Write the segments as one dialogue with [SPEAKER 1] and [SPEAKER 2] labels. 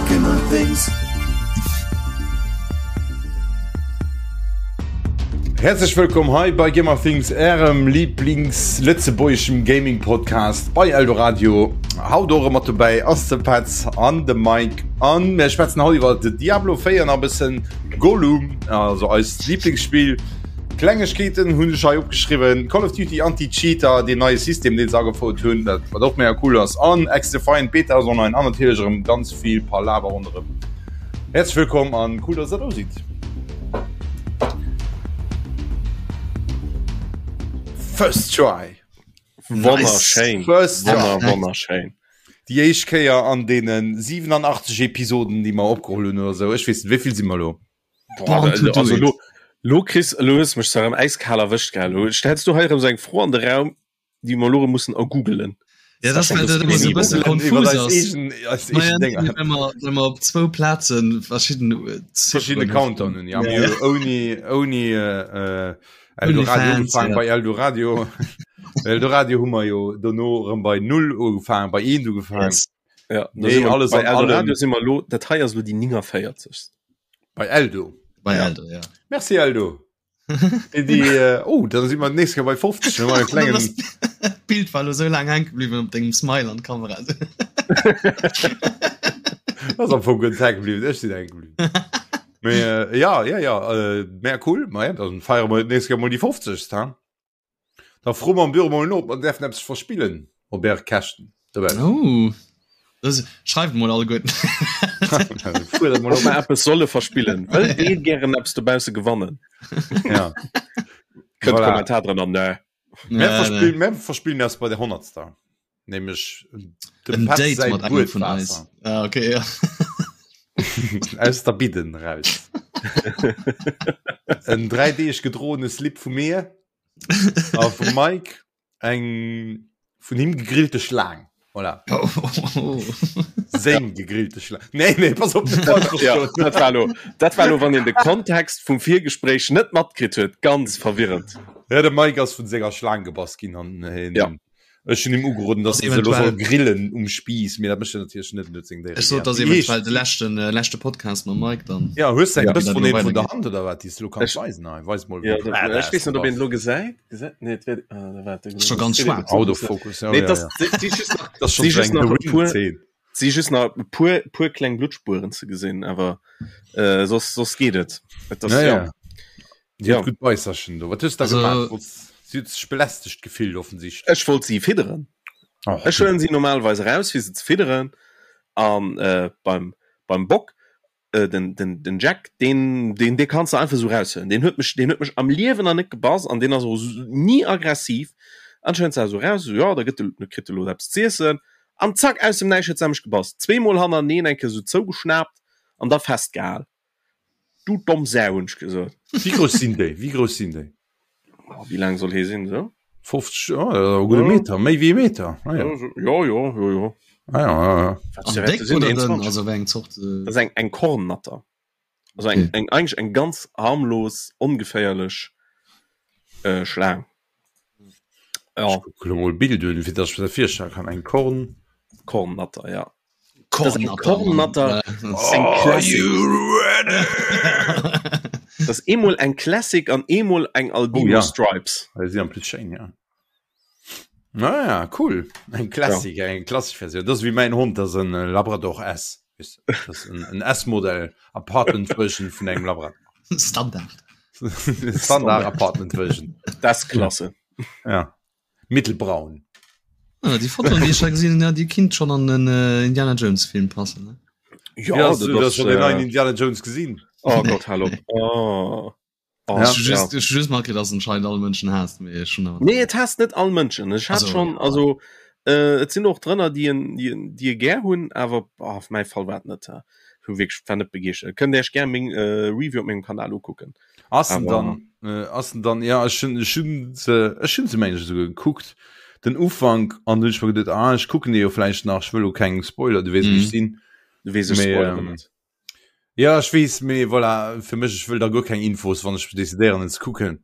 [SPEAKER 1] Gamer Things.
[SPEAKER 2] Häerzlech wëllkomm hei bei Gamer Things, ärem Lieblings-lëtzebuergeschem Gaming-Podcast bei Eldoradio. Haut och erëm mat dobäi ass de Petz an de Mike an mir schwätzen haut iwwer de Diablo 4 an e bëssen Gollum, also eist Lieblingsspill. Klengegkeeten hunn ech hei opgeschriwwen, Call of Duty Anti-Cheater, deen neie System deen se agefouert hunn, dat wat och mega cool ass, an XDefiant Beta ass online an natierlech erëm ganz vill Palaver ronderëm. Häerzlech wëllkomm an cool dass der do sidd. First try.
[SPEAKER 3] Wonnerschéin.
[SPEAKER 2] First try.
[SPEAKER 3] Wonner, wonnerschéin.
[SPEAKER 2] Déi éischt Kéier an deene 87 Episoden, déi mer opgeholl hunn oder sou. Ech weess net, wéi vill si mer elo?
[SPEAKER 3] Boah, also, also lo, lo kriss lo hues mech zwar äiskal erwëscht gell lo stellst du hei erëm sou eng Fro an de Raum déi mer lo erëm mussen ergoogelen.
[SPEAKER 4] Ja, das war dat immer so bësse konfus ass. Wenn mer, wenn mer op zwou Plazen verschidden äh,
[SPEAKER 2] verschiedene Countdown hunn ja, ja. ouni ouni äh, äh, Eldoradio ugefaangen ja. bei Eldoradio Eldoradio hu mer jo dono erëm bei null ugefaangen bei eent ugefaangen
[SPEAKER 3] yes. Ja,
[SPEAKER 2] nee, alles
[SPEAKER 3] bei Eldoradio si mer lo dat hei ass lo déi 49.
[SPEAKER 2] Bei Eldo.
[SPEAKER 4] Bei Eldo, ja.
[SPEAKER 2] Merci Eldo. Déi, déi, äh, oh, dann si mer nächst Kéier bei 50 no engem klengen.
[SPEAKER 4] D'Bild war lo sou laang hänke bliwwen op dengem Smile an d'Kamera.
[SPEAKER 2] Ass am Fong guer net hänke bliwwen, ech sinn hänke bliwwen. Mee äh, ja, ja, ja, äh, mega cool. Ma ja, dann feiere mer nächst Kéier mol déi 50. Ha? Da froe mer am Büro mol no, ob mer däerfen eppes verspillen op Äre Käschten.
[SPEAKER 4] Oh, das, schreift mol alleguerten.
[SPEAKER 2] Fuerdert mol
[SPEAKER 3] Ob
[SPEAKER 2] op.
[SPEAKER 3] mer eppes solle verspillen. Wëllt Dir gären eppes dobausse gewannen?
[SPEAKER 2] Ja.
[SPEAKER 3] Kënnt
[SPEAKER 2] Voilà.
[SPEAKER 3] Kommentar drënner, nö.
[SPEAKER 2] Mir verspillen, mir verspillen eppes bei der Honnertster. Nämlech dem
[SPEAKER 4] En
[SPEAKER 2] Petz
[SPEAKER 4] Date
[SPEAKER 2] säi
[SPEAKER 4] mat engem vun eis.
[SPEAKER 2] Buedwaasser.
[SPEAKER 4] Ah, okay, ja.
[SPEAKER 2] Aus der Bidden raus. En 3 Deeg gedroene Slip vu mir a vum Mike eng vun him gegrillte Schlaang. Voilà.
[SPEAKER 4] Oh, oh.
[SPEAKER 2] Seng gegrillte Schlaang. Nee, nee, pass op, net falsch
[SPEAKER 3] Ja,
[SPEAKER 2] verstoen.
[SPEAKER 3] dat war lo, dat war lo, wann een de Kontext vum Virgespréich net matkritt huet, ganz verwirrend.
[SPEAKER 2] Ja, de Mike ass vun senger Schlaang gebass ginn an hien
[SPEAKER 3] Ja.
[SPEAKER 2] Ech hunn him ugeroden, dass
[SPEAKER 4] Ass
[SPEAKER 2] en se elo soll
[SPEAKER 4] eventuell-
[SPEAKER 2] grillen um Spiiss, mee dat mécht en natierlech net, en huet seng Déiere
[SPEAKER 4] Ech sot,
[SPEAKER 2] gär.
[SPEAKER 4] dass eventuell de leschten, äh, leschte Podcast mam Mike dann.
[SPEAKER 2] Ja, hues du eng
[SPEAKER 3] Ja.
[SPEAKER 2] Bëss
[SPEAKER 4] Wie
[SPEAKER 2] vun
[SPEAKER 4] dat
[SPEAKER 2] een
[SPEAKER 4] elo
[SPEAKER 2] vun der
[SPEAKER 4] weidergeet.
[SPEAKER 2] Hand oder wat, déi s du elo kanns
[SPEAKER 3] Ech-
[SPEAKER 2] weisen? Hei, weis mol,
[SPEAKER 3] Ja,
[SPEAKER 2] wéi
[SPEAKER 3] dat,
[SPEAKER 2] badass
[SPEAKER 3] ech weess
[SPEAKER 2] du
[SPEAKER 3] net, ob een
[SPEAKER 2] bass.
[SPEAKER 3] lo gesäit. Gesäit? Nee, et wär, ah, da waart,
[SPEAKER 4] Ass scho ganz schwaarz.
[SPEAKER 2] Autofokus, ja,
[SPEAKER 3] Nee,
[SPEAKER 2] ja,
[SPEAKER 3] das,
[SPEAKER 2] ja.
[SPEAKER 3] si, si just nach,
[SPEAKER 2] Das ass schon
[SPEAKER 3] si
[SPEAKER 2] so
[SPEAKER 3] just
[SPEAKER 2] eng
[SPEAKER 3] nach
[SPEAKER 2] The
[SPEAKER 3] e puer,
[SPEAKER 2] Ring-Zeen.
[SPEAKER 3] si just nach e puer, puer kleng Bluttspueren ze gesinn, awer äh, soss, soss geet et. Et ass,
[SPEAKER 2] Ja,
[SPEAKER 3] ja.
[SPEAKER 2] ja. Si
[SPEAKER 3] Ja.
[SPEAKER 2] huet gutt Beisserchen do. Wat hues du da
[SPEAKER 4] Also-
[SPEAKER 2] gemaach? Wollts- Si huet sech belästegt gefillt, offensichtlech.
[SPEAKER 3] Ech wollt si fidderen.
[SPEAKER 2] Oh,
[SPEAKER 3] Ech huelen si normalerweis eraus, fir se ze fidderen. An äh, beim, beim Bock, äh, den, den, den Jack, den, den, dee kanns de einfach sou raushuelen. Deen huet mech, deen huet mech am Liewen nach net gebass an deen ass och ni aggressiv. An ech huelen se also raus, sou, jo, da gëtt de, da kritt de lo eppes z'iessen. An zack, aus dem Näischt huet se mech gebass. Zweemol hannereneen eng Kéier sou zougeschnaapt an da festgehal. Du domm Sau, hunn ech gesot.
[SPEAKER 2] Wéi grouss sinn déi? Wéi grouss sinn déi?
[SPEAKER 3] Oh, wéi laang soll hee sinn, sou?
[SPEAKER 2] 50, oh, e gudde
[SPEAKER 3] Ja.
[SPEAKER 2] Meter, méi wéi e Meter. Ah, ja.
[SPEAKER 3] Jo, jo, jo, jo.
[SPEAKER 2] Ah, ja, ja, ja.
[SPEAKER 3] Wat
[SPEAKER 4] An
[SPEAKER 3] fir
[SPEAKER 4] déck
[SPEAKER 3] sinn
[SPEAKER 4] oder dënn?
[SPEAKER 3] 21?
[SPEAKER 4] Also wéi eng Zort? Äh,
[SPEAKER 3] Das ist eng, eng Kornnatter. Also eng,
[SPEAKER 4] Okay.
[SPEAKER 3] eng, eigentlich eng ganz harmlos, ongeféierlech äh, Schlaang. Ja,
[SPEAKER 2] Ech kucke lo mol Bild un, fir dass ech mir dat virstelle kann. Eng Korn.
[SPEAKER 3] Kornnatter, ja. Das ist eng
[SPEAKER 4] Kornnatter,
[SPEAKER 3] Kornnatter.
[SPEAKER 4] Mann.
[SPEAKER 3] Das ist eng
[SPEAKER 2] Are
[SPEAKER 3] Classic.
[SPEAKER 2] you ready?
[SPEAKER 3] Das ist eemol eng Classic an eemol eng Albino
[SPEAKER 2] Oh, ja.
[SPEAKER 3] Stripes.
[SPEAKER 2] Ah, si en plus schéin, ja. Naja, cool. Eng Classic, ja. eng klassesch Versioun. Dat ass wéi mäin Hond, dat ass en äh, Labrador S. Weess du, Dat ass en, en S-Modell Apartment Version vun engem Labrador.
[SPEAKER 4] Standard.
[SPEAKER 2] Standard Apartment Version.
[SPEAKER 3] Das ist klasse.
[SPEAKER 2] Ja. Mittelbraun.
[SPEAKER 4] Ah, déi Fotoen, déi ech hei gesinn hunn, ja, déi kinnt schon an den äh, Indiana Jones Film passen. Ne?
[SPEAKER 3] Ja,
[SPEAKER 2] Ja, hast du
[SPEAKER 3] das,
[SPEAKER 2] das schon den
[SPEAKER 3] äh,
[SPEAKER 2] neuen Indiana Jones gesinn?
[SPEAKER 3] Oh Gott, hallo. Oh. Oh,
[SPEAKER 2] Ja.
[SPEAKER 4] Ech hu just, ech hu just matgekritt, dass anscheinend all Mënschen haasst, mee ech hunn awer.
[SPEAKER 3] Nee, et hasst net all Mënschen. Ech hat
[SPEAKER 4] Also,
[SPEAKER 3] schon,
[SPEAKER 4] ja.
[SPEAKER 3] also äh, et sinn och drënner, déi en, déi en, déi e gär hunn, awer oh, auf mäi Fall war et net. Äh, hu wierklech war net begeeschtert. Kënnt Iech gär meng äh, Review op mengem Kanal ukucken.
[SPEAKER 2] Ass en
[SPEAKER 3] Awer-
[SPEAKER 2] dann, äh, ass en dann, ja, ech hunn, ech hunn se, ech hunn se mengen ech esouguer gekuckt, den Ufank, an dunn hunn ech mer geduet, ah, ech kucken dee jo vläicht nach, ech wëll lo keng Spoiler, du weess, wéi ech
[SPEAKER 4] Mhm.
[SPEAKER 2] sinn.
[SPEAKER 3] Du weess, ech
[SPEAKER 2] Mee,
[SPEAKER 3] spoilere
[SPEAKER 2] ähm,
[SPEAKER 3] net.
[SPEAKER 2] Ja, ech weess, mee voilà, fir mech, ech wëll da guer keng Infos, wann ech decidéieren en ze kucken.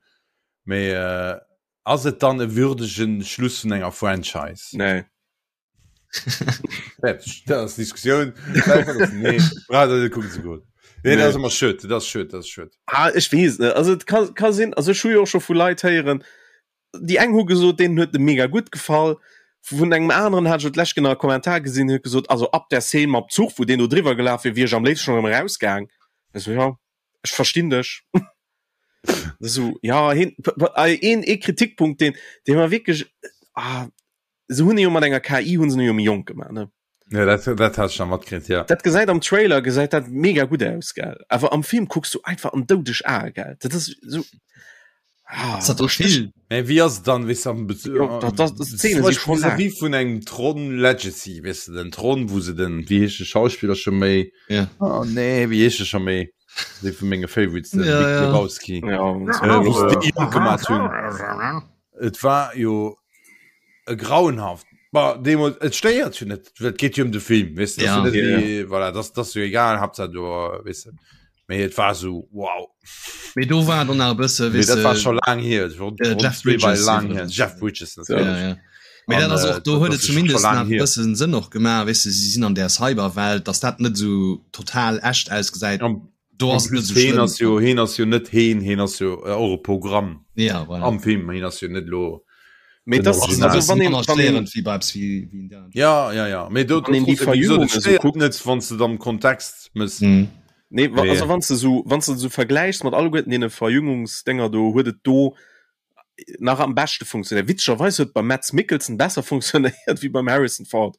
[SPEAKER 2] Mee äh, ass et dann e würdegen Schluss vun enger Franchise?
[SPEAKER 3] Nee.
[SPEAKER 2] Fertig. Dat ass Diskussioun. Nee, brauch der net kucken ze goen. Nee, dat ass ëmmer schued, dat ass schued, dat ass schued.
[SPEAKER 3] Ah, ech weess net. Also et ka, ka sinn, also ech hu jo och scho vu Leit héieren, déi eng hu gesot, deenen huet e mega gutt gefall. Vun engem aneren hat ech et d'lescht genau e Kommentar gesinn, huet gesot, also ab der Szene mam Zuch, wou deen do driwwer gelaf wier, wier ech am léifsten schonn erëm erausgaang. Ech sou, ja, ech verstinn dech. Sou, ja, hien, een, ee Kritikpunkt, deen, dee mer wierklech, ah, se hunn e jo mat enger KI hunn se jo méi jonk gemaach ne
[SPEAKER 2] Ja, dat, dat hat ich nach matkritt, ja.
[SPEAKER 3] Dat gesäit am Trailer gesäit dat mega gutt aus gell awer am Film kucks du einfach an doudeg Ae gell dat ass so
[SPEAKER 2] ah, dat doch vill Mä wéi ass et dann weess am Bezug ja, dat, dat, das Szene si schon lang. Vis-à-vis vun engem Tron Legacy weess de den Tron wou se den wéi heescht de Schauspiller scho méi
[SPEAKER 4] ja.
[SPEAKER 2] oh nee wéi heescht de scho méi dee vu menge Favorites den
[SPEAKER 4] ja,
[SPEAKER 2] Big
[SPEAKER 4] ja.
[SPEAKER 2] Lebowski
[SPEAKER 3] ja,
[SPEAKER 2] äh, wou se déi jonk gemaat hunn Et war jo e grauenhaft Bah, deemools et stéiert jo net, et geet jo ëm de Film, weess de,
[SPEAKER 4] Ja.
[SPEAKER 2] dat ass jo net wéi, voilà, dat ass jo egal, Haaptsaach do, weess de. Mee et war esou wow.
[SPEAKER 4] Mee do war dann nach e bësse,
[SPEAKER 2] Mee
[SPEAKER 4] weess
[SPEAKER 2] dat war
[SPEAKER 4] de,
[SPEAKER 2] scho laang hier, et war
[SPEAKER 4] äh,
[SPEAKER 2] rund
[SPEAKER 4] Jeff
[SPEAKER 2] zwee war
[SPEAKER 4] Bridges
[SPEAKER 2] laang hier,
[SPEAKER 4] iwwregens.
[SPEAKER 2] Jeff Bridges
[SPEAKER 4] Ja,
[SPEAKER 2] natierlech.
[SPEAKER 4] ja. Mee dat
[SPEAKER 2] An
[SPEAKER 4] ass
[SPEAKER 2] äh,
[SPEAKER 4] och, do
[SPEAKER 2] dat
[SPEAKER 4] huet et
[SPEAKER 2] ass jo scho
[SPEAKER 4] zumindest
[SPEAKER 2] laang
[SPEAKER 4] nach e
[SPEAKER 2] hier.
[SPEAKER 4] bëssen Sënn och gemaach, weess de, si sinn an där Cyberwelt, dass dat net esou total echt ausgesäit.
[SPEAKER 2] An
[SPEAKER 4] Do
[SPEAKER 2] en
[SPEAKER 4] ass et net
[SPEAKER 2] plus
[SPEAKER 4] esou
[SPEAKER 2] heen
[SPEAKER 4] schlëmm.
[SPEAKER 2] ass jo, heen ass jo net heen, heen ass jo och e Programm
[SPEAKER 4] Ja, voilà.
[SPEAKER 2] am Film, heen ass jo net elo
[SPEAKER 3] Mee
[SPEAKER 2] den
[SPEAKER 3] das,
[SPEAKER 2] Original.
[SPEAKER 3] also wann een,
[SPEAKER 4] Aner
[SPEAKER 3] wann een,
[SPEAKER 4] störend wéi bei eppes wéi, wéi Indiana Jones.
[SPEAKER 2] Ja, ja, ja. Mee do,
[SPEAKER 3] wann een déi
[SPEAKER 2] trotzdem, wéi gesot,
[SPEAKER 3] Verjüngung
[SPEAKER 2] et
[SPEAKER 3] esou
[SPEAKER 2] stéiert
[SPEAKER 3] kuckt,
[SPEAKER 2] net, wann s de et am Kontext mëss.
[SPEAKER 4] Mhm.
[SPEAKER 3] nee, wa,
[SPEAKER 2] Mee
[SPEAKER 3] also wann s de sou, wann s de sou vergläichs mat alleguerten deene Verjüngungsdénger do, huet et do nach am beschte funktionéiert. Witzegerweis huet et beim Mads Mikkelsen besser funktionéiert wéi beim Harrison Ford.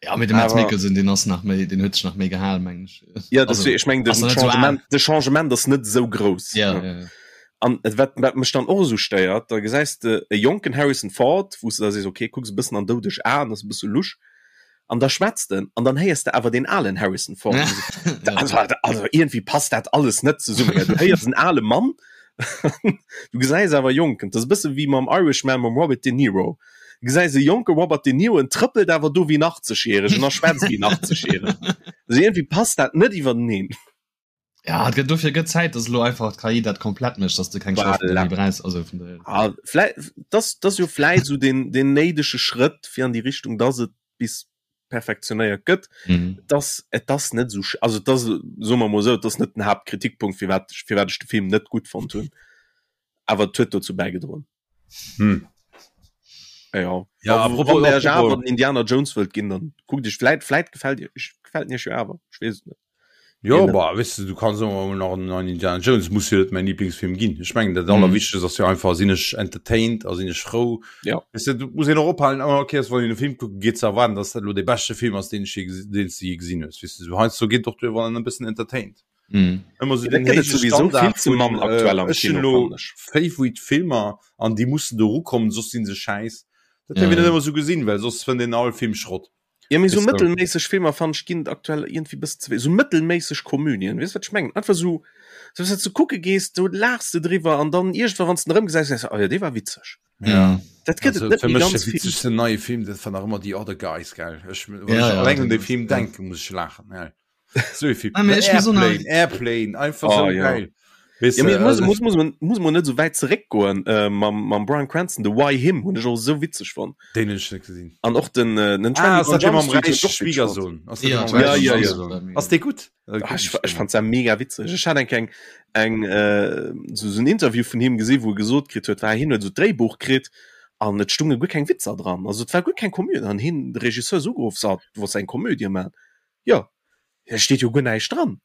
[SPEAKER 4] Ja, mee de Mads
[SPEAKER 3] Awer
[SPEAKER 4] Mikkelsen, deen ass nach méi, deen huet sech nach méi gehal, mengen ech.
[SPEAKER 3] ja,
[SPEAKER 4] Also,
[SPEAKER 3] deswegen, ech mengen,
[SPEAKER 4] ass
[SPEAKER 3] den
[SPEAKER 4] nach net sou al.
[SPEAKER 3] Changement, de Changement ass net esou grouss.
[SPEAKER 4] Ja,
[SPEAKER 3] ne?
[SPEAKER 4] ja, ja.
[SPEAKER 3] An et wat, wat mech dann och esou stéiert, da gesäis de e jonken Harrison Ford, wou s de da sees, okay, kucks e bëssen an doudeg Aen, ass e bësse lusch, an da schwätzt en, an dann héiers de awer deen alen Harrison Ford.
[SPEAKER 4] Ja.
[SPEAKER 3] Also, also irgendwie passt dat alles net zesummen. Du héiers en ale Mann, du gesäis awer jonken. Dat ass e bësse wéi mam Irishman mam Robert De Niro. Du gesäis e jonke Robert De Niro, en trëppelt awer do wéi en 80-Jähregen a schwätzt wéi en 80-Jähregen. Also irgendwie passt dat net iwwerteneen.
[SPEAKER 4] Ja, et gëtt dofir gëtt Zäit, dass elo einfach d'KI dat komplett mécht, dass de keng Schauspiller
[SPEAKER 3] Voilà.
[SPEAKER 4] méi brauchs. Also vun daher.
[SPEAKER 3] Ah, vläi, das, das jo vläit sou den, den néidege Schrëtt fir an déi Richtung, dass et bis perfektionéiert gëtt.
[SPEAKER 4] Mhm.
[SPEAKER 3] Dass, et ass net sou, also et ass, soe mer mol esou, et ass net den Haaptkritikpunkt, firwat, firwat ech de Film net gutt fonnt hunn. Awer et huet dozou bäigedroen.
[SPEAKER 2] Hm.
[SPEAKER 3] Ja,
[SPEAKER 2] Ja,
[SPEAKER 3] apropos,
[SPEAKER 2] apropos,
[SPEAKER 3] wann der
[SPEAKER 2] apropos.
[SPEAKER 3] awer den Indiana Jones wëllt ginn, dann kuckt iech vläit, vläit gefält iech, gefält en iech jo awer, ech weess et net.
[SPEAKER 2] Jo,
[SPEAKER 3] Een-
[SPEAKER 2] bah, weißt du, du kannst och nach en neuen Indiana Jones, muss jo net mäin Lieblingsfilm ginn. Ech mengen, dat Allerwichtegst ass jo einfach, sinn ech entertained a sinn ech frou.
[SPEAKER 3] Ja.
[SPEAKER 2] Weißt du, du muss een och ophalen, oh, okay, wann een e Film kucke geet, ze erwaarden, dass dat elo dee beschte Film ass, deen ech je gesi-, deen s du je gesinn hues. Weißt du, sou heiansdo geet och duer, wann en e bëssen entertained.
[SPEAKER 4] Mhm.
[SPEAKER 2] Ëmmer sou
[SPEAKER 3] Ja, dat
[SPEAKER 2] den
[SPEAKER 3] gëtt et
[SPEAKER 2] héije
[SPEAKER 3] sowieso
[SPEAKER 2] Standard
[SPEAKER 3] vill ze
[SPEAKER 2] vun,
[SPEAKER 3] mann aktuell
[SPEAKER 2] äh,
[SPEAKER 3] am
[SPEAKER 2] ech hunn
[SPEAKER 3] Kino,
[SPEAKER 2] elo
[SPEAKER 3] fannen ech.
[SPEAKER 2] Favorite Filmer an déi mussen do erukommen, soss sinn se schäiss. Dat
[SPEAKER 4] Ja,
[SPEAKER 2] dierf een net
[SPEAKER 4] ja.
[SPEAKER 2] ëmmer sou gesinn, well soss fënnt een all Film Schrott.
[SPEAKER 3] Ja, mee sou
[SPEAKER 2] Weess de?
[SPEAKER 3] mëttelméisseg Filmer fannen ech ginn et aktuell iergendwéi bëssen ze wéi sou mëttelméisseg Komödien, weess wat ech mengen? Einfach sou, sou wéis du kucke gees, do laachs de driwwer an dann iergendwann wann s de en erëmgesäis, sees de, oh jo, dee war witzeg.
[SPEAKER 2] Ja.
[SPEAKER 3] Dat gëtt
[SPEAKER 2] Also,
[SPEAKER 3] et net
[SPEAKER 2] fir
[SPEAKER 3] méi
[SPEAKER 2] mech de
[SPEAKER 3] ganz vill.
[SPEAKER 2] witzegsten neie Film, dat war nach ëmmer The Other Guys, gell? Ech, wann
[SPEAKER 4] Ja,
[SPEAKER 2] ech
[SPEAKER 4] ja,
[SPEAKER 2] alleng un
[SPEAKER 4] den
[SPEAKER 2] dee Film
[SPEAKER 4] ja.
[SPEAKER 2] denken, muss ech laachen, gell? So viel.
[SPEAKER 4] Ah, mee ech muss och nach-
[SPEAKER 2] Airplane, Airplane, einfach
[SPEAKER 3] Oh,
[SPEAKER 2] so
[SPEAKER 3] ja.
[SPEAKER 2] geil. Weißt
[SPEAKER 3] Ja,
[SPEAKER 2] du,
[SPEAKER 3] mee muss,
[SPEAKER 2] also,
[SPEAKER 3] muss, muss, man, muss man net sou wäit zeréckgoen äh, mam, mam Bryan Cranston, de Why Him hunn ech och sou witzeg fonnt.
[SPEAKER 2] den hunn ech net gesinn.
[SPEAKER 3] An och den, äh, den
[SPEAKER 2] Ah, ass
[SPEAKER 3] 21
[SPEAKER 2] dat dee
[SPEAKER 3] Jump
[SPEAKER 2] mam
[SPEAKER 3] Street hunn ech
[SPEAKER 2] räiche
[SPEAKER 3] och witzeg fonnt.
[SPEAKER 2] Schwiegersohn? Ass dat
[SPEAKER 4] Ja,
[SPEAKER 2] dee mam
[SPEAKER 3] Ja,
[SPEAKER 2] räiche
[SPEAKER 3] ja, ja.
[SPEAKER 2] Schwiegersohn? Ass dee gutt? Äh,
[SPEAKER 3] Ah, ech, ech fand se mega witzeg. Ech hat eng eng eng äh, so, so en Interview vun him gesinn, wou e gesot kritt huet, war hien huet so d'Dréibuch kritt an et stunge guer keng Witzer dran. Also et war guer keng Komödie an hien de Regisseur ass ugeruff, so, du wolls eng Komödie man. Jo, et steet jo guer näischt dran.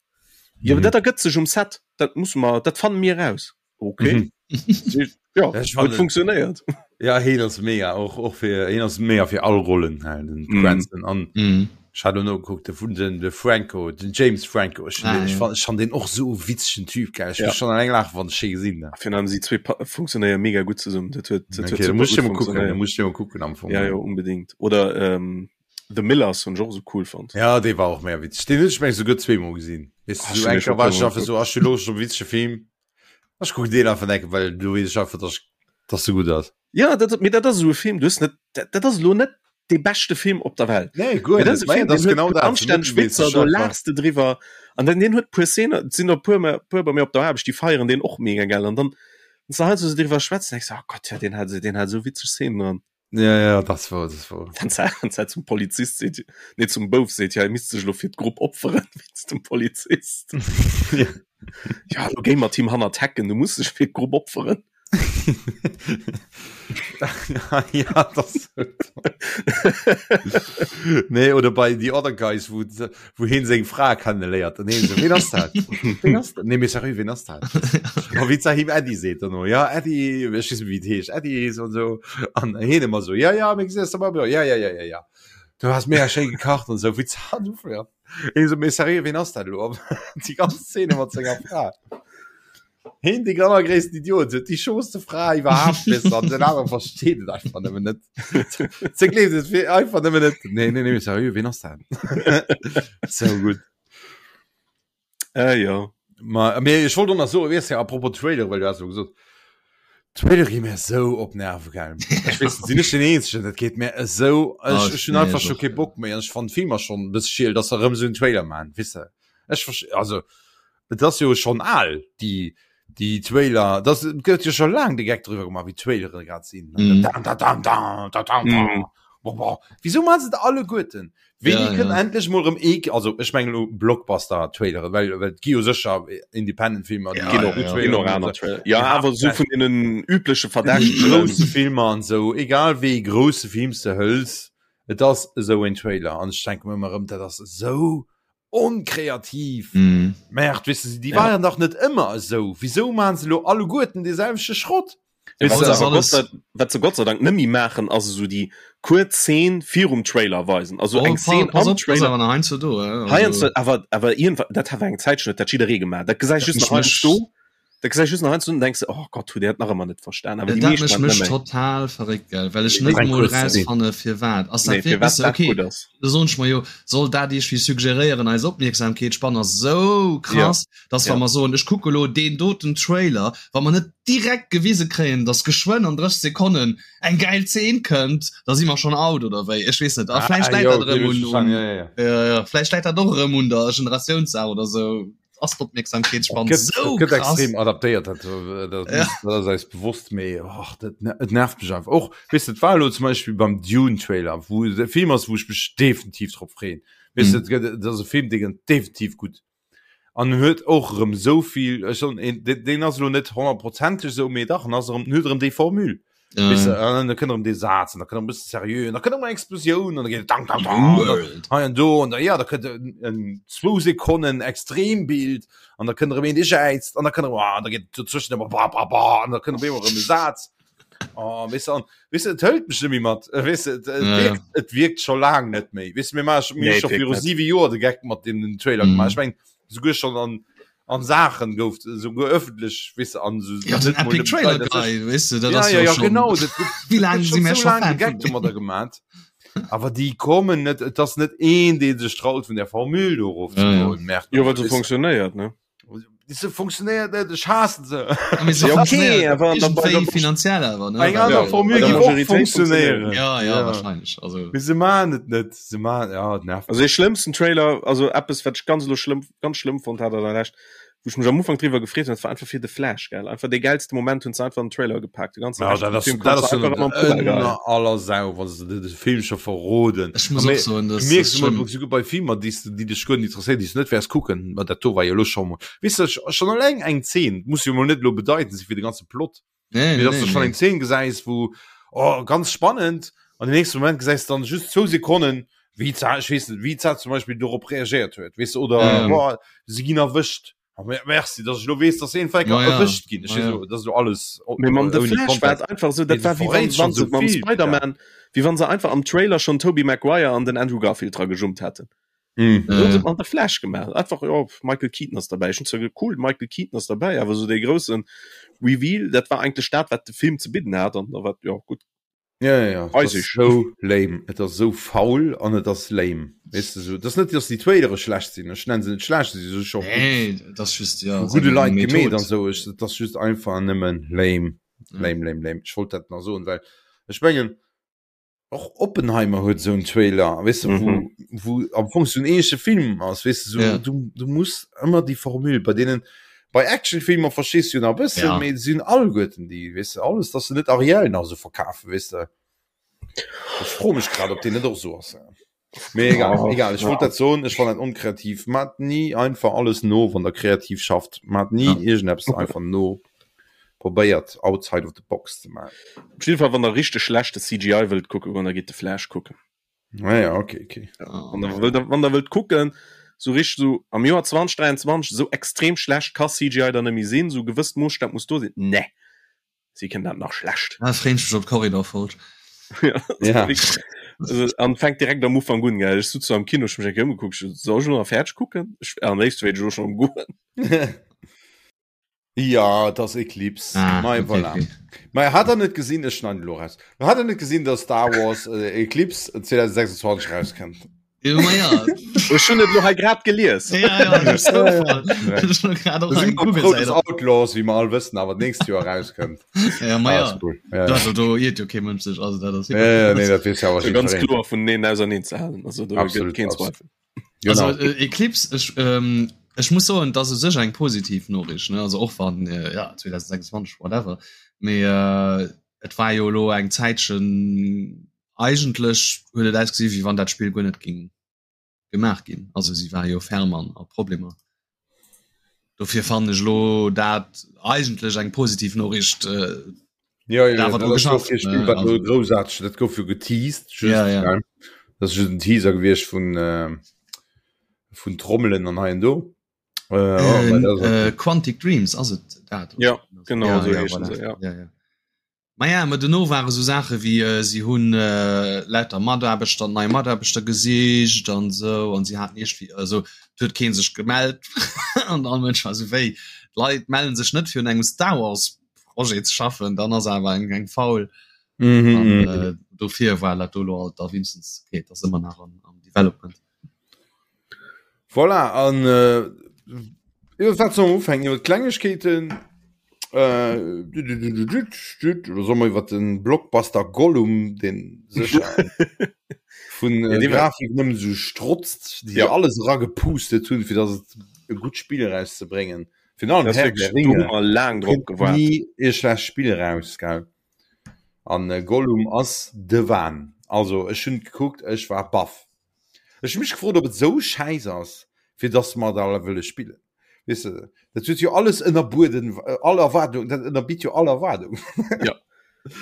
[SPEAKER 3] Jo,
[SPEAKER 2] Mhm.
[SPEAKER 3] dat ergëtt sech um Set, dat musse mer, dat fanne mir eraus. Okay.
[SPEAKER 2] Mhm.
[SPEAKER 3] Ja,
[SPEAKER 2] Ja, ech
[SPEAKER 3] huet
[SPEAKER 2] fannen-
[SPEAKER 3] funktionéiert.
[SPEAKER 2] Ja, heen ass mega, och, och fir, heen ass mega fir all Rollen, hei, den
[SPEAKER 3] Mhm.
[SPEAKER 2] Cranston. An
[SPEAKER 4] Mhm.
[SPEAKER 2] ech hat elo nogekuckt, de vun den, de Franco, den James Franco, ech,
[SPEAKER 4] Ah,
[SPEAKER 2] ech
[SPEAKER 4] ja.
[SPEAKER 2] fan, ech fan deen och sou e witzegen Typ, gell. Ech
[SPEAKER 3] Ja.
[SPEAKER 2] muss schon alleng laachen, wann ech hee gesinn, ne.
[SPEAKER 3] Virun allem si zwee pa- funktionéiere mega gutt zesummen. Dat huet, dat huet
[SPEAKER 2] Okay, da
[SPEAKER 3] super
[SPEAKER 2] muss ich
[SPEAKER 3] gutt
[SPEAKER 2] mal gucken, da
[SPEAKER 3] funktionéiert.
[SPEAKER 2] muss ich mal gucken am Fong.
[SPEAKER 3] Ja, jo, unbedingt. Oder ähm, The Millers hunn ech och esou cool fonnt.
[SPEAKER 2] Ja, dee war och mega witzeg. Deen hunn ech meng souguer zweemol gesinn. Weess
[SPEAKER 3] Ah,
[SPEAKER 2] du,
[SPEAKER 3] ech
[SPEAKER 2] sou
[SPEAKER 3] hunn
[SPEAKER 2] eng
[SPEAKER 3] dee scho
[SPEAKER 2] Kéier war ech
[SPEAKER 3] puermol
[SPEAKER 2] einfach sou, ach, ech hu Loscht op e witzege Film. Ech kucken deen einfach eng Kéier, well do weess ech einfach, dass dass e gutt ass.
[SPEAKER 3] Ja, dat, mee dat ass esou e Film, du hues net, dat, dat ass elo net dee beschte Film op der Welt.
[SPEAKER 2] Nee, guer
[SPEAKER 3] Mee dat
[SPEAKER 2] net.
[SPEAKER 3] ass e
[SPEAKER 2] Mä
[SPEAKER 3] Film,
[SPEAKER 2] dat ass
[SPEAKER 3] deen huet
[SPEAKER 2] genau
[SPEAKER 3] puer
[SPEAKER 2] dat, sou
[SPEAKER 3] anstänneg
[SPEAKER 2] mëttelméisseg
[SPEAKER 3] Witzer, do
[SPEAKER 2] einfach.
[SPEAKER 3] laachs de driwwer. An dann deen huet puer Szenen, et sinn der puer, puer bei mir op der Aarbecht, déi feieren deen och mega gell. An dann, wann s de heiansdo esou driwwer schwätz, denkst de, oh Gott, ja, deen hat, deen hat esou witzeg Szenen dran.
[SPEAKER 2] Ja, ja, das war, das war.
[SPEAKER 3] Wann se zum Polizist seet, nee, zum Bouf seet, ja, misst sech lo fir d'Grupp opferen, wéinst dem Polizist.
[SPEAKER 2] Ja.
[SPEAKER 3] Ja, lo géi mat him hannert d'Hecken, du muss dech fir d'Grupp opferen.
[SPEAKER 2] ja, das nee, oder bei The Other Guys, wo, wo heen seng Fra kennenléiert. An heen so, wen ass dat? Wen ass dat? Nee, mee sérieux, wen ass dat? A wéi ze him Eddie seet dann no, ja, Eddie, ech weess net, wéi et heescht, Eddie, so an so. An heen ëmmer so, ja, ja, mir gesinn eis da, ja, ja, ja, ja, ja. Du has mega schéi gekacht an sou, wéi ze an ja. Heen so, mee sérieux, wen ass dat elo? Déi ganz Szene mat senger Fra. Heen dee allergréissten Idiot huet déi schooste Fra iwwerhaapt weess an den anere versteet et einfach nëmmen net. Se gleeft et fir einfach nëmmen net. Nee, nee, nee, sérieux, ween ass dat? Sou gutt.
[SPEAKER 3] Äh, ja.
[SPEAKER 2] Ma, mee ech wollt och nach soen, weess de, apropos Trailer, well du has elo gesot, Trailer gi mir esou op d'Nerve gaangen. Ech weess net, sinn ech den Eenzegen? Dat geet mir esou, ech, ech hunn einfach scho kee Bock méi an ech fannen d'Filmer schonn e bësse schiel, dass se erëm esou en Trailer maachen, weess de. Ech verst-, also Et ass jo schonn al déi déi Trailer, dat gëtt jo scho laang de Geck driwwer gemaach wéi d'Trailere grad sinn. Mm. Da, da, da, da, da, da, da. Mm. Bon, bon. Wieso man se alleguerten? Wéini ja, kënnt ja. endlech mol rëm ee also ech mengen lo Blockbuster Trailere, well well et gi jo sécher Independent Filmer
[SPEAKER 3] ja, ja, ja. Ginn och aner Trailer. Ja, awer sou vun deenen übleche
[SPEAKER 2] Verdächtegen. Grousse Filmer an sou, egal wéi grousse Films de hëls, et ass esou een Trailer an ech denke mir ëmmer erëm, dat ass esou onkreativ.
[SPEAKER 4] Mm.
[SPEAKER 2] Merde, weess de, déi ja. waren dach net ëmmer esou. Wieso maachen se lo alleguerten dee selwechte Schrott?
[SPEAKER 3] Ja, wat, se Gott sei, wat se Gott sei Dank nëmmi maachen, ass esou déi kuerz Szene virum Trailer weisen. Also oh, eng Szene am Trailer.
[SPEAKER 4] Heiansdo do,
[SPEAKER 3] äh, also. Awer, awer irgendwann, dat hat eng Zäit schon, dat jidderee gemaach. Dat gesäich just nach heiansdo. Da gesäich just nach heiansdo und denkst du, oh Gott, huet der dat nach ëmmer net verstan.
[SPEAKER 4] Awer déi meescht maachen dat mech total verréckt, gell, well ech net emol rausfanne firwat. Ass dat
[SPEAKER 3] nee, firwat dat
[SPEAKER 4] okay,
[SPEAKER 3] gutt ass.
[SPEAKER 4] Da soen ech mer jo, soll dat iergendwéi suggeréieren, eis Opmierksamkeetsspann ass esou krass,
[SPEAKER 3] ja.
[SPEAKER 4] dass wa
[SPEAKER 3] ja.
[SPEAKER 4] mer soen, ech kucke lo deen doten Trailer, wa mer net direkt gewise kréien, dass geschwënn an 30 Sekonnen eng gäil Zeen kënnt, da si mer schonn out oder wéi, ech weess net. A vläicht läit dat erëm un, un
[SPEAKER 2] ja, ja, ja.
[SPEAKER 4] Ja, ja, vläicht läit dat och erëm un der Generatiounssaach oder sou. Ass d'Opmierksamkeetsspann
[SPEAKER 2] gëtt,
[SPEAKER 4] sou
[SPEAKER 2] gëtt
[SPEAKER 4] krass?
[SPEAKER 2] extrem adaptéiert, dat, dat,
[SPEAKER 4] Ja.
[SPEAKER 2] dat ass eis bewosst, mee och, dat, et nervt mech einfach. Och, weess de, et war elo zum Beispill beim Dune-Trailer, wou e Film ass, wou ech mech definitiv drop freeën. Weess de,
[SPEAKER 4] Mhm.
[SPEAKER 2] et gëtt, et ass e Film, dee gëtt definitiv gutt. An en huet och erëm esou vill, ech soen, een, deen, deen ass elo net honnertprozenteg esou, mee dach, en ass erëm, en huet erëm déi Formule.
[SPEAKER 4] Ja,
[SPEAKER 2] Weißt du,
[SPEAKER 4] ja.
[SPEAKER 2] an da kënnt erëm dee Saz, an da kënnt erëm e bësse seriö, an da kënnt erëm eng Explosioun, an da geet et dang, dang, dang, an da
[SPEAKER 4] World.
[SPEAKER 2] hei an do, an da, ja, da kënnt en, en zwou Sekonnen Extrembild, an da kënnt erëm een, dee jäizt, an da kënnt erëm, ah, an da geet et dozwëschen ëmmer ba, ba, ba, an da kënnt op eemol erëm e Saz. Oh, weess du, an, weess du, et hëlt mech net méi mat, äh, weess du, et, et
[SPEAKER 4] Ja, ja.
[SPEAKER 2] wierkt, et wierkt scho laang net méi. Weess du, mir maache, mir
[SPEAKER 3] Nee,
[SPEAKER 2] hu
[SPEAKER 3] et
[SPEAKER 2] scho
[SPEAKER 3] wierkt
[SPEAKER 2] viru
[SPEAKER 3] net.
[SPEAKER 2] siwe Joer de Geck mat deem Trailer gemaach.
[SPEAKER 4] Mhm.
[SPEAKER 2] Ech mengen, souguer schonn an, an Saachen gouf souguer öffentlech weess de an sou
[SPEAKER 4] Ja, den
[SPEAKER 2] net mol
[SPEAKER 4] Epic
[SPEAKER 2] nëmmen
[SPEAKER 4] Trailer
[SPEAKER 2] d'Leit an sech.
[SPEAKER 4] Guy, weess de, dat
[SPEAKER 2] Ja,
[SPEAKER 4] ass
[SPEAKER 2] ja,
[SPEAKER 4] jo
[SPEAKER 2] ja,
[SPEAKER 4] schon
[SPEAKER 2] genau, dat gëtt
[SPEAKER 4] wéi
[SPEAKER 2] dat
[SPEAKER 4] laang
[SPEAKER 2] gëtt
[SPEAKER 4] si
[SPEAKER 2] schon
[SPEAKER 4] mir
[SPEAKER 2] sou
[SPEAKER 4] scho
[SPEAKER 2] laang de
[SPEAKER 4] Fan
[SPEAKER 2] Geck
[SPEAKER 4] vun deem.
[SPEAKER 2] domadder gemat. Awer déi kommen net, et ass net een, dee sech traut vun der Formule do erof ze
[SPEAKER 4] Ja, ja.
[SPEAKER 2] goen, Merde,
[SPEAKER 3] Jo, well se
[SPEAKER 2] weess de.
[SPEAKER 3] funktionéiert, ne?
[SPEAKER 2] Se funktionéiert net, ech haassen se.
[SPEAKER 4] Ja, mee se
[SPEAKER 3] Ja, okay,
[SPEAKER 4] funktionéiert
[SPEAKER 3] awer an der, bei der
[SPEAKER 4] iergendwéi finanziell awer, ne?
[SPEAKER 2] Eng
[SPEAKER 4] Well,
[SPEAKER 2] aner
[SPEAKER 3] ja, bei
[SPEAKER 2] Formule
[SPEAKER 3] der
[SPEAKER 2] géif och
[SPEAKER 3] Majoritéit funktionéiert.
[SPEAKER 2] funktionéieren.
[SPEAKER 4] ja, ja,
[SPEAKER 2] Ja.
[SPEAKER 4] wahrscheinlech. Also,
[SPEAKER 2] Mee se maachen et net, se maachen, ja, et nervt
[SPEAKER 3] Also dee
[SPEAKER 2] mech.
[SPEAKER 3] schlëmmsten Trailer, also eppes wat ech ganz elo schlëmm, ganz schlëmm fonnt hat an der Lescht, wou ech mech am Ufank driwwer gefreet hunn, dat war einfach fir The Flash, gell. Einfach dee gäilste Moment hunn se einfach an den Trailer gepaakt. De ganze
[SPEAKER 2] Ja,
[SPEAKER 3] Rescht
[SPEAKER 2] dat
[SPEAKER 3] vum
[SPEAKER 2] ass,
[SPEAKER 3] Film
[SPEAKER 2] dat
[SPEAKER 3] konntst
[SPEAKER 2] ass
[SPEAKER 3] du
[SPEAKER 2] jo
[SPEAKER 3] einfach
[SPEAKER 2] net
[SPEAKER 3] ëmmer am Poubelle geheien.
[SPEAKER 2] ënner aller Sau, wa se de Film scho verroden.
[SPEAKER 4] ech
[SPEAKER 2] A
[SPEAKER 4] muss och
[SPEAKER 2] mir,
[SPEAKER 4] soen,
[SPEAKER 2] du
[SPEAKER 4] das
[SPEAKER 2] mierks
[SPEAKER 4] ass
[SPEAKER 2] emol
[SPEAKER 4] schlëmm.
[SPEAKER 2] souguer bei Filmer, déi s de, déi dech guer net interesséieren, déi s du net wäers kucken, ma dat do war jo elo scho mol, weess de, schonn eleng eng Zeen muss jo mol net elo bedeitend si fir de ganze Plot,
[SPEAKER 4] Nee,
[SPEAKER 2] mee
[SPEAKER 4] nee,
[SPEAKER 2] dass du
[SPEAKER 4] nee,
[SPEAKER 2] schonn
[SPEAKER 4] nee.
[SPEAKER 2] eng Zeen gesäis, wou, oh, ganz spannend, an den nächste Moment gesäis du dann just zwou Sekonnen, wéi d'Sa, ech weess net, wéi d'Sa zum Beispill dorop reagéiert huet, weess de, oder,
[SPEAKER 4] Ja, ja.
[SPEAKER 2] boah, si ginn erwëscht. Ah, merci, dass ech lo weess, dass een Fecker
[SPEAKER 4] Ma ja,
[SPEAKER 2] erwëscht ginn. Ech
[SPEAKER 4] ma ja.
[SPEAKER 2] so, das so alles
[SPEAKER 3] Mee mam The
[SPEAKER 2] ouni
[SPEAKER 3] Flash war
[SPEAKER 2] Kontext.
[SPEAKER 3] et einfach sou,
[SPEAKER 2] Mee
[SPEAKER 3] dat
[SPEAKER 2] du
[SPEAKER 3] war wéi wann,
[SPEAKER 2] verréits
[SPEAKER 3] wann
[SPEAKER 2] schon
[SPEAKER 3] se
[SPEAKER 2] so
[SPEAKER 3] mam
[SPEAKER 2] vill,
[SPEAKER 3] Spider-Man, wéi wann se einfach am Trailer schon Tobey Maguire an den Andrew Garfield dra gejummt hätten.
[SPEAKER 2] Mm.
[SPEAKER 3] Esou hunn se
[SPEAKER 4] Äh,
[SPEAKER 3] et mam The Flash gemaach. Einfach, jo, Michael Keaton ass derbäi. Ech hunn zwar ge cool, Michael Keaton ass derbäi, awer sou dee groussen Reveal, dat war eigentlech dat, wat de Film ze bidden hat an da war, jo, gutt.
[SPEAKER 2] Ja, ja, ja.
[SPEAKER 3] Weiß
[SPEAKER 2] Das
[SPEAKER 3] ich.
[SPEAKER 2] so lame. Et ass so faul an et ass lame. Weißt du, so, das net, dass die Trailere schlecht sinn. Ech nennen se net schlecht, sie si scho
[SPEAKER 4] nee, das ist just, ja,
[SPEAKER 2] vu gudde
[SPEAKER 4] eng
[SPEAKER 2] Leit gemeet
[SPEAKER 4] Method.
[SPEAKER 2] an sou. Ech, dat ass just einfach nëmmen lame.
[SPEAKER 4] Ja.
[SPEAKER 2] Lame, lame, lame. Ech wollt dat nach soen, well ech mengen, och Oppenheimer huet esou en Trailer, weess de, wou,
[SPEAKER 3] Mhm.
[SPEAKER 2] wou am Fong so en ähnleche Film ass, weess de, so,
[SPEAKER 4] Ja.
[SPEAKER 2] du, du muss ëmmer déi Formule bei deenen, bei Actionfilmer verstees du jo nach e bëssen,
[SPEAKER 4] Ja.
[SPEAKER 2] mee sinn alleguerten déi, weess de, alles, dass se net Ariel nach esou verkafen, weess de. Ech froe mech grad, ob deen net och esou ass. Mee egal, oh, egal. Ech wollt dat soen, ech fannen dat onkreativ. Maacht ni einfach alles no, wann der kreativ schafft. Maacht ni ja. iergendeppes einfach no. Probéiert outside of the box ze maachen.
[SPEAKER 3] Op jeden Fall, wann der richteg schlechte CGI wëllt kucken goen, da gitt de Flash kucken.
[SPEAKER 2] Ah ja, okay, okay.
[SPEAKER 3] Ja, wann der wëllt, wann der wëllt kucken, sou richteg sou am Joer 2023 sou extrem schlecht ka CGI dann net méi sinn, sou gewësst Moosstap muss do sinn. Nee. Si kënnen dat nach schlecht.
[SPEAKER 4] Ah, freeën ech mech op d'Korridor-Folg.
[SPEAKER 3] Ja, ja. Also, an fänkt direkt am Ufang un, gell. Ech sutz so am Kino, ech mech eng Kéier ëmgekuckt, ech so, soll ech lo nach fäerdeg kucken? Ech, am léifste wéilt ech lo schon erëm goen.
[SPEAKER 2] Ja, et ass Eclipse.
[SPEAKER 4] Ah,
[SPEAKER 2] Mei,
[SPEAKER 4] okay,
[SPEAKER 2] voilà.
[SPEAKER 4] okay.
[SPEAKER 2] Mei, hat der net gesinn, ech schneiden elo raus. Hat der net gesinn, dass Star Wars äh, Eclipse 2026 rauskënnt?
[SPEAKER 4] Ja, ma ja.
[SPEAKER 3] Ech hunn et lo hei grad gelies.
[SPEAKER 4] Ja, ja, duerch Zoufall. Ech hunn grad och eng Google-Säit op.
[SPEAKER 2] Outlaws, wéi mer all wëssen, awer d'nächst Joer rauskënnt.
[SPEAKER 4] Ja, ma ja.
[SPEAKER 2] Ah, cool. Ja,
[SPEAKER 4] ja. Also, do iert jo kee Mënsch sech, also dat ass
[SPEAKER 2] Ja, ja, nee, dat weess ja awer
[SPEAKER 3] Ganz
[SPEAKER 2] jiddwereen.
[SPEAKER 3] kloer vun neen auserneen ze halen. Also do gëtt
[SPEAKER 2] Absolut,
[SPEAKER 3] keen
[SPEAKER 2] absolut.
[SPEAKER 3] Zweifel.
[SPEAKER 2] Genau.
[SPEAKER 4] Also äh, Eclipse, ech, ähm, ech muss soen, dat ass u sech eng positiv Noriicht, ne? Also och wann, äh, ja, 2026, whatever. Mee äh, et war jo elo eng Zäitchen Eigentlech huet et ausgesi wéi wann dat Spill guer net ging gemaach ginn. Also si war jo ferm an a Problemer. Dofir fannen ech elo dat eigentlech eng positiv Noriicht. Äh,
[SPEAKER 2] ja, ja,
[SPEAKER 4] awer
[SPEAKER 2] dat
[SPEAKER 4] dru
[SPEAKER 2] ass jo
[SPEAKER 4] geschafft,
[SPEAKER 2] kee Spill,
[SPEAKER 4] ne?
[SPEAKER 2] wat elo
[SPEAKER 4] Also,
[SPEAKER 2] groussaarteg, dat gouf jo geteased, just,
[SPEAKER 4] ja, ja.
[SPEAKER 2] ne? Dat ass just en Teaser gewiescht vun, äh, vun Trommelen an hei an do. Äh, oh,
[SPEAKER 4] Äh,
[SPEAKER 2] mä dat ass
[SPEAKER 4] äh,
[SPEAKER 2] okay.
[SPEAKER 4] Quantic Dreams ass et dat?
[SPEAKER 3] Ja, genau
[SPEAKER 4] ja,
[SPEAKER 3] esou
[SPEAKER 4] ja,
[SPEAKER 3] heeschen
[SPEAKER 4] voilà.
[SPEAKER 3] se, ja.
[SPEAKER 4] Ja, ja. Maja, ma dono ware sou Saache wéi si hunn lauter Mataarbechter, nei Mataarbechter gesicht an esou an si haten iergendwéi, also et huet kee sech gemellt an all Mënsch war esou wéi, d'Leit melle sech net fir un engem Star Wars Projet ze schaffen, dann ass awer eng eng faul. An dofir war dat do elo alt da wéinstens, okay, et ass ëmmer nach am Development.
[SPEAKER 2] Voilà, an iwwer wat soll mer ufänken? Iwwer d'Klengegkeeten? Äh, oder soll mer iwwer den Blockbuster Gollum, den sécher vun
[SPEAKER 3] Ja, dee war-
[SPEAKER 2] Grafik nëmmen esou strotzt, déi
[SPEAKER 3] Ja.
[SPEAKER 2] alles eragepustet hunn, fir datt et e gutt Spill erauszebréngen. Virun allem
[SPEAKER 3] Das
[SPEAKER 2] Herr
[SPEAKER 3] wirklich,
[SPEAKER 2] der
[SPEAKER 3] do hu
[SPEAKER 2] Ringe
[SPEAKER 3] mer laang drop
[SPEAKER 2] kritt
[SPEAKER 3] gewaart.
[SPEAKER 2] ni e schlecht Spill eraus, gell? An Gollum ass de Wahn. Also ech hunn gekuckt, ech war baff. Ech hu mech gefrot, ob et esou schäiss ass, fir dass mer dat alle wëlle spillen. Weess de, dat huet jo alles ënnerbueden, all Erwaardung, dat ënnerbitt jo all Erwaardung.
[SPEAKER 3] Ja.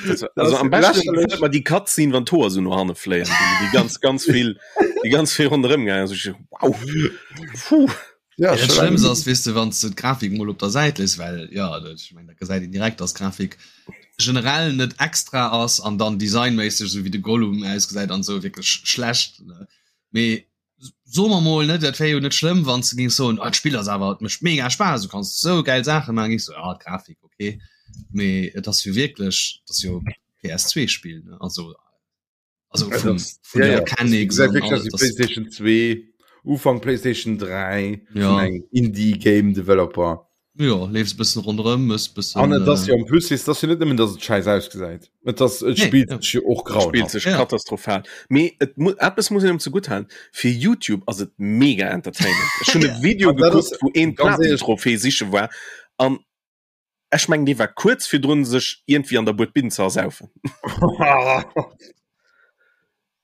[SPEAKER 3] Das, also am besten gefällt mir die Cutscene, wann d'Hoer so no hanne fléien, déi, déi ganz, ganz vill, déi ganz vill ronderëm gaangen. Also ich, wow. Puh.
[SPEAKER 2] Ja,
[SPEAKER 4] Ja, dat Schlëmmst ass, weess de, wann s de d'Grafik mol op der Säit léiss, well ja, dat, ech meng, dat gesäit een direkt, dass d'Grafik generell net extra ass an dann designméisseg, esou wéi de Gollum ausgesäit an esou, wierklech schlecht, ne? Mee soe mer mol, ne, dat wär jo net schlëmm, wann s de géings soen, ah, d'Spill ass awer, et mécht mega Spaass, du kanns esou gäil Saache maachen, géings soen, ah, d'Grafik, okay. Mee et ass jo wierklech, et ass jo PS2-Spill, ne, also also
[SPEAKER 2] Ja,
[SPEAKER 4] vum,
[SPEAKER 2] das,
[SPEAKER 4] vun
[SPEAKER 2] ja,
[SPEAKER 4] der
[SPEAKER 2] ja.
[SPEAKER 4] Mechanics
[SPEAKER 2] Gesäit
[SPEAKER 4] an
[SPEAKER 2] wierklech
[SPEAKER 4] alles,
[SPEAKER 2] aus wéi
[SPEAKER 4] das,
[SPEAKER 2] PlayStation 2, Ufank PlayStation 3 vun
[SPEAKER 4] ja.
[SPEAKER 2] engem Indie Game Developer.
[SPEAKER 4] Jo, leefs e bëssen ronderëm, mëss bëssen.
[SPEAKER 2] An et ass
[SPEAKER 4] Äh,
[SPEAKER 2] jo en plus, weess, et ass jo net nëmmen, datt et schäiss ausgesäit, et ass, et
[SPEAKER 4] nee,
[SPEAKER 2] spillt
[SPEAKER 4] ja.
[SPEAKER 2] sech jo och
[SPEAKER 3] Spielt
[SPEAKER 2] grauenhaft.
[SPEAKER 3] sech
[SPEAKER 4] Ja.
[SPEAKER 3] katastrophal. Mee et mu eppes muss een em zegutt halen, fir YouTube ass et mega entertainend. Ech hunn e
[SPEAKER 4] Ja.
[SPEAKER 3] Video
[SPEAKER 2] An dat ass
[SPEAKER 3] gekuckt, wou een
[SPEAKER 2] ganz éierlech,
[SPEAKER 3] Platin-Trophée siche war an ech mengen dee war kuerz virdrun sech iergendwéi an der Buedbinn ze ersaufen.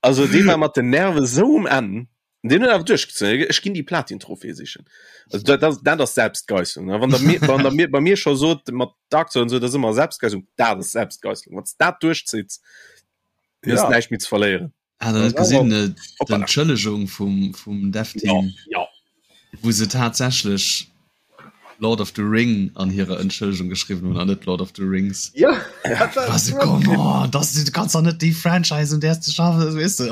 [SPEAKER 3] Also dee war mat den Nerve sou um Enn. Deen huet awer duerchgezéien, ech ginn déi Platin-Trophée sichen. Also dat, dat, dat ass Selbstgeisselung. Wann der mir, wann der mir, bei mir scho sot mat Dark Souls und so, dat ass ëmmer Selbstgeisselung, dat ass Selbstgeisselung. Wann s dat duerchzitts, du hues
[SPEAKER 2] Ja.
[SPEAKER 3] näischt méi ze verléieren.
[SPEAKER 4] Hat der net gesinn äh, d'Entschëllegung vum, vum Dev-Team,
[SPEAKER 3] ja, ja.
[SPEAKER 4] wou se tatsächlech Lord of the Ring an hirer Entschëllegung geschriwwen hunn an net Lord of the Rings.
[SPEAKER 2] Ja,
[SPEAKER 4] also, come on, das, du kannst doch net déi Franchise un där s de schaffes, weess de.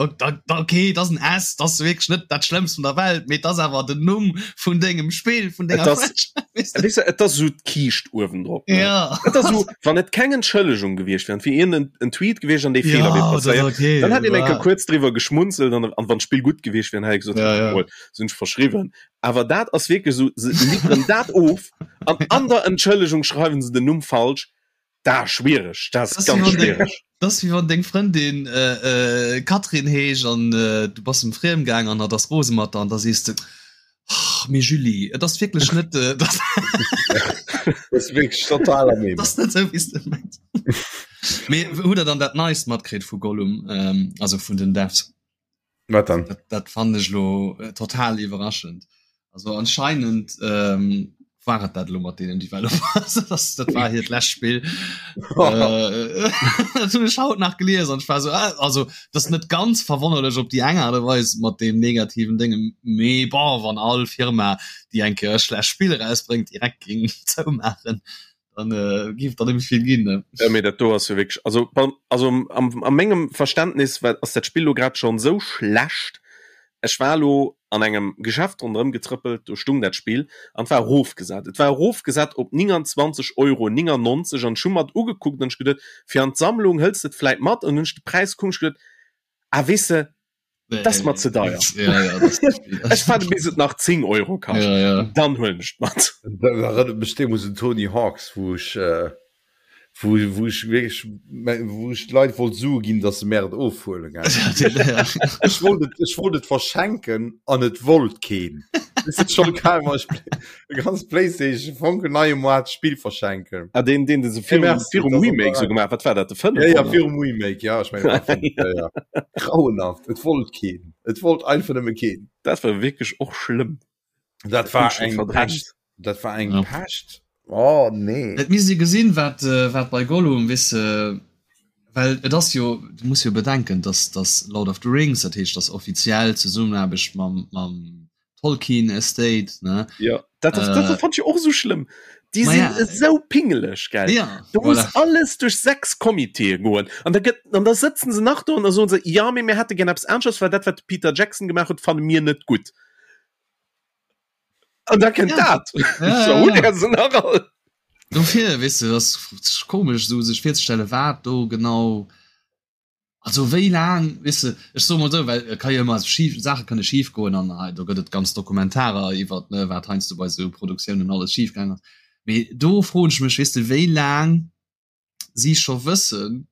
[SPEAKER 4] Okay, dat ass en S, dat ass wierklech net dat Schlëmmst vun der Welt, mee dat ass awer den Numm vun dengem Spill, vun denger
[SPEAKER 3] Franchise. Weess de? Et ass esou d'Kiischt uewendrop. Ne?
[SPEAKER 4] Ja.
[SPEAKER 3] Et ass esou, wann et keng Entschëllegung gewiescht wär, et wier iergend en Tweet gewiescht an dee Feeler
[SPEAKER 4] Ja,
[SPEAKER 3] wier
[SPEAKER 4] dat ass
[SPEAKER 3] passéiert,
[SPEAKER 4] okay.
[SPEAKER 3] dann hätt een eng Kéier
[SPEAKER 4] Wa-
[SPEAKER 3] kuerz driwwer geschmunzelt an, an wann d'Spill gutt gewiescht wär, dann hätt ee gesot,
[SPEAKER 4] Ja, ja.
[SPEAKER 3] mol, sinn ech verschriwwen. Awer dat ass wierklech esou, se liwweren dat of an an der Entschëllegung schreiwen se den Numm falsch. Da schwiereg, dat ass
[SPEAKER 4] Das
[SPEAKER 3] ganz
[SPEAKER 4] wéi wann deng,
[SPEAKER 3] schwiereg.
[SPEAKER 4] das ass wéi wann deng Frëndin äh, äh, Katrin heescht an äh, du bass em friem gaang an hatt ass rose mat der an da sees de, oh. Och mee Julie, et ass wierklech net äh, dat
[SPEAKER 2] Das ist wirklich total am
[SPEAKER 4] Et ass net sou wéi s de mengs. Mee hutt der dann dat Neist matkritt vu Gollum, ähm, also vun den Devs?
[SPEAKER 2] Wat dann?
[SPEAKER 4] Dat, dat fand ech lo äh, total iwwerraschend. Also anscheinend ähm, war et dat lo mat deenen Developers. das, dat war hiert lescht Spill. äh, dat hunn ech haut nach gelies an ech war so, ah, also das net ganz verwonnerlech op déi eng Art a Weis mat deem negativen Dénge, mee bon, wann all Firma, déi eng Kéier e schlecht Spill erausbréngt, direkt géing zoumaachen, dann äh, giff der net méi vill ginn. Ne?
[SPEAKER 3] Ja, mee dat do ass jo wierklech, also, also am, a mengem Verständnis war, ass dat Spill lo grad schonn esou schlecht. Ech war lo an engem Geschäft ronderëm getrëppelt, do stung dat Spill an et war erofgesat. Et war erofgesat op 29 Euro 99 an ech hu mer et ugekuckt an ech geduet, fir an d'Sammlung hëls de et vläit mat an hunn ech de Präis gekuckt an ech geduet, ah weess de, dat ass mer ze deier. Ech waarde bis et nach 10 Euro kascht, dann huelen ech et mat.
[SPEAKER 2] Dat erënnert mech deemools un Tony Hawk's, wou ech wou wou ech wierklech wou ech d'Leit wollt Sue ginn, datt se mär et ofhuelen, gell. Ech wollt et, ech wollt et verschenken an et wollt keen. Weess de, schonn kal war ech e ganz PlayStation fonkelneie Moart Spill verschenken.
[SPEAKER 3] Ah, deen, deen de se virum,
[SPEAKER 2] Merci,
[SPEAKER 3] virum
[SPEAKER 2] dat ass
[SPEAKER 3] Remake sou gemaach, wat war dat, de 5?
[SPEAKER 2] Ja, ja, virum Remake, ja, ech mengen, dat war 5, ja, ja. Grauenhaft, et wollt keen. Et wollt einfach nëmme keen.
[SPEAKER 3] Dat war wierklech och schlëmm.
[SPEAKER 2] Dat war eng Pescht. Dat war eng ja. Pescht. Oh nee.
[SPEAKER 4] Et misst ee gesinn, wat, äh, wat bei Gollum wisse well et ass jo du muss jo bedenken, dass dass Lord of the Rings, dat heescht dass offiziell Zesummenaarbecht mam mam Tolkien Estate ne
[SPEAKER 3] ja dat, das, das äh, fand ich och so schlimm die sind ja. so pingeleg gell
[SPEAKER 4] ja,
[SPEAKER 3] du muss alles durch sechs Komiteeë goen an da gëtt an da sëtzen se nach do an da soen se ja mee mir hätte gern eppes aneschters well dat wat de Peter Jackson gemaach huet fanne mir net gutt an da kënnt
[SPEAKER 4] Ja.
[SPEAKER 3] dat
[SPEAKER 4] Ja,
[SPEAKER 3] so,
[SPEAKER 4] ja, ja.
[SPEAKER 3] der se nach all
[SPEAKER 4] Dofir weess de, ass komesch esou sech virzestelle wat do genau also wéi laang weess de, ech soe mol esou, well et ka jo ëmmer schif Saache kënne schif goen an hei do gëtt et ganz Dokumentarer iwwert ne wat heiansdo bei esou Produktiounen alles schif gaang ass. Mee do froen ech mech weess de wéi laang si scho wëssen,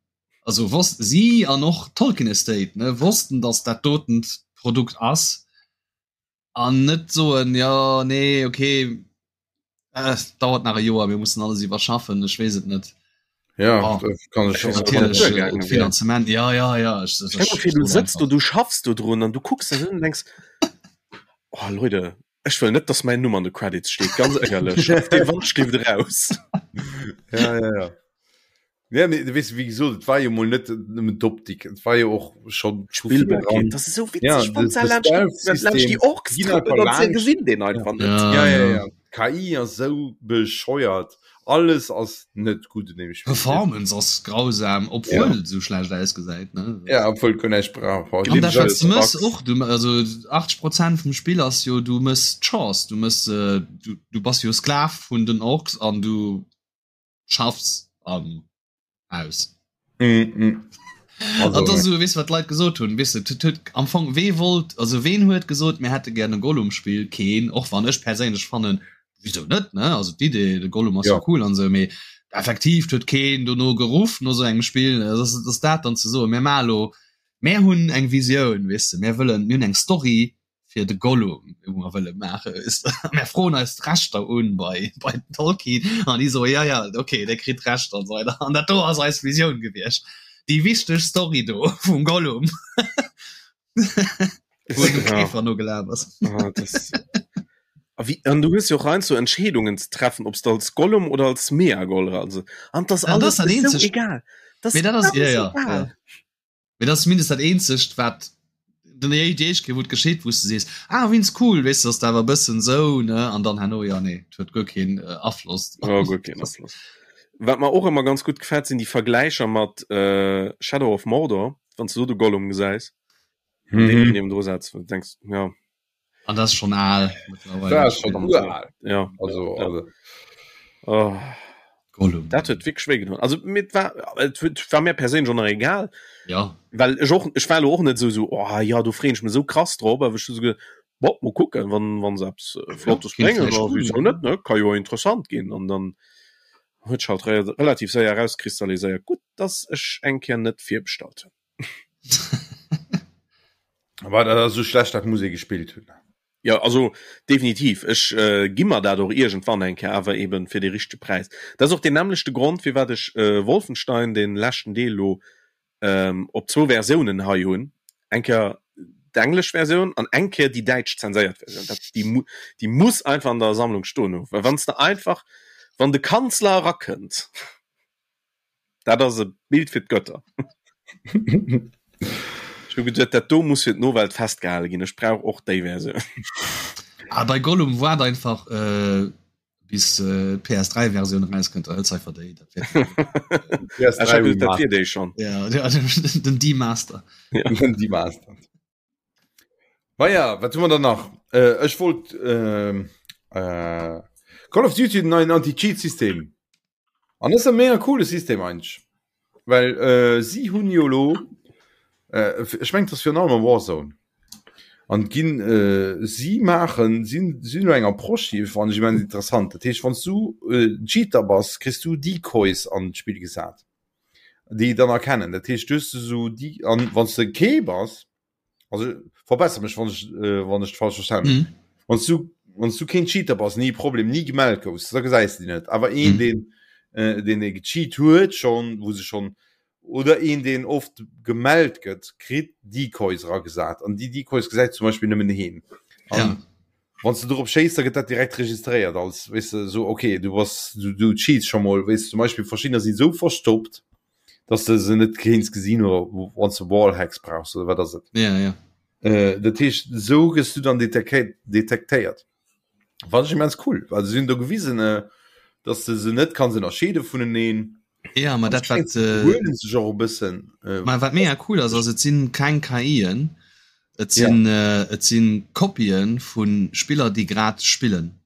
[SPEAKER 4] also wosst si an och Tolkien Estate ne wossten, datt dat dotent Produkt ass an net soen jo nee okay äh, dauert nach e Joer, mir mussen alles iwwerschaffen, ech weess et net.
[SPEAKER 2] Ja,
[SPEAKER 4] oh,
[SPEAKER 2] dat kann ech
[SPEAKER 4] natierlech äh, Finanzement ja ja ja
[SPEAKER 3] ech, ech, ech, ech, du sëtzt do du schaffst do drun an du kucks dat un denkst oh Leute ech wëll net dass mäin Numm an de Credits steet ganz éierlech dee Wand steet raus
[SPEAKER 2] ja ja ja Ja, mee, du weess, wéi gesot, et war jo mol net nëmmen d'Optik, et war jo och schonn
[SPEAKER 3] Spillbarkeet. Das ist so witzig,
[SPEAKER 2] Ja,
[SPEAKER 3] wann
[SPEAKER 2] de-
[SPEAKER 3] se
[SPEAKER 2] de
[SPEAKER 3] laanscht die-
[SPEAKER 2] Stealth-System
[SPEAKER 3] laanscht die Orks
[SPEAKER 2] ginn
[SPEAKER 3] trëppeln
[SPEAKER 2] einfach
[SPEAKER 3] an se
[SPEAKER 2] laanscht.
[SPEAKER 3] gesinn den einfach net.
[SPEAKER 2] Ja, ja, ja. D'KI ass sou bescheuert. Alles ass net gutt un deem Spill.
[SPEAKER 4] Performance ass grausam, obwuel et sou schlecht ausgesäit, ne?
[SPEAKER 2] Ja, obwuel guer näischt brauch.
[SPEAKER 4] An dat wat s de mëss och, du, also 80 Prozent vum Spill ass jo, du mëss Chores, du mëss, du, du bass jo Sklav vun den Orks an du schaffs an aus.
[SPEAKER 2] Mm, mm.
[SPEAKER 4] Also, an das so, weißt, wat d'Leit gesot hunn, weißt du, tut, tut, am Fong wee wollt, also ween huet gesot, mir hätte gerne Gollum-Spiel? Keen, och wann ech perséinlech fannen, wieso net, ne? Also d'Idee, de Gollum ass ja.
[SPEAKER 2] Ja.
[SPEAKER 4] cool an sou, mee effektiv huet keen dono geruff no sou engem Spiel, das, das dat dann ze soen, mir maache lo, mir hunn eng Visioun, weißt du, mir wëllen, mir hunn eng Story, fir de Gollum wou mer wëlle maache mer froen eis d'Rechter un bei bei den Tolkien an déi soe ja ja okay der kritt d'Rechter an esou weider an dat do ass eis Visioun gewiescht déi wichteg Story do vum Gollum wou de Käfer no gelaf ass.
[SPEAKER 3] Ah, das A wie, an du hues jo och heiansdo Entscheedungen ze treffen, ob s de als Gollum oder als Smeagol also an das
[SPEAKER 4] An dat
[SPEAKER 3] alles
[SPEAKER 4] ass dat
[SPEAKER 3] esou
[SPEAKER 4] eenzegt
[SPEAKER 3] egal. Das
[SPEAKER 4] Mee dat ass
[SPEAKER 3] alles
[SPEAKER 4] ja ja
[SPEAKER 3] egal.
[SPEAKER 4] ja. Mee dat ass zumindest dat eenzegt wat den déi éischt Kéier wou et geschitt wou s de sees ah wéinst cool weess de ass awer e bëssen sou ne an dann herno jo nee et huet guer keen Afloss.
[SPEAKER 3] Jo guer keen Afloss. Wat mer och ëmmer ganz gutt gefält sinn déi Vergläicher mat Shadow of Mordor, wann s de do de Gollum gesäis an deen niewendru setz wou du denks jo.
[SPEAKER 4] An dat ass schonn al
[SPEAKER 2] Dat ass schonn ural.
[SPEAKER 3] Ja.
[SPEAKER 2] Also, also.
[SPEAKER 3] Oh.
[SPEAKER 4] Gollum.
[SPEAKER 3] Dat huet wierklech wéi gedoen. Also mir war et huet war mir perséinlech och nach egal.
[SPEAKER 4] Ja.
[SPEAKER 3] Well ech och ech war elo och net esou esou oh ja do freeën ech mech esou krass drop, awer ech hu sou geduet bon mol kucken wann wann se eppes Flottes
[SPEAKER 4] kéint
[SPEAKER 3] bréngen
[SPEAKER 4] vläicht
[SPEAKER 3] da
[SPEAKER 4] cool
[SPEAKER 3] wisou
[SPEAKER 4] ginn.
[SPEAKER 3] net ne ka jo interessant ginn an dann huet sech halt re relativ séier erauskristalliséiert gutt dass ech eng Kéier net virbestallt hunn.
[SPEAKER 2] War dat ass esou schlecht, dat muss ee gespillt hunn.
[SPEAKER 3] Ja also definitiv ech äh, gi mer dat och iergendwann eng Kéier awer eben fir de richtege Präis. Dat ass och deen nämmlechte Grond firwat ech äh, Wolfenstein den leschten Deel lo ähm, op zwou Versiounen hei hunn. Eng Kéier d'englesch Versioun an eng Kéier déi däitsch zenséiert Versioun. Dat déi mu déi muss einfach an der Sammlung stoen hu well wann s de einfach wann de Kanzler erakënnt. Dat ass e Bild fir d'Götter. Ech hu geduet, dat do muss fir d'Nowelt festgehale ginn. Ech brauch och déi Versioun.
[SPEAKER 4] Ah, bei Gollum waart einfach äh, bis äh, d'PS3-Versioun erauskënnt, da hëls einfach déi. Dat
[SPEAKER 3] wär Ech hat geduet, dat wier déi schonn.
[SPEAKER 4] Ja, ja, den D-Master.
[SPEAKER 2] Ja. Den D-Master. Maja, wat hu mer dann nach? Äh, ech wollt äh, äh, Call of Duty den neien Anti-Cheat-System. An das ist e mega coole System eigentlich. Well äh, si hunn jo lo äh, ech meng das fir allem am Warzone. An ginn äh, si maachen sinn sinn elo eng Approche déi fannen ech immens interessant. Dat heescht wann s du äh, Cheater bass, kriss du Decoys an d'Spill gesat, déi dann erkennen. Dat heescht du hues esou déi an wann s de kee bass, also verbessere mech wann ech äh, wann ech falsch verstanden mhm. wann du wann du kein Cheater bass nie Problem nie gemeldet goufs da gesäis du net awer een mhm. den äh, den e gecheat huet schon wo se schon oder een den oft gemeldet gëtt kritt Decoys ragesat an die Decoys gesäit zum Beispiel nëmmen heen
[SPEAKER 4] ja.
[SPEAKER 2] Wann du dorop schéiss, da gëtt dat direkt registréiert als weißt du, so okay du bass du, du cheats schon mol weißt du, zum Beispiel verschiedener sinn so verstoppt dass de se net kéints gesinn oder wann du Wallhacks brauchst oder wat ass et
[SPEAKER 4] ja, ja.
[SPEAKER 2] Äh, dat heescht so gëss du dann detektéiert wat ech immens cool well se hunn do gewisen äh, dass de se net kanns ënnerscheede vuneneen
[SPEAKER 4] ja ma dat wat
[SPEAKER 2] äh, huelen sech och e bëssen
[SPEAKER 4] äh, ma wat mega cool ass ass et sinn keng KIen et sinn ja. äh, et sinn Kopien vun Spiller déi grad spillen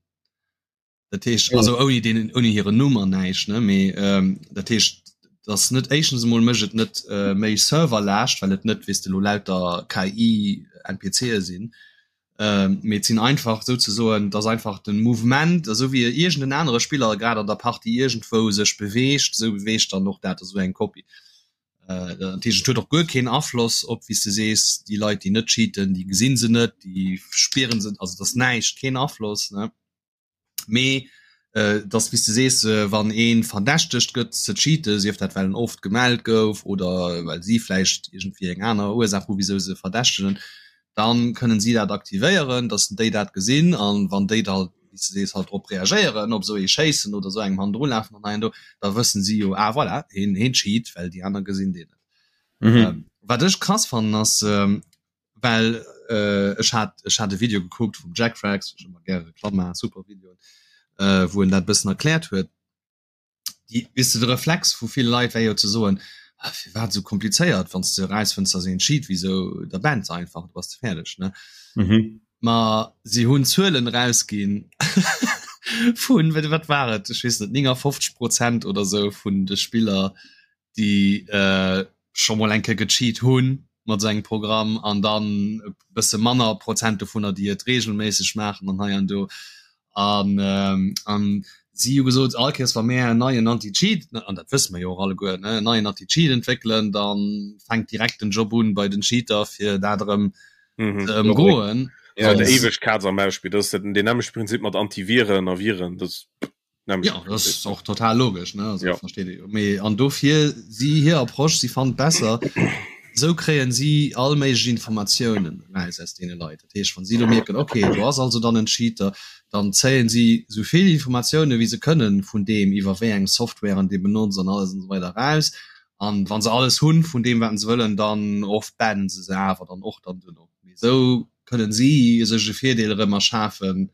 [SPEAKER 4] Dat heescht also ouni deenen ouni hiren Numm an näischt ne mee ähm, dat heescht dass net éischtens emol mécht et net äh, méi Serverlaascht, well et net weess de lo lauter KI NPCe sinn. Ähm, mee et sinn einfach souzesoen, dass einfach den Mouvement, esou wéi iergend en anere Spiller grad an der Partie iergendwou sech beweegt, esou beweegt dann och dat esou eng Kopie. Äh, dat heescht et huet och guer keen Afloss op wéi s de sees, déi Leit déi net cheaten, déi gesinn se net, déi spieren se, also et ass näischt, keen Afloss ne. Mee äh, dass wéi s de sees, äh, wann ee verdächtegt gëtt ze cheaten, sief dat well en oft gemellt gouf oder well si vläicht iergendwéi eng aner Ursaach hu wisou se verdächtegen, dann kënnen si dat aktivéieren, dass déi dat gesinn an wann déi da wéi s de sees halt drop reagéieren, op esou ee schéissen oder esou engem hannendru lafen an hei an do, da wëssen si jo, ah voilà, heen heen cheat, well déi aner gesinn deen net.
[SPEAKER 2] Mhm.
[SPEAKER 4] Ähm, wat ech krass fannen ass, ähm, well äh, ech hat ech hat e Video gekuckt vum Jack Frags, ech ëmmer gäre Reklamm maachen, super Video, äh, wou en dat bëssen erkläert huet. Déi, weess de, de Reflex vu ville Leit wär jo ze soen, ah, firwat esou komplizéiert, wann s de erausfënns, dass een cheat, wisou, da banns einfach, du bass de fäerdeg, ne?
[SPEAKER 2] Mhm.
[SPEAKER 4] Ma si hunn Zuelen erausginn vun, wat war et, ech weess net, 59 Prozent oder sou vun de Spiller, déi äh, scho mol eng Kéier gecheat hunn mat esou engem Programm an dann e bësse manner Prozent dovunner, déi et regelméisseg maachen an hei an do. An, ähm, an si hu gesot, all Kéiers wa mär en neien Anti-Cheat, an dat wësse mer jo och alleguer, ne, en neien Anti-Cheat entwéckelen, da fänkt direkt den Job un bei den Cheater, fir dat erëm
[SPEAKER 3] mhm.
[SPEAKER 4] ze ëmgoen.
[SPEAKER 3] Ja, der eweg Katz am Maus-Spill, dat ass den nämmlechte Prinzip mat Antiviren a Viren, dat
[SPEAKER 4] Ja, das ist och total logesch ne also,
[SPEAKER 3] ja.
[SPEAKER 4] versteht jo. Mee an dofir si hir Approche si fand besser sou kréien si all méiglech Informatiounen raus aus deene Leit. Dat heescht wann si lo mierken okay do ass also dann en Cheater, dann zéien si sou vill Informatioune wéi se kënnen vun deem iwwer wéi eng Softwaren dee benotzt an alles an esou weider raus. An wann se alles hunn vun deem wat se wëllen, dann oft bannen se se awer dann och dann duerno. Mee sou kënnen si sech e Virdeel erëm erschafen,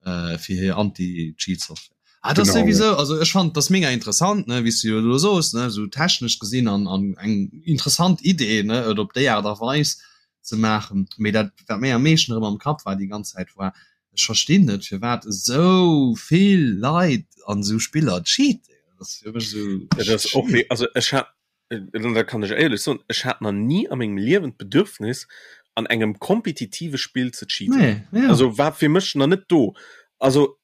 [SPEAKER 4] äh, fir hir Anti-Cheat-Software. Ah, das
[SPEAKER 2] Genau,
[SPEAKER 4] sowieso, also ech fand das mega interessant, ne, wie du jo soos, ne, so technesch gesinn an, an eng interessant Idee, ne, et op déi Art a Weis ze maachen. Mee dat, wat mir am meeschten erëm am Kapp war déi ganz Zäit, war, ech verstinn net, firwat esou vill Leit an esou Spiller cheaten. Dat ass fir mech esou.
[SPEAKER 3] Dat ass och wéi, also ech hat da kann ech éierlech soen, ech hat nach ni a mengem Liewen d'Bedürfnis an engem kompetitive Spill ze cheaten.
[SPEAKER 4] Nee, ja.
[SPEAKER 3] Also war fir mech nach net do. Also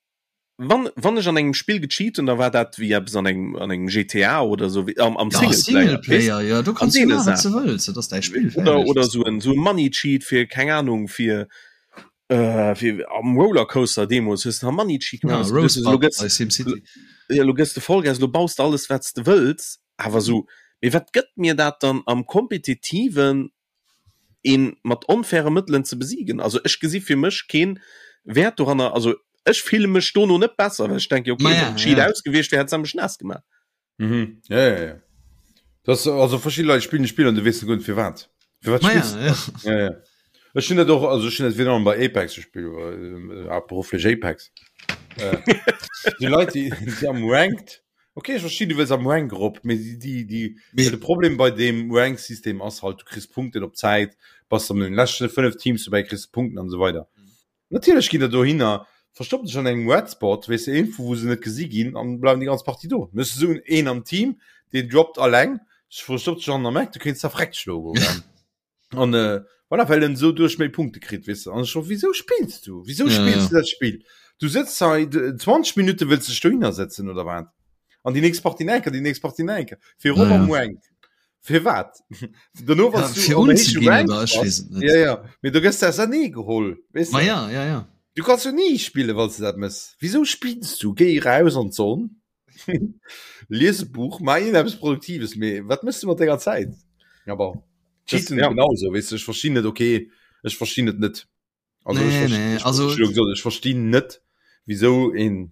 [SPEAKER 3] wann, wann ech an engem Spill gecheat hunn, da war dat wéi eppes an engem, an engem GTA oder sou, wéi am, am
[SPEAKER 4] Ja,
[SPEAKER 3] Singleplayer, weess?
[SPEAKER 4] Singleplayer, ja, do
[SPEAKER 3] An
[SPEAKER 4] kanns du
[SPEAKER 3] deene
[SPEAKER 4] maachen, wat
[SPEAKER 3] Saachen.
[SPEAKER 4] du wëlls, dat ass däi Spill,
[SPEAKER 3] Oder,
[SPEAKER 4] fäerdeg.
[SPEAKER 3] oder sou en, sou e Money Cheat fir, keng Ahnung, fir. Äh, fir am Rollercoaster deemools hues de Money Cheat
[SPEAKER 4] ja,
[SPEAKER 3] ja, lo gëss de Vollgas, lo baus de alles wat s de wëlls, awer sou mee wat gëtt mir dat dann am kompetitiven een mat onfaire Mëttelen ze besiegen? Also ech gesi fir mech keen Wäert doranner, also ech fille mech dono net besser, well ech denke okay,
[SPEAKER 4] ja,
[SPEAKER 3] wann Cheat
[SPEAKER 4] ja.
[SPEAKER 3] aus gewiescht wär, hätt se mech naass gemaach.
[SPEAKER 2] Mhm. Ja, ja, ja. Das, also verschiedene Leute spielen Spiel an du wees net fir wat. Fir wat
[SPEAKER 4] Ma ja,
[SPEAKER 2] spillst
[SPEAKER 4] ja.
[SPEAKER 2] Ja, ja. Ech hun dat och also ech hun dat virun allem bei Apex gespielt, äh, haaptberufflech Apex. Äh, déi Leit déi, déi am Ranked, okay, ech verstinn, du wëlls am Rank erop, mee déi, déi, déi,
[SPEAKER 4] Mee-
[SPEAKER 2] de Problem bei deem Rank-System ass halt, du kriss Punkten op Zäit, bass an den leschten 5 Teams dobäi, kriss du Punkten an esou weider. Natierlech ginn der dohinner, verstoppen sech an engem Red Spot, weess de, iergendwou wou se net gesi ginn an bleiwen déi ganz Partie do. Dann hues de esou een am Team, deen droppt alleng, verstoppt sech an der Map, du kéints da vreckt schloe goen. An voilà, well en esou duerch méi Punkte kritt, weess de. An ech scho, wisou spills du? Wisou
[SPEAKER 4] Ja,
[SPEAKER 2] spills
[SPEAKER 4] ja.
[SPEAKER 2] du dat Spill? Du sëtz hei 20 Minutte wëlls dech dohinner sëtzen oder wat? An déi nächst Partie nach eng Kéier, déi nächst Partie nach eng Kéier, fir erop
[SPEAKER 4] Ja,
[SPEAKER 2] am
[SPEAKER 4] ja.
[SPEAKER 2] Rank. Firwat? Dono
[SPEAKER 4] Ja,
[SPEAKER 2] wann du
[SPEAKER 4] fir
[SPEAKER 2] am héiche
[SPEAKER 4] unzeginn
[SPEAKER 2] Rank
[SPEAKER 4] oder ech
[SPEAKER 2] bass,
[SPEAKER 4] weess et net.
[SPEAKER 2] ja, ja, mee du gëss ausernee geholl, weess
[SPEAKER 4] Ma
[SPEAKER 2] de?
[SPEAKER 4] ja, ja, ja.
[SPEAKER 2] Du kanns jo ni spillen, wann s du dat mëss. Wisou spills du? Géi eraus an d'Sonn, lies e Buch, maach iergendeppes Produktives, mee wat mëss du mat denger Zäit? Ja bon, Cheaten
[SPEAKER 3] ja.
[SPEAKER 2] genauso, weess de, ech verstinn net, okay, ech verstinn et net. Also
[SPEAKER 4] Nee,
[SPEAKER 2] ech, verst-
[SPEAKER 4] nee,
[SPEAKER 2] ech,
[SPEAKER 4] also-
[SPEAKER 2] ech, ech, ech verstinn net, wieso een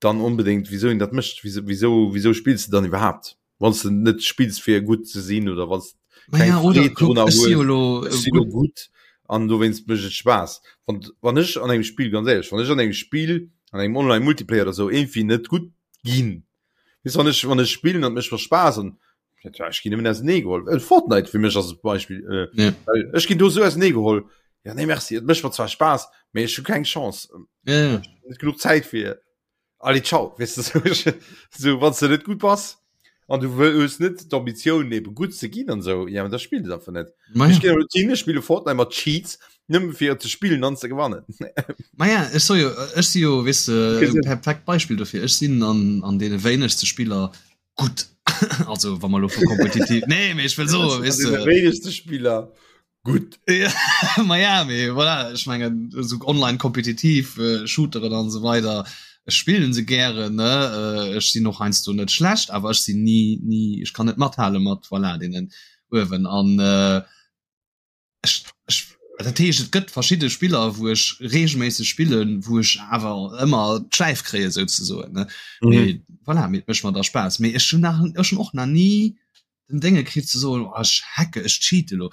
[SPEAKER 2] dann unbedingt, wieso een dat mécht, wieso, wieso, wieso spillst du dann iwwerhaapt? Wann du net spills fir gutt ze sinn oder wann
[SPEAKER 4] Ma ja, oder
[SPEAKER 2] Freed
[SPEAKER 4] kuck,
[SPEAKER 2] drunner
[SPEAKER 4] ech si jo
[SPEAKER 2] hues,
[SPEAKER 4] lo
[SPEAKER 2] ech
[SPEAKER 4] äh,
[SPEAKER 2] sinn lo
[SPEAKER 4] gutt.
[SPEAKER 2] gutt an dowéinst mécht et Spaass. Wann, wann ech an engem Spill, ganz éierlech, wann ech an engem Spill, an engem Online-Multiplayer oder sou irgendwie net gutt ginn, weess wann ech, wann ech spillen an et mécht mer Spaass an ja, ech ginn nëmmen ausenee geholl. Äh, Fortnite fir mech ass e Beispill. Äh,
[SPEAKER 4] Ja.
[SPEAKER 2] well ech ginn do sou ausenee geholl. Ja, nee, merci, et mécht mer zwar Spaass, mee ech hu keng Chance.
[SPEAKER 4] Ja, ja.
[SPEAKER 2] Net genuch Zäit fir. Allez, ciao, weess de, sou, sou, wann s de net gutt bass an du wëll hues net d'Ambitioun eben gutt ze ginn an sou, ja, da spill et einfach net.
[SPEAKER 4] Ma
[SPEAKER 2] Ech
[SPEAKER 4] ja.
[SPEAKER 2] ginn elo hin, ech spille Fortnite mat Cheats, nëmme fir ze spillen an ze gewannen.
[SPEAKER 4] Ma ja, ech so jo, ech si jo, weess de,
[SPEAKER 2] Okay,
[SPEAKER 4] e perfekt Beispill dofir. Ech sinn an, an deene wéinegste Spiller gutt. Also, wa mer elo vu kompetitiv, nee, mee ech wëll soen, weess de.
[SPEAKER 2] Wéinegste Spiller gutt.
[SPEAKER 4] Ja, ma ja, mee voilà, ech mengen, esou online kompetitiv äh, Shooteren an esou weider, ech spillen se gären, ne? Äh, ech sinn och heiansdo net schlecht, awer ech sinn ni, ni, ech kann net mathale mat, voilà, deenen uewen. An äh, ech, ech, dat heescht, et gëtt verschidde Spiller, wou ech regelméisseg spillen, wou ech awer ëmmer d'Schläif kréie souzesoen, ne?
[SPEAKER 2] Mhm.
[SPEAKER 4] Mee voilà, mee et mécht mer da Spaass. Mee ech hunn nach, ech hunn och nach ni den Dénge kritt ze soen, oh, ech hacke, ech cheate lo.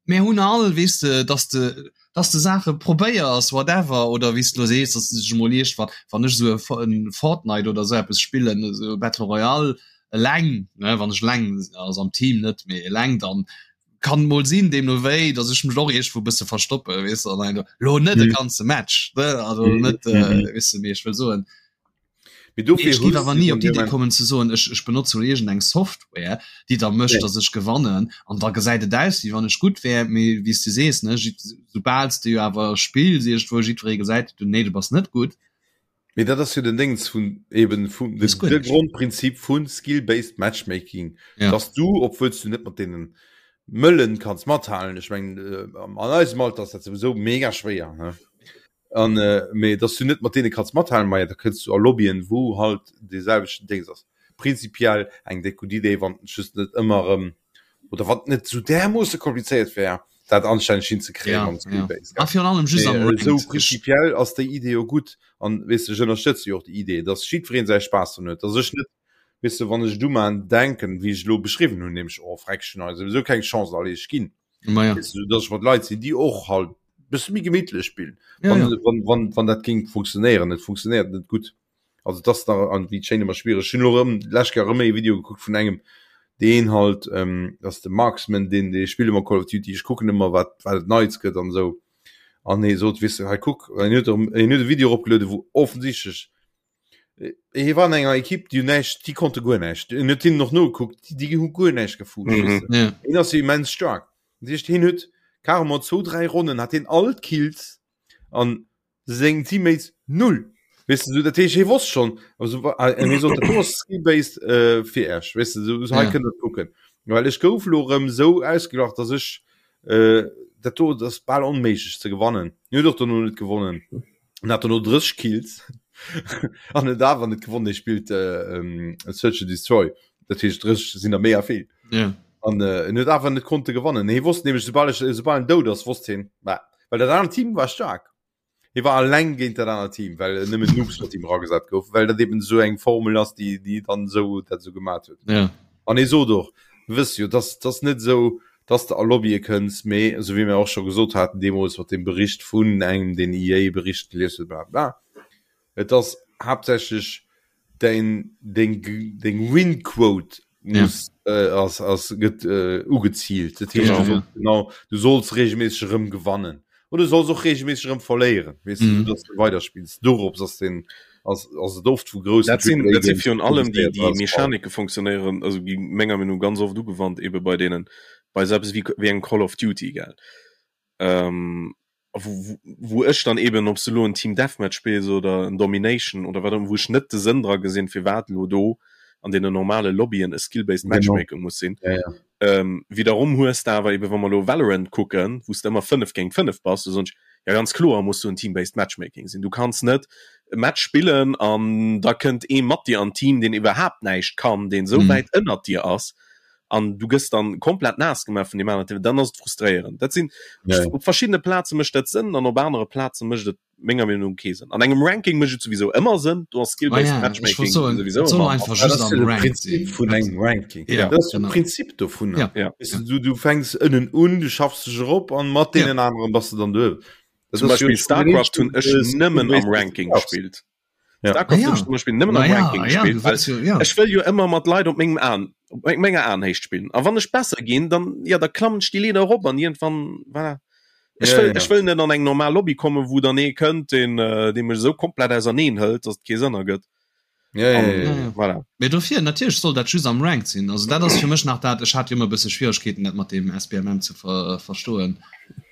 [SPEAKER 4] Mir hunn all, weess de, dass de, dass de Saache probéiers, whatever, oder wéi s de lo sees, dass de dech emol iergendwann, wann ech esou e Fortnite oder esou eppes spillen, esou Battle Royale, eleng, ne, wann ech eleng, also am Team net, mee eleng, dann kann mol sinn, deemno wéi, dass ech mech och iergendwou e bësse verstoppe, weess de, an lo net e ganze Match, ne, also net, weess de, mee ech wëll soen,
[SPEAKER 2] Mee dofir
[SPEAKER 4] Ech géif
[SPEAKER 2] hues
[SPEAKER 4] awer
[SPEAKER 2] du
[SPEAKER 4] ni
[SPEAKER 2] dann
[SPEAKER 4] op d'Idee
[SPEAKER 2] dee
[SPEAKER 4] kommen ze soen, ech, ech benotze lo iergend eng Software, déi da mécht,
[SPEAKER 2] Nee.
[SPEAKER 4] datt ech gewannen an da gesäit et aus, wéi wann ech gutt wär. Mee wéi s du sees, ne, jidd, soubal s de jo awer spills iergendwou, jiddweree gesäit, du, nee, du bass net gutt.
[SPEAKER 2] Mee dat ass jo den Déngs vun eben vun
[SPEAKER 4] Ass guer
[SPEAKER 2] de
[SPEAKER 4] näischt.
[SPEAKER 2] Grondprinzip vu Skill-based Matchmaking,
[SPEAKER 4] Ja.
[SPEAKER 2] dass du, obwuel s du net mat deenen Mëllen kanns mathalen, ech mengen an eisem Alter ass dat souwisou mega schwéier, ne? An mee dass du net mat deene kanns mathalen, maja da kënns du a Lobbyen wou halt dee selwechten Déngs ass. Prinzipiell eng déck gutt Idee, wann et just net ëmmer erëm oder wann et net esou därmoosse komplizéiert wär dat anstänneg hinzekréien
[SPEAKER 4] Ja,
[SPEAKER 2] mam
[SPEAKER 4] ja.
[SPEAKER 2] Skill-Base,
[SPEAKER 4] A
[SPEAKER 2] gell.
[SPEAKER 4] virun allem just am
[SPEAKER 2] Mee esou
[SPEAKER 4] Ranked. Ech
[SPEAKER 2] prinzipiell ass déi Idee jo gutt an weess de ech ënnerstëtze jo och déi Idee, dass jiddwereen säi Spaass drun huet, dass ech net weess de wann ech et umaan denken wéi ech elo beschriwwen hunn, nämlech oh freck ech hunn hei souwisou keng Chance, allez ech ginn.
[SPEAKER 4] Ma ja.
[SPEAKER 2] Weess de, dass ech mat Leit sinn déi och halt bësse méi gemittlech spillen.
[SPEAKER 4] Ja,
[SPEAKER 2] Wann,
[SPEAKER 4] ja.
[SPEAKER 2] wann, wann, wann dat géing funktionéieren, et funktionéiert net gutt. Also dat ass nach an wéi d'Schéin ëmmer schwiereg. Ech hunn elo erëm d'lescht Kéier erëm ee Video gekuckt vun engem, deen halt, ähm, dat ass de Marksman, deen dee spillt ëmmer Call of Duty, ech kucken ëmmer wat wat et Neits gëtt an esou. An hie sot, weess de, hei kuck, en huet erëm, en huet e Video eropgelueden, wou offensichtlech hie war an enger Ekipp, déi hunn näischt, déi konnte guer näischt. En huet hinnen och nogekuckt, déi hu guer näischt gefuscht,
[SPEAKER 3] Mhm.
[SPEAKER 2] weess de.
[SPEAKER 4] Ja.
[SPEAKER 2] Hien ass jo immens staark. Dat heescht, hien huet carrément zwou, dräi Ronnen hat hien all d'Kills an seng Teammates null. Weess de, sou, dat heescht, hie wosst schonn, also wa- ah, en hie sot, dat do ass skill-based äh, fir Iech, weess de, sou, hei
[SPEAKER 4] Ja.
[SPEAKER 2] kënnt der kucken. Well ech gouf lo erëm sou ausgelacht, dass ech äh, dat do dat ass bal onméiglech ze gewannen. Hien huet och dono net gewonnen. En hat dono 30 Kills an huet awer net gewonnen. Hie spillt äh, Search and Destroy, dat heescht 30 sinn der méi a vill.
[SPEAKER 4] Ja.
[SPEAKER 2] An äh, en huet awer net konnte gewannen. Hie wosst nämlech, soubal ech, soubal en dout ass, wosst hien, bah, well dat anert Team war staark. Hie war alleng géint dat anert Team, well nëmmen Noobs mat him eragesat goufen, well dat eben esou eng Formel ass, déi, déi dann esou dat esou gemat huet.
[SPEAKER 4] Ja.
[SPEAKER 2] An hie sot och, wëss jo, dass dass net esou, dass de a Lobbye kënns, mee esou wéi mir och scho gesot haten deemools mat deem Bericht vun engem, deen EA-Bericht gelies huet, bla bla, et ass haaptsächlech Däin deng deng Win-Quote muss ja. äh, ass, ass gëtt äh, ugezielt. Dat heescht, du sollst, genau, du solls regelmäßig erëm gewannen. Oder du solls och regelmäßig erëm verléieren, weess du, mm. dass du weiterspillst. Dorops ass den ass, ass et oft vu groussen
[SPEAKER 3] Dat sinn, dat sinn virun allem déi, déi Mechanike funktionéieren, also gi menger Meinung ganz oft ugewannt ebe bei deenen bei sou eppes wéi, wéi engem Call of Duty, gell. Ähm, wou, wou ech dann eben, ob s de elo en Team Deathmatch spills oder en Domination oder wat och ëmmer, wou ech net de Sënn dra gesinn, firwat elo do an deenen normale Lobbyen e Skill-based Matchmaking muss sinn.
[SPEAKER 2] Ja, ja.
[SPEAKER 3] Ähm, wiederum hues de awer eben, wa mer elo Valorant kucken, wou s de ëmmer 5 géint 5 bass, do soen ech, ja ganz kloer muss do en Team-based Matchmaking sinn. Du kanns net e Match spillen an da kënnt ee mat dir an d'Team, deen iwwerhaapt näischt kann, deen esou wäit ënnert dir ass, an du gëss dann komplett naass gemaach vun deem aneren Team, dann ass et frustréierend. Dat sinn
[SPEAKER 2] ja, ja.
[SPEAKER 3] op verschiddene Plaze mécht dat Sënn an op anere Plaze mécht et menger Meenung no kee Sënn. An engem Ranking mécht et souwisou ëmmer Sënn, do ass
[SPEAKER 4] Skill-based
[SPEAKER 3] ah, ja,
[SPEAKER 4] Matchmaking souwisou ëmmer einfach
[SPEAKER 2] just am Prinzip vun engem Ranking.
[SPEAKER 4] Ja,
[SPEAKER 2] dat ass de Prinzip dovun.
[SPEAKER 4] Ja.
[SPEAKER 2] Ja. Weißt du, du, du fänks ënnen un, du schaffs dech erop an mat deenen ja. anderen bass du dann do.
[SPEAKER 3] Zum Beispiel Starcraft hunn ech nëmmen am Ranking gespillt.
[SPEAKER 2] Ja.
[SPEAKER 3] Starcraft
[SPEAKER 4] Ah, ja.
[SPEAKER 3] zum Beispiel nëmmen am
[SPEAKER 4] Ma ja,
[SPEAKER 3] Ranking
[SPEAKER 4] ah, ja,
[SPEAKER 3] gespielt,
[SPEAKER 4] du
[SPEAKER 3] weil
[SPEAKER 4] wëlls jo, ja.
[SPEAKER 3] ech wëll jo ëmmer mat Leit op mengem Aen op me- menger Aenhéicht spillen. A wann ech besser ginn, dann ja da klammen ech déi Leeder erop an iergendwann voilà. Ech
[SPEAKER 2] Ja,
[SPEAKER 3] wëll,
[SPEAKER 2] ja.
[SPEAKER 3] ech wëll net an eng normal Lobby kommen, wou dann ee kënnt, deen äh, dee mech esou komplett auserneen hëlt, dass et kee Sënn ergëtt.
[SPEAKER 2] Ja, ja,
[SPEAKER 3] An,
[SPEAKER 2] ja, ja.
[SPEAKER 4] Ja, ja.
[SPEAKER 3] voilà.
[SPEAKER 4] Mee dofir, natierlech soll dat just am Ranked sinn. Also dat ass fir mech nach dat, ech hat jo ëmmer e bësse Schwieregkeeten, dat mat deem SBMM ze ver verstoen.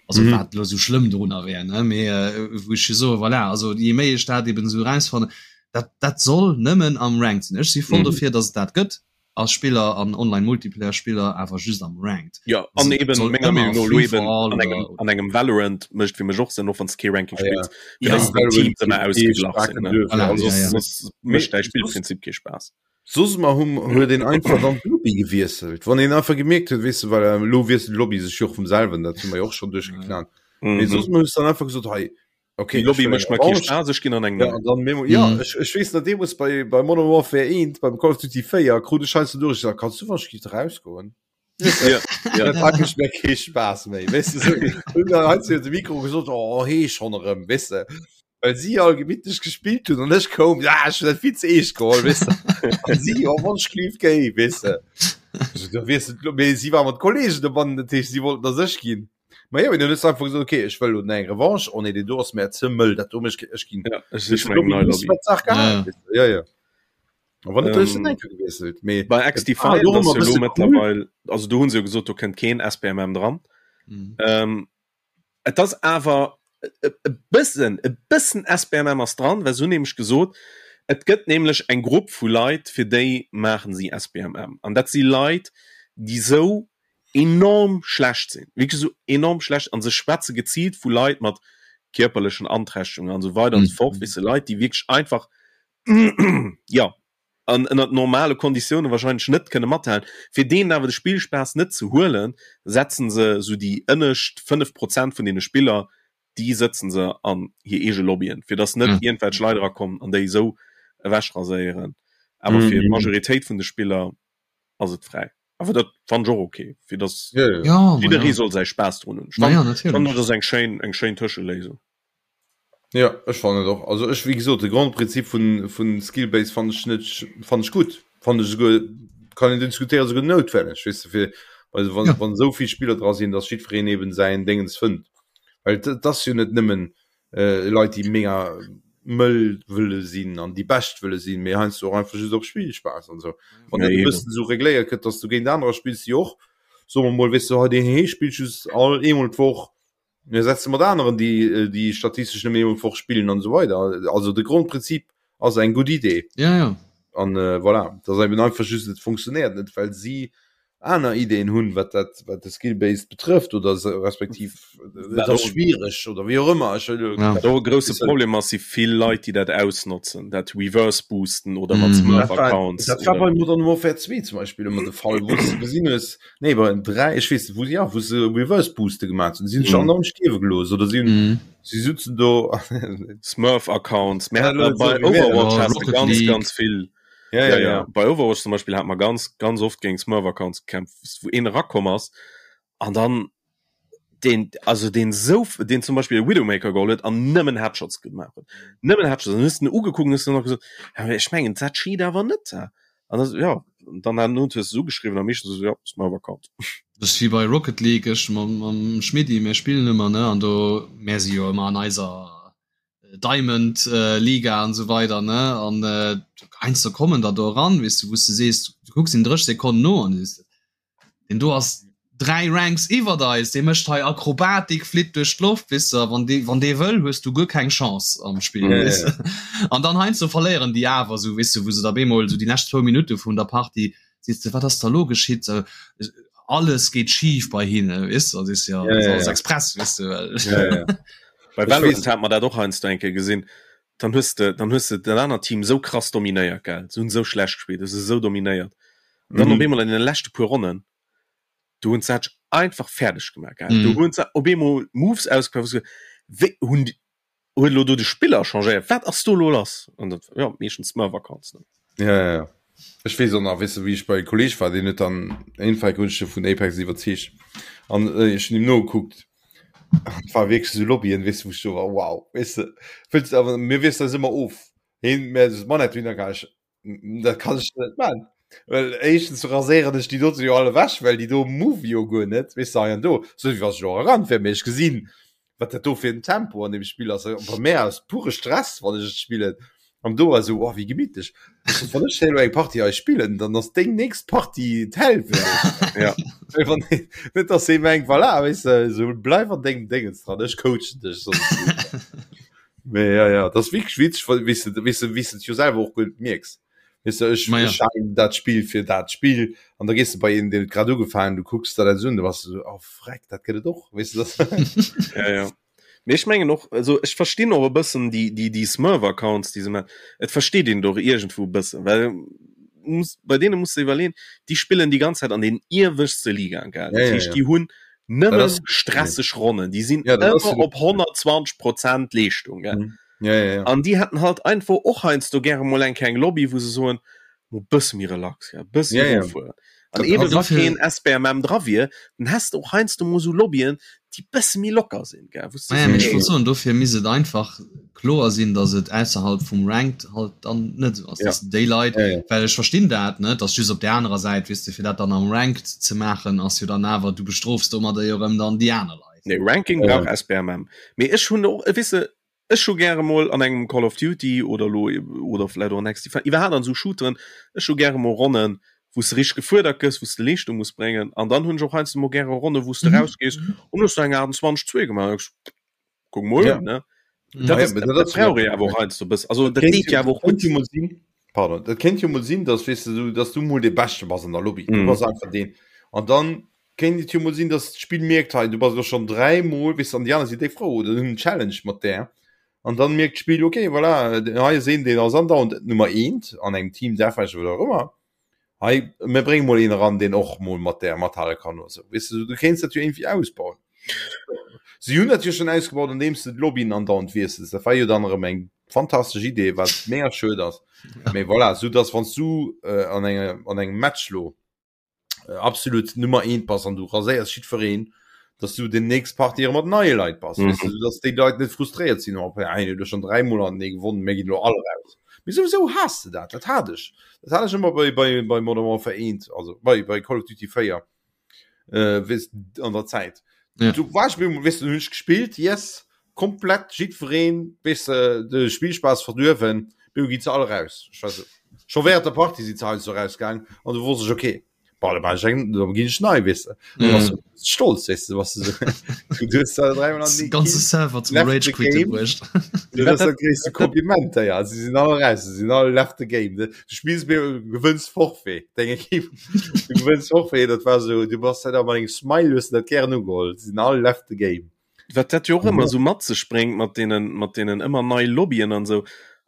[SPEAKER 4] Also
[SPEAKER 2] Mhm.
[SPEAKER 4] wat elo sou schlëmm dorunner wär, ne? Mee äh, wou ech jo soe, voilà, also je méi ech dat eben esou erausfannen, dat, dat soll nëmmen am Ranked sinn. Ech si voll
[SPEAKER 3] Mhm.
[SPEAKER 4] dofir, dass et dat gëtt als Spiller an Online-Multiplayer-Spiller, awer just am Ranked.
[SPEAKER 3] Ja, an
[SPEAKER 4] Also et
[SPEAKER 3] eben
[SPEAKER 4] soll
[SPEAKER 3] menger
[SPEAKER 4] ëmmer
[SPEAKER 3] Meenung no elo
[SPEAKER 4] Free for
[SPEAKER 3] eben
[SPEAKER 4] all
[SPEAKER 3] an engem,
[SPEAKER 4] oder
[SPEAKER 3] an engem Valorant mécht fir mech och Sënn, och wann s de kee Ranking
[SPEAKER 2] Ah, ja.
[SPEAKER 3] spills, fir
[SPEAKER 4] Ja.
[SPEAKER 3] dass déi Teams ëmmer
[SPEAKER 2] Valorant
[SPEAKER 3] ausgeglach sinn, ne?
[SPEAKER 2] duerfir.
[SPEAKER 4] Voilà,
[SPEAKER 2] Also,
[SPEAKER 4] ja, ja.
[SPEAKER 3] Soss mécht däi Spillprinzip kee Spaass.
[SPEAKER 2] Soss mer hu huet een einfach dann d'Lobby gewiesselt. Wann een einfach gemierkt huet, weess de, well elo wiesselt d'Lobby sech jo och vum selwen, dat hu mer jo och schonn duerchgeknallt. Mee
[SPEAKER 3] Mhm.
[SPEAKER 2] soss mer hues dann einfach gesot, hei, okay,
[SPEAKER 3] Déi
[SPEAKER 2] ech
[SPEAKER 3] Lobby
[SPEAKER 2] wëll eng
[SPEAKER 3] mécht mer kee
[SPEAKER 2] Revanche.
[SPEAKER 3] Spaass, ech ginn an eng
[SPEAKER 2] Ja,
[SPEAKER 3] nei.
[SPEAKER 2] an dann Memo, ja,
[SPEAKER 4] Mhm.
[SPEAKER 2] ech, ech weess nach deemools bei, bei Modern Warfare 1, beim Call of Duty 4, krut ech heiansdo duerch, ech sag, kanns du wann ech giff erausgoen?
[SPEAKER 3] Ja, ja.
[SPEAKER 2] Dat hat mech méi kee Spaass méi, weess de, sou. Hunn dann heiansdo de Mikro gesot, oh, hee schonn erëm, weess de. Well si all gemittlech gespillt hunn an ech koum, ja, ech hunn dat vill ze eescht geholl, weess de. An si, oh, wann ech lief géi, weess de. Also, da weess de, mee si war mat Kollegen dobannen, dat heescht, si wollten dass ech ginn. Ma jo, mee dann hues du einfach gesot, okay, ech wëll elo eng Revanche, oh nee, deen do ass mär ze mëll, dat do mech, ech ginn.
[SPEAKER 3] Ja, ech sich mer eng nei Lobby.
[SPEAKER 2] Saach gehabt,
[SPEAKER 4] Ja.
[SPEAKER 2] weess de, ja, ja. A wann net, hues du
[SPEAKER 3] Ähm,
[SPEAKER 2] eng Kéier gewiesselt, mee
[SPEAKER 3] Bei
[SPEAKER 2] et war
[SPEAKER 3] XDefiant
[SPEAKER 2] jo och
[SPEAKER 3] ass
[SPEAKER 2] ëmmer
[SPEAKER 3] jo
[SPEAKER 2] e
[SPEAKER 3] elo
[SPEAKER 2] bësse cool.
[SPEAKER 3] mëttlerweil, also do hunn se jo gesot, do kënnt keen SBMM dran.
[SPEAKER 4] Mhm.
[SPEAKER 3] Ähm, et ass awer e e bëssen, e bëssen SBMM ass dran, well se hunn nämlech gesot, et gëtt nämlech eng Grupp vu Leit, fir déi maachen si SBMM. An dat si Leit, déi sou enorm schlecht sinn, wierklech esou enorm schlecht, an se schwätze geziilt vu Leit mat kierperlechen Anträchtegungen an esou weider an esou fort, weess de, Leit, déi wierklech einfach jo, an ënnert normale Konditioune wahrscheinlech net kënne mathalen. Fir deenen awer de Spillspaass net ze huelen, setzen se esou déi ënnescht 5 Prozent vun deene Spiller, déi sëtzen se an hir eege Lobbyen, fir datt net iergendwelch Leit erakommen an déi esou ewechraséieren. Awer fir d'Majoritéit vun de Spiller ass et fräi. Awer dat fannen ech och ok, fir datt jidderee soll säi Spaass drun hunn. Ech fannen, dat ass eng schéin, eng schéin Tëscheléisung.
[SPEAKER 2] Ja ech fannen et och. Also ech wéi gesot de Grondprinzip vun vun Skillbase fannen ech net fannen ech gutt. Fannen ech esouguer kann een diskutéieren esouguer noutwenneg weess de fir also wann
[SPEAKER 4] Ja.
[SPEAKER 2] wann esou vill Spiller dra sinn, datt jiddwereen eben säin Déngens fënnt. Well et et ass jo net nëmmen äh Leit déi mega mëll wëlle sinn an déi bescht wëlle sinn, mee heiansdo och einfach just op Spillspaass an esou. Wann
[SPEAKER 3] Ja,
[SPEAKER 2] dat e
[SPEAKER 3] eben.
[SPEAKER 2] bëssen esou regléiert gëtt, datt s du géint anerer spills déi och soe mer mol weess de hei deen hee spillt just all eemol d'Woch Mir setze mat aneren, déi déi statistesch nëmmen eemol d'Woch spillen an esou weider. Also de Grondprinzip ass eng gutt Idee.
[SPEAKER 4] Ja, ja.
[SPEAKER 2] An äh, voilà, dat ass eben einfach just, et funktionéiert net, well si. aner Ideen hunn, wat dat wat de Skill-Based betrëfft oder se respektiv et ass schwiereg oder wéi och ëmmer. Ech wëll
[SPEAKER 3] Ja. Wat och e grousse Problem ass, si vill Leit, déi dat ausnotzen, dat Reverse boosten oder mat
[SPEAKER 2] Mm. Dat war,
[SPEAKER 3] Smurf-Accounts.
[SPEAKER 2] dat war
[SPEAKER 3] oder-
[SPEAKER 2] bei Modern Warfare 2 zum Beispiel ëmmer de Fall, wou s de gesinn hues, nee bei 3, ech weess net, wou se, ja, wou se Reverse Booste gemaach hunn, si hunn sech
[SPEAKER 3] Mm.
[SPEAKER 2] andauernd stierwe gelooss oder si hunn,
[SPEAKER 4] Mhm.
[SPEAKER 2] si sutzen do
[SPEAKER 3] Smurf-Accounts. Mir
[SPEAKER 2] Ja,
[SPEAKER 3] haten
[SPEAKER 2] lo
[SPEAKER 3] bei
[SPEAKER 2] so wie mir.
[SPEAKER 3] Overwatch
[SPEAKER 4] Ja,
[SPEAKER 3] has de
[SPEAKER 4] Rocket
[SPEAKER 3] ganz,
[SPEAKER 4] League.
[SPEAKER 3] ganz vill.
[SPEAKER 2] Ja,
[SPEAKER 3] Ja,
[SPEAKER 2] ja,
[SPEAKER 3] ja.
[SPEAKER 2] ja.
[SPEAKER 3] Bei Overwatch zum Beispiel hat man ganz, ganz oft géint Smurf-Accounts gekämpft, wou een erakomm ass an dann den, also den sou, den zum Beispiel Widowmaker geholl huet an nëmmen Headshots gemaach huet. Nëmmen Headshots. An hues den ugekuckt an hues dann nach gesot, ja, mee ech mengen, dat cheat awer net. An das, ja, an dann han hues du se ugeschriwwen a meeschtens esou, ja, Smurf-Account.
[SPEAKER 4] Dat ass wéi bei Rocket League, ech mam, mam Schmidti, mir spillen ëmmer, ne, an do, mär si jo ëmmer an eiser Diamond Liga an esou weider ne an heiansdo kommen der do eran weess du wou s de sees du kucks en 30 Sekonnen no an du sees deen do ass 3 Ranks iwwert eis dee mécht hei Akrobatik flitt duerch d'Loft weess de a wann dee wann dee wëll hues du guer keng Chance am Spill
[SPEAKER 2] Ja, ja,
[SPEAKER 4] weess de an dann heiansdo verléieren déi awer esou weess de wou se da bemol esou déi lescht zwou Minutte vun der Partie sees de wat ass da lo geschitt alles geet schif bei hinne weess de an sees de ja
[SPEAKER 2] Ja,
[SPEAKER 4] dat ass
[SPEAKER 2] ja,
[SPEAKER 4] alles
[SPEAKER 2] ja.
[SPEAKER 4] express weess de well
[SPEAKER 2] Ja, ja.
[SPEAKER 3] Bei
[SPEAKER 2] Ech
[SPEAKER 3] Valorant
[SPEAKER 2] weess.
[SPEAKER 3] hat mer dat och heiansdo eng Kéier gesinn. Dann hues de, dann hues de dat anert Team esou krass dominéiert, gell, se hunn esou schlecht gespillt, hues se esou dominéiert. An dann op
[SPEAKER 2] Mhm.
[SPEAKER 3] eemol an den leschte puer Ronnen, do hunn se dat einfach fäerdeg gemaach, gell. Do
[SPEAKER 4] Mhm.
[SPEAKER 3] hunn se op eemol Moves ausgepaakt, wou s du wéi hunn déi, huet elo do de Spiller changéiert, wat ass do elo lass? An dat, jo, meeschtens Smurf-Accounts, ne.
[SPEAKER 2] Ja, ja, ja. Ech weess och nach, weess de, wéi ech bei e Kolleg war, deen huet dann eenfach hunn ech e vun Apex iwwerzeegt an ech hunn him nogekuckt an et war wierklech esou Lobbyen, weess de, wou ech do war, wow, weess de, wëlls awer mir wiesselen eis ëmmer of, heen mä s Manette hunn, da kann ech, dat kann ech net man, well éischtens raséieren ech déi dote jo all ewech, well déi do move jo guer net, weess de, hei an do, sou wéi wann ech elo eran wär, mee ech gesinn wat dat do fir en Tempo an dem Spill ass. Bei mär ass pure Stress, wann ech et spillen. An do ass esou, oh, wéi gemittlech. Wann ech elo eng Partie hei spillen, dann ass deng nächst Partie d'Häll fir mech.
[SPEAKER 3] Ja.
[SPEAKER 2] Well wann net, dass ee mengt, voilà, weess de, esou bleif an dengem Déngens dran, ech coachen dech soss. Mee ja, ja, dat ass wierklech witzeg, well weess de, weess de, wéi s de et jo selwer och guer net mierks. Weess de, ech,
[SPEAKER 4] Ma ja.
[SPEAKER 2] ech halen dat Spill fir dat Spill an da gees de bei een, deen huet grad ugefaangen, du kucks der dat esou un, du bass esou, oh freck, dat gëtt et och, weess de, dat.
[SPEAKER 3] Ja, ja. Mee ech mengen och, also ech verstinn och e bëssen déi, déi, déi Smurf-Accounts, déi se maachen. Et versteet een et och iergendwou e bëssen, well muss, bei deene muss de iwwerleeën, déi spillen déi ganz Zäit an den ieweschtste Ligaen, gell?
[SPEAKER 2] Ja,
[SPEAKER 3] Dat
[SPEAKER 2] ja,
[SPEAKER 3] heescht,
[SPEAKER 2] ja.
[SPEAKER 3] déi hunn
[SPEAKER 2] Dat
[SPEAKER 3] nëmme
[SPEAKER 2] ass,
[SPEAKER 3] stresseg Ronnen, déi sinn
[SPEAKER 2] ja, dat ass
[SPEAKER 3] ëmmer op 120 Prozent Leeschtung, gell?
[SPEAKER 2] Mhm. Ja, ja, ja.
[SPEAKER 3] An déi hätten halt einfach och heiansdo gäre mol eng kleng Lobby, wou se soen, mo bësse méi relax, ja, bësse
[SPEAKER 2] Ja, ja.
[SPEAKER 3] rofueren. An
[SPEAKER 2] Dat
[SPEAKER 3] eben
[SPEAKER 2] ass
[SPEAKER 3] wa
[SPEAKER 4] dofir-
[SPEAKER 3] keen SBMM dra wier, dann häss de och heiansdo mol sou Lobbyen, déi bësse méi locker sinn, gell, wou s de
[SPEAKER 4] Naja, mee ech
[SPEAKER 3] sees,
[SPEAKER 4] wollt soen, dofir misst et einfach kloer sinn, datt et ausserhalb vum Ranked halt dann net esou ass,
[SPEAKER 3] Ja.
[SPEAKER 4] datt déi Leit,
[SPEAKER 2] Ja, ja.
[SPEAKER 4] well ech verstinn dat, ne, datt just op där anerer Säit, weess de, fir dat dann am Ranked ze maachen, ass jo dann awer, du bestrofs domadder jo erëm dann déi aner Leit.
[SPEAKER 3] Nee, Ranking
[SPEAKER 2] Ja.
[SPEAKER 3] brauch SBMM. Mee ech hunn och, weess de, Ech hu gäre mol an engem Call of Duty oder elo oder vläit och an XDefiant, iwwerhaapt an esou Shooteren, ech hu gäre mol Ronnen, wou s de richteg gefuerdert gëss, wou s de Leeschtung muss bréngen. An dann hunn ech och heiansdo mol gäre Ronnen, wou s de rausgees an hues du eng 28 2 gemaach an denkst, kuck mol un, ne? Dat ass, dat brauch ee awer och heiansdo e bëssen. Also dat deet jo awer och gutt.
[SPEAKER 2] Kéint jo mol sinn, pardon, dat kéint jo mol sinn, dass, weess de, du, dass du mol dee Beschte bass an der Lobby, du bass einfach deen an dann Kéint et jo mol sinn, dass d'Spill mierkt, hei du bass elo schonn 3 mol, weess de, an déi aner si déck frou oder hunn en Challenge mat där an dann mierkt d'Spill, ok voilà, hei ass een deen ass andauernd Nummer eent an engem Team Deathmatch oder wat och ëmmer, hei mir brénge mol een eran deen och mol mat där mathale kann oder sou, weess de, du kéints dat jo iergendwéi ausbauen. Si hunn dat jo schonn ausgebaut andeems de d'Lobbyen andauernd wiessels, dat war jo dann erëm eng fantastesch Idee, wat mega schued ass, mee voilà, sou dass wann s du an engem an engem Match lo Äh, absolut Nummer 1 bass an du raséiers jiddwereen, dass du den nächst Partie mat neie Leit bass, mhm. weißt du, dass déi Leit net frustréiert sinn op ein du schon dreimal an nee gewonnen mé ginn lo all raus. Mee sowieso has du dat, dat hat ech. Dat hat ech ëmmer bei, bei, bei Modern Warfare 1, also bei, bei Call of Duty 4 äh, weißt, an der Zäit. Ja. Du war ich, weißt du, hunn ech gespielt, yes, komplett jiddwereen, weißt du, de Spielspaß verduerwen, du gi ze all raus. Ich weiß, schon während der Party si ze heiansdo rausgaang an du wosst ech, okay. Boah, da war ich eng, da ginn ech nei, weess de. Da warst du stolz, weess de, was du so, du hues da dreimal an
[SPEAKER 4] Den ganze Server zum
[SPEAKER 2] Left
[SPEAKER 4] Rage
[SPEAKER 2] the
[SPEAKER 4] Quitten
[SPEAKER 2] game.
[SPEAKER 4] bruecht.
[SPEAKER 2] Du, das ist das gréisste Kompliment, ja. Sie sinn all raus, sie sinn all left the game. Du spills mir, du gewënns Forfait, deng Equipe. Du gewënns Forfait, dat war so, du bass da mat engem Smile, hues du dat gären ugeholl. Sie sinn all left the game.
[SPEAKER 3] Wat dat jo och ëmmer esou mat sech bréngt mat deenen, mat deenen ëmmer nei Lobbyen an esou,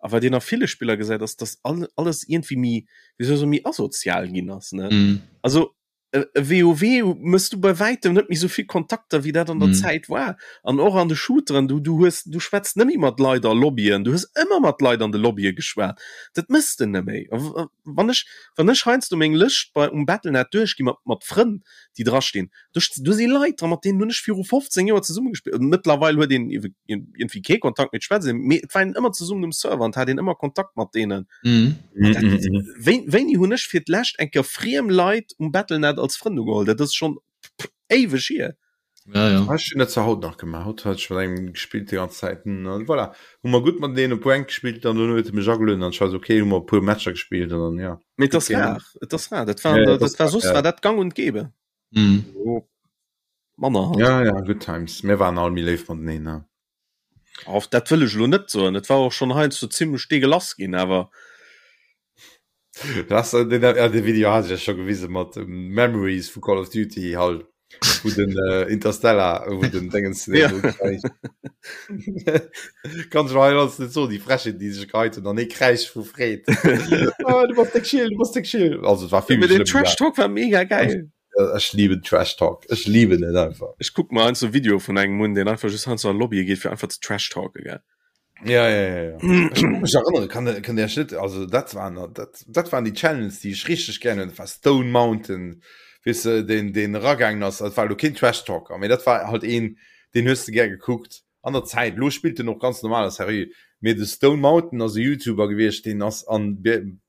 [SPEAKER 3] a wat een a ville Spiller gesäit, ass, dass all, alles iergendwéi méi, wéi soll ech soen, méi asozial ginn ass, ne?
[SPEAKER 4] Mm.
[SPEAKER 3] Also e e WoW mëss du bei wäitem net méi esou vill Kontakter, wéi dat an der
[SPEAKER 4] Mm.
[SPEAKER 3] Zäit war. An och an de Shooteren, du, du hues, du schwätz net méi mat Leit a Lobbyen, du hues ëmmer mat Leit an de Lobbye geschwat. Dat mëss de net méi. A wann ech, wann ech heiansdo meng Lëscht bei um Battle.net duerchgi mat, mat Frënn, déi drastinn, Do, do si Leit dran, mat deenen hunn ech viru 15 Joer zesumme gespillt. Mëttlerweil huet een iergendwéi kee Kontakt méi, et schwätzt een, mee et war een ëmmer zesummen um Server an et hat een ëmmer Kontakt mat deenen.
[SPEAKER 4] Mhm.
[SPEAKER 3] Dat, wéi, wéini hunn ech fir d'lescht eng Kéier friem Leit um Battle.net als Frënn ugeholl? Dat ass schonn éiweg hier.
[SPEAKER 4] Ja, ja.
[SPEAKER 2] Ech hunn dat zwar haut nach gemaach. Haut hat ech mat engem gespillt déi ganz Zäit. An voilà, hu mer gutt mateneen op Rank gespillt an dono huet e mech agelueden an ech war esou okay, hu mer e puer Matcher gespillt an dann ja.
[SPEAKER 3] Mee et ass rar, et ass rar. Dat war,
[SPEAKER 2] Ja, ja,
[SPEAKER 3] dat war soss war dat gang und gäbe.
[SPEAKER 4] Mhm.
[SPEAKER 3] Oh, manner halt.
[SPEAKER 2] Ja, ja, good times. Mir waren all méi léif mateneen, ne?
[SPEAKER 3] Auf dat wëll ech elo net soen. Et war och schonn heiansdo zimmlech deegelass ginn, awer
[SPEAKER 2] Das, äh, den, äh, den Video hat ech ja scho gewise mat ähm, Memories vu Call of Duty halt. Wo den äh, Interstellar, wo den Dingens
[SPEAKER 3] Ja.
[SPEAKER 2] Kann ich mal alles net so die Frechheet, die sech geheit hun an ee Kräisch vu Freed. ah, du bass déck chill, du bass déck chill. Also et war vill
[SPEAKER 3] Mee
[SPEAKER 2] méi
[SPEAKER 3] den
[SPEAKER 2] schlëmm.
[SPEAKER 3] Trash Talk war mega geil.
[SPEAKER 2] Ja, Ech lieben Trash Talk. Ech lieben et einfach.
[SPEAKER 3] Ech kuck mer heiansdo Videoe vun engem un, deen einfach just heiansdo an Lobbye geet, fir einfach ze Trash talken, gell.
[SPEAKER 2] Ja, ja, ja, ja. Ech kann mech erënnere, kann, kann der net, also dat waren, dat, dat waren die Channels, die ich richtig gerne, dat war Stone Mountain, weißt du, den, den ragaangen ass, dat war lo keen Trash Talker, mee dat war halt een, den hues de gär gekuckt an der Zäit. Lo spillt en och ganz normal a seriö, mee de Stone Mountain ass e YouTuber gewiescht, deen ass an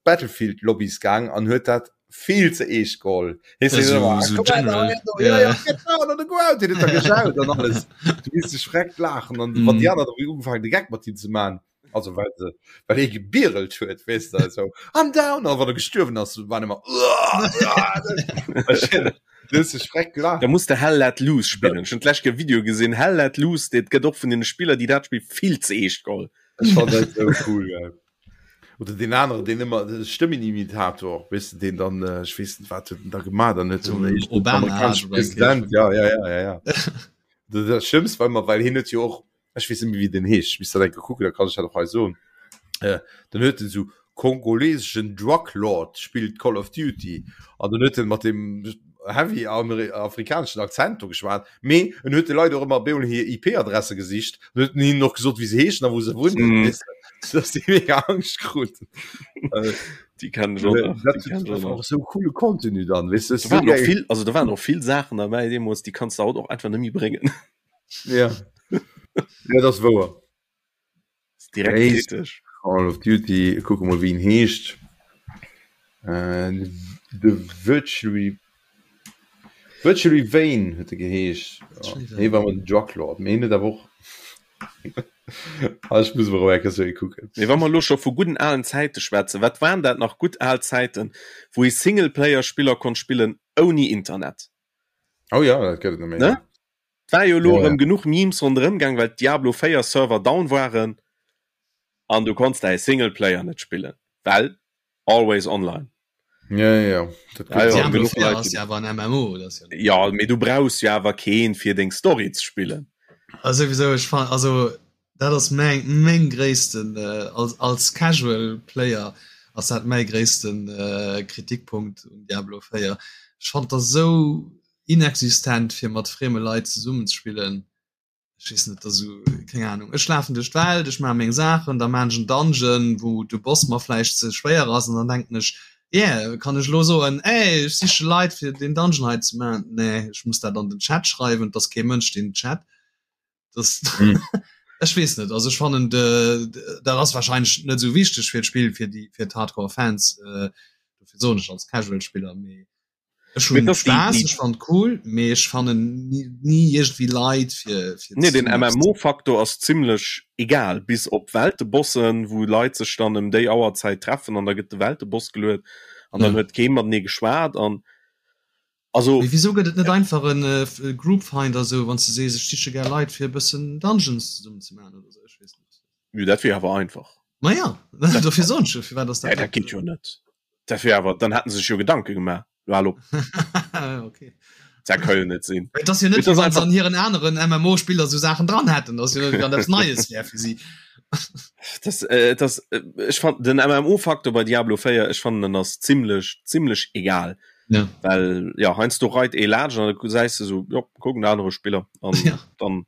[SPEAKER 2] Battlefield Lobbys gaang an huet dat vill ze eescht geholl. Hees
[SPEAKER 4] Ja,
[SPEAKER 2] so,
[SPEAKER 4] so-
[SPEAKER 2] immer,
[SPEAKER 4] so
[SPEAKER 2] komm her,
[SPEAKER 4] general.
[SPEAKER 2] da, ja,
[SPEAKER 4] Ja,
[SPEAKER 2] ja,
[SPEAKER 4] ja.
[SPEAKER 2] get down on the ground, den huet da geschaut an alles. Du misst dech freckt laachen an wann
[SPEAKER 4] Mhm.
[SPEAKER 2] déi aner da ugefaangen de Geck mat him ze man, also well se well hie gebierelt huet, weess de, so I'm down, an wann e gestuerwen ass, waren ëmmer Du hues dech freckt
[SPEAKER 3] Da
[SPEAKER 2] gelaacht.
[SPEAKER 3] muss de Hell Let Loose spillen. Ech hunn d'lescht Kéier e Video gesinn, Hell Let Loose, dat gëtt och vun den Spiller, déi dat Spill vill ze eescht geholl.
[SPEAKER 2] Ech fand dat sou cool, gell. Oder deen aneren, deen ëmmer de Stëmmenimitator, weess de, deen dann, ech weess net, wat huet en da gemaach, dann huet
[SPEAKER 4] So
[SPEAKER 2] en
[SPEAKER 4] Obama
[SPEAKER 2] amerikanesche
[SPEAKER 4] hat oder
[SPEAKER 2] President, ja, ja, ja, ja, ja. Dat, dat Schlëmmst war ëmmer, well hien huet jo och, ech weess net méi, wéi deen heescht, ech misst dat eng Kéier kucken, da kann ech dat och hei soen, äh, dann huet en esou kongoleseschen Drug Lord spillt Call of Duty an dann huet en mat deem heavy afrikaneschen Akzent do geschwat, mee en huet de Leit och ëmmer bemol hir IP-Adresse gesicht an huet hinnen och gesot, wéi se heeschen a wou se wunnen,
[SPEAKER 3] Mm.
[SPEAKER 2] weess de, dass déi mega Angscht kruten. Äh,
[SPEAKER 3] Déi kennen ech och nach,
[SPEAKER 2] dat
[SPEAKER 3] déi kennen ech och
[SPEAKER 2] war
[SPEAKER 3] nach.
[SPEAKER 2] och sou coole Contenu dann, weess de,
[SPEAKER 3] Da waren och vill, also da waren och vill Saachen derbäi deemools, déi kanns de haut och einfach net méi bréngen.
[SPEAKER 2] Ja, ja, dat ass wouer.
[SPEAKER 3] Direkt
[SPEAKER 2] Heescht
[SPEAKER 3] kritesch.
[SPEAKER 2] Call of Duty, kucke mol wéi en heescht. Äh, de Virtually Virtually Vane huet e geheescht. Hie war mat Drug Lord, mee hien huet awer och Ah, ech muss mol erëm eng Kéier sou ee kucken.
[SPEAKER 3] Mee wa mer elo scho vu gudden alen Zäite schwätzen, wat waren dat nach gutt al Zäiten, wou ee Singleplayer-Spiller konnt spillen ouni Internet?
[SPEAKER 2] Oh ja, dat gëtt et net méi.
[SPEAKER 3] Ne? Et war jo elo
[SPEAKER 2] Ja, ja.
[SPEAKER 3] erëm genuch Memes ronderëm gaang, well d'Diablo 4 Server down waren an du konns däi Singleplayer net spillen, well always online.
[SPEAKER 2] Ja, ja, ja. Dat
[SPEAKER 3] Ja, ja,
[SPEAKER 2] gëtt et.
[SPEAKER 4] Diablo
[SPEAKER 3] genuch
[SPEAKER 4] 4
[SPEAKER 3] Leit,
[SPEAKER 4] ass
[SPEAKER 3] déi
[SPEAKER 4] ja awer en MMO, dat ass ja net.
[SPEAKER 3] Ja, mee du brauchs jo awer keen fir deng Story ze spillen.
[SPEAKER 4] Also souwisou, ech fan, also dat ass meng meng gréissten äh, als als Casual Player ass dat mäi gréissten äh, Kritikpunkt un Diablo 4. Ech fand dat esou inexistent fir mat frieme Leit zesummen ze spillen. Ech weess net, dat esou, keng Ahnung. Ech lafen duerch d'Welt, ech maache meng Saachen, da maan ech en Dungeon, wou de Boss mer vläicht ze schwéier ass an dann denken ech, yeah, kann ech elo soen, ey, ech siche Leit fir deen Dungeon hei ze maachen. Nee, ech muss dat an den Chat schreiwen, et ass kee Mënsch deen chat. Das
[SPEAKER 2] Mm.
[SPEAKER 4] ech weess net, also ech fannen de, dat ass wahrscheinlech net esou wichteg fir d'Spill, fir déi fir d'Hardcore Fans, äh, dofir soen ech als Casual Spiller, mee Ech
[SPEAKER 3] Mee
[SPEAKER 4] hunn
[SPEAKER 3] dass déi,
[SPEAKER 4] Spaass,
[SPEAKER 3] déi
[SPEAKER 4] ech fannen et cool, mee ech fannen ni, ni iergendwéi Leit fir, fir
[SPEAKER 3] Nee, den
[SPEAKER 4] zesummen eppes ze
[SPEAKER 3] MMO-Faktor ass zimlech egal, bis op Weltebossen, wou Leit sech dann ëm déi Auerzäit treffen an da gëtt de Welteboss geluet an dann
[SPEAKER 4] Ja.
[SPEAKER 3] huet kee matenee geschwat an. Also
[SPEAKER 4] Mee wieso gëtt et net einfach en äh, Group Finder sou wann du sees ech siche gär Leit fir e bëssen Dungeons zesummen ze maachen oder sou ech weess net.
[SPEAKER 3] Jo dat wier awer einfach.
[SPEAKER 4] Ma ja dofir soen ech jo firwat ass
[SPEAKER 3] dat. Dat geet jo net. Dat wier awer dann hätten se sech jo Gedanke gemaach. Lo hal op.
[SPEAKER 4] Okay.
[SPEAKER 3] Dat ka jo net sinn.
[SPEAKER 4] Et ass jo net wéi wann se an hiren aneren MMO-Spiller sou Saachen dran hätten, ass jo net wéi wann eppes Neies wär fir si.
[SPEAKER 3] Das, äh, das, äh, ech fand den MMO-Faktor bei Diablo 4 ech fannen en ass zimmlech zimmlech egal.
[SPEAKER 4] Ja.
[SPEAKER 3] Well ja heiansdo reit ee laanscht an da gesäis de sou, jo kuck en anere Spiller an
[SPEAKER 4] Ja.
[SPEAKER 3] dann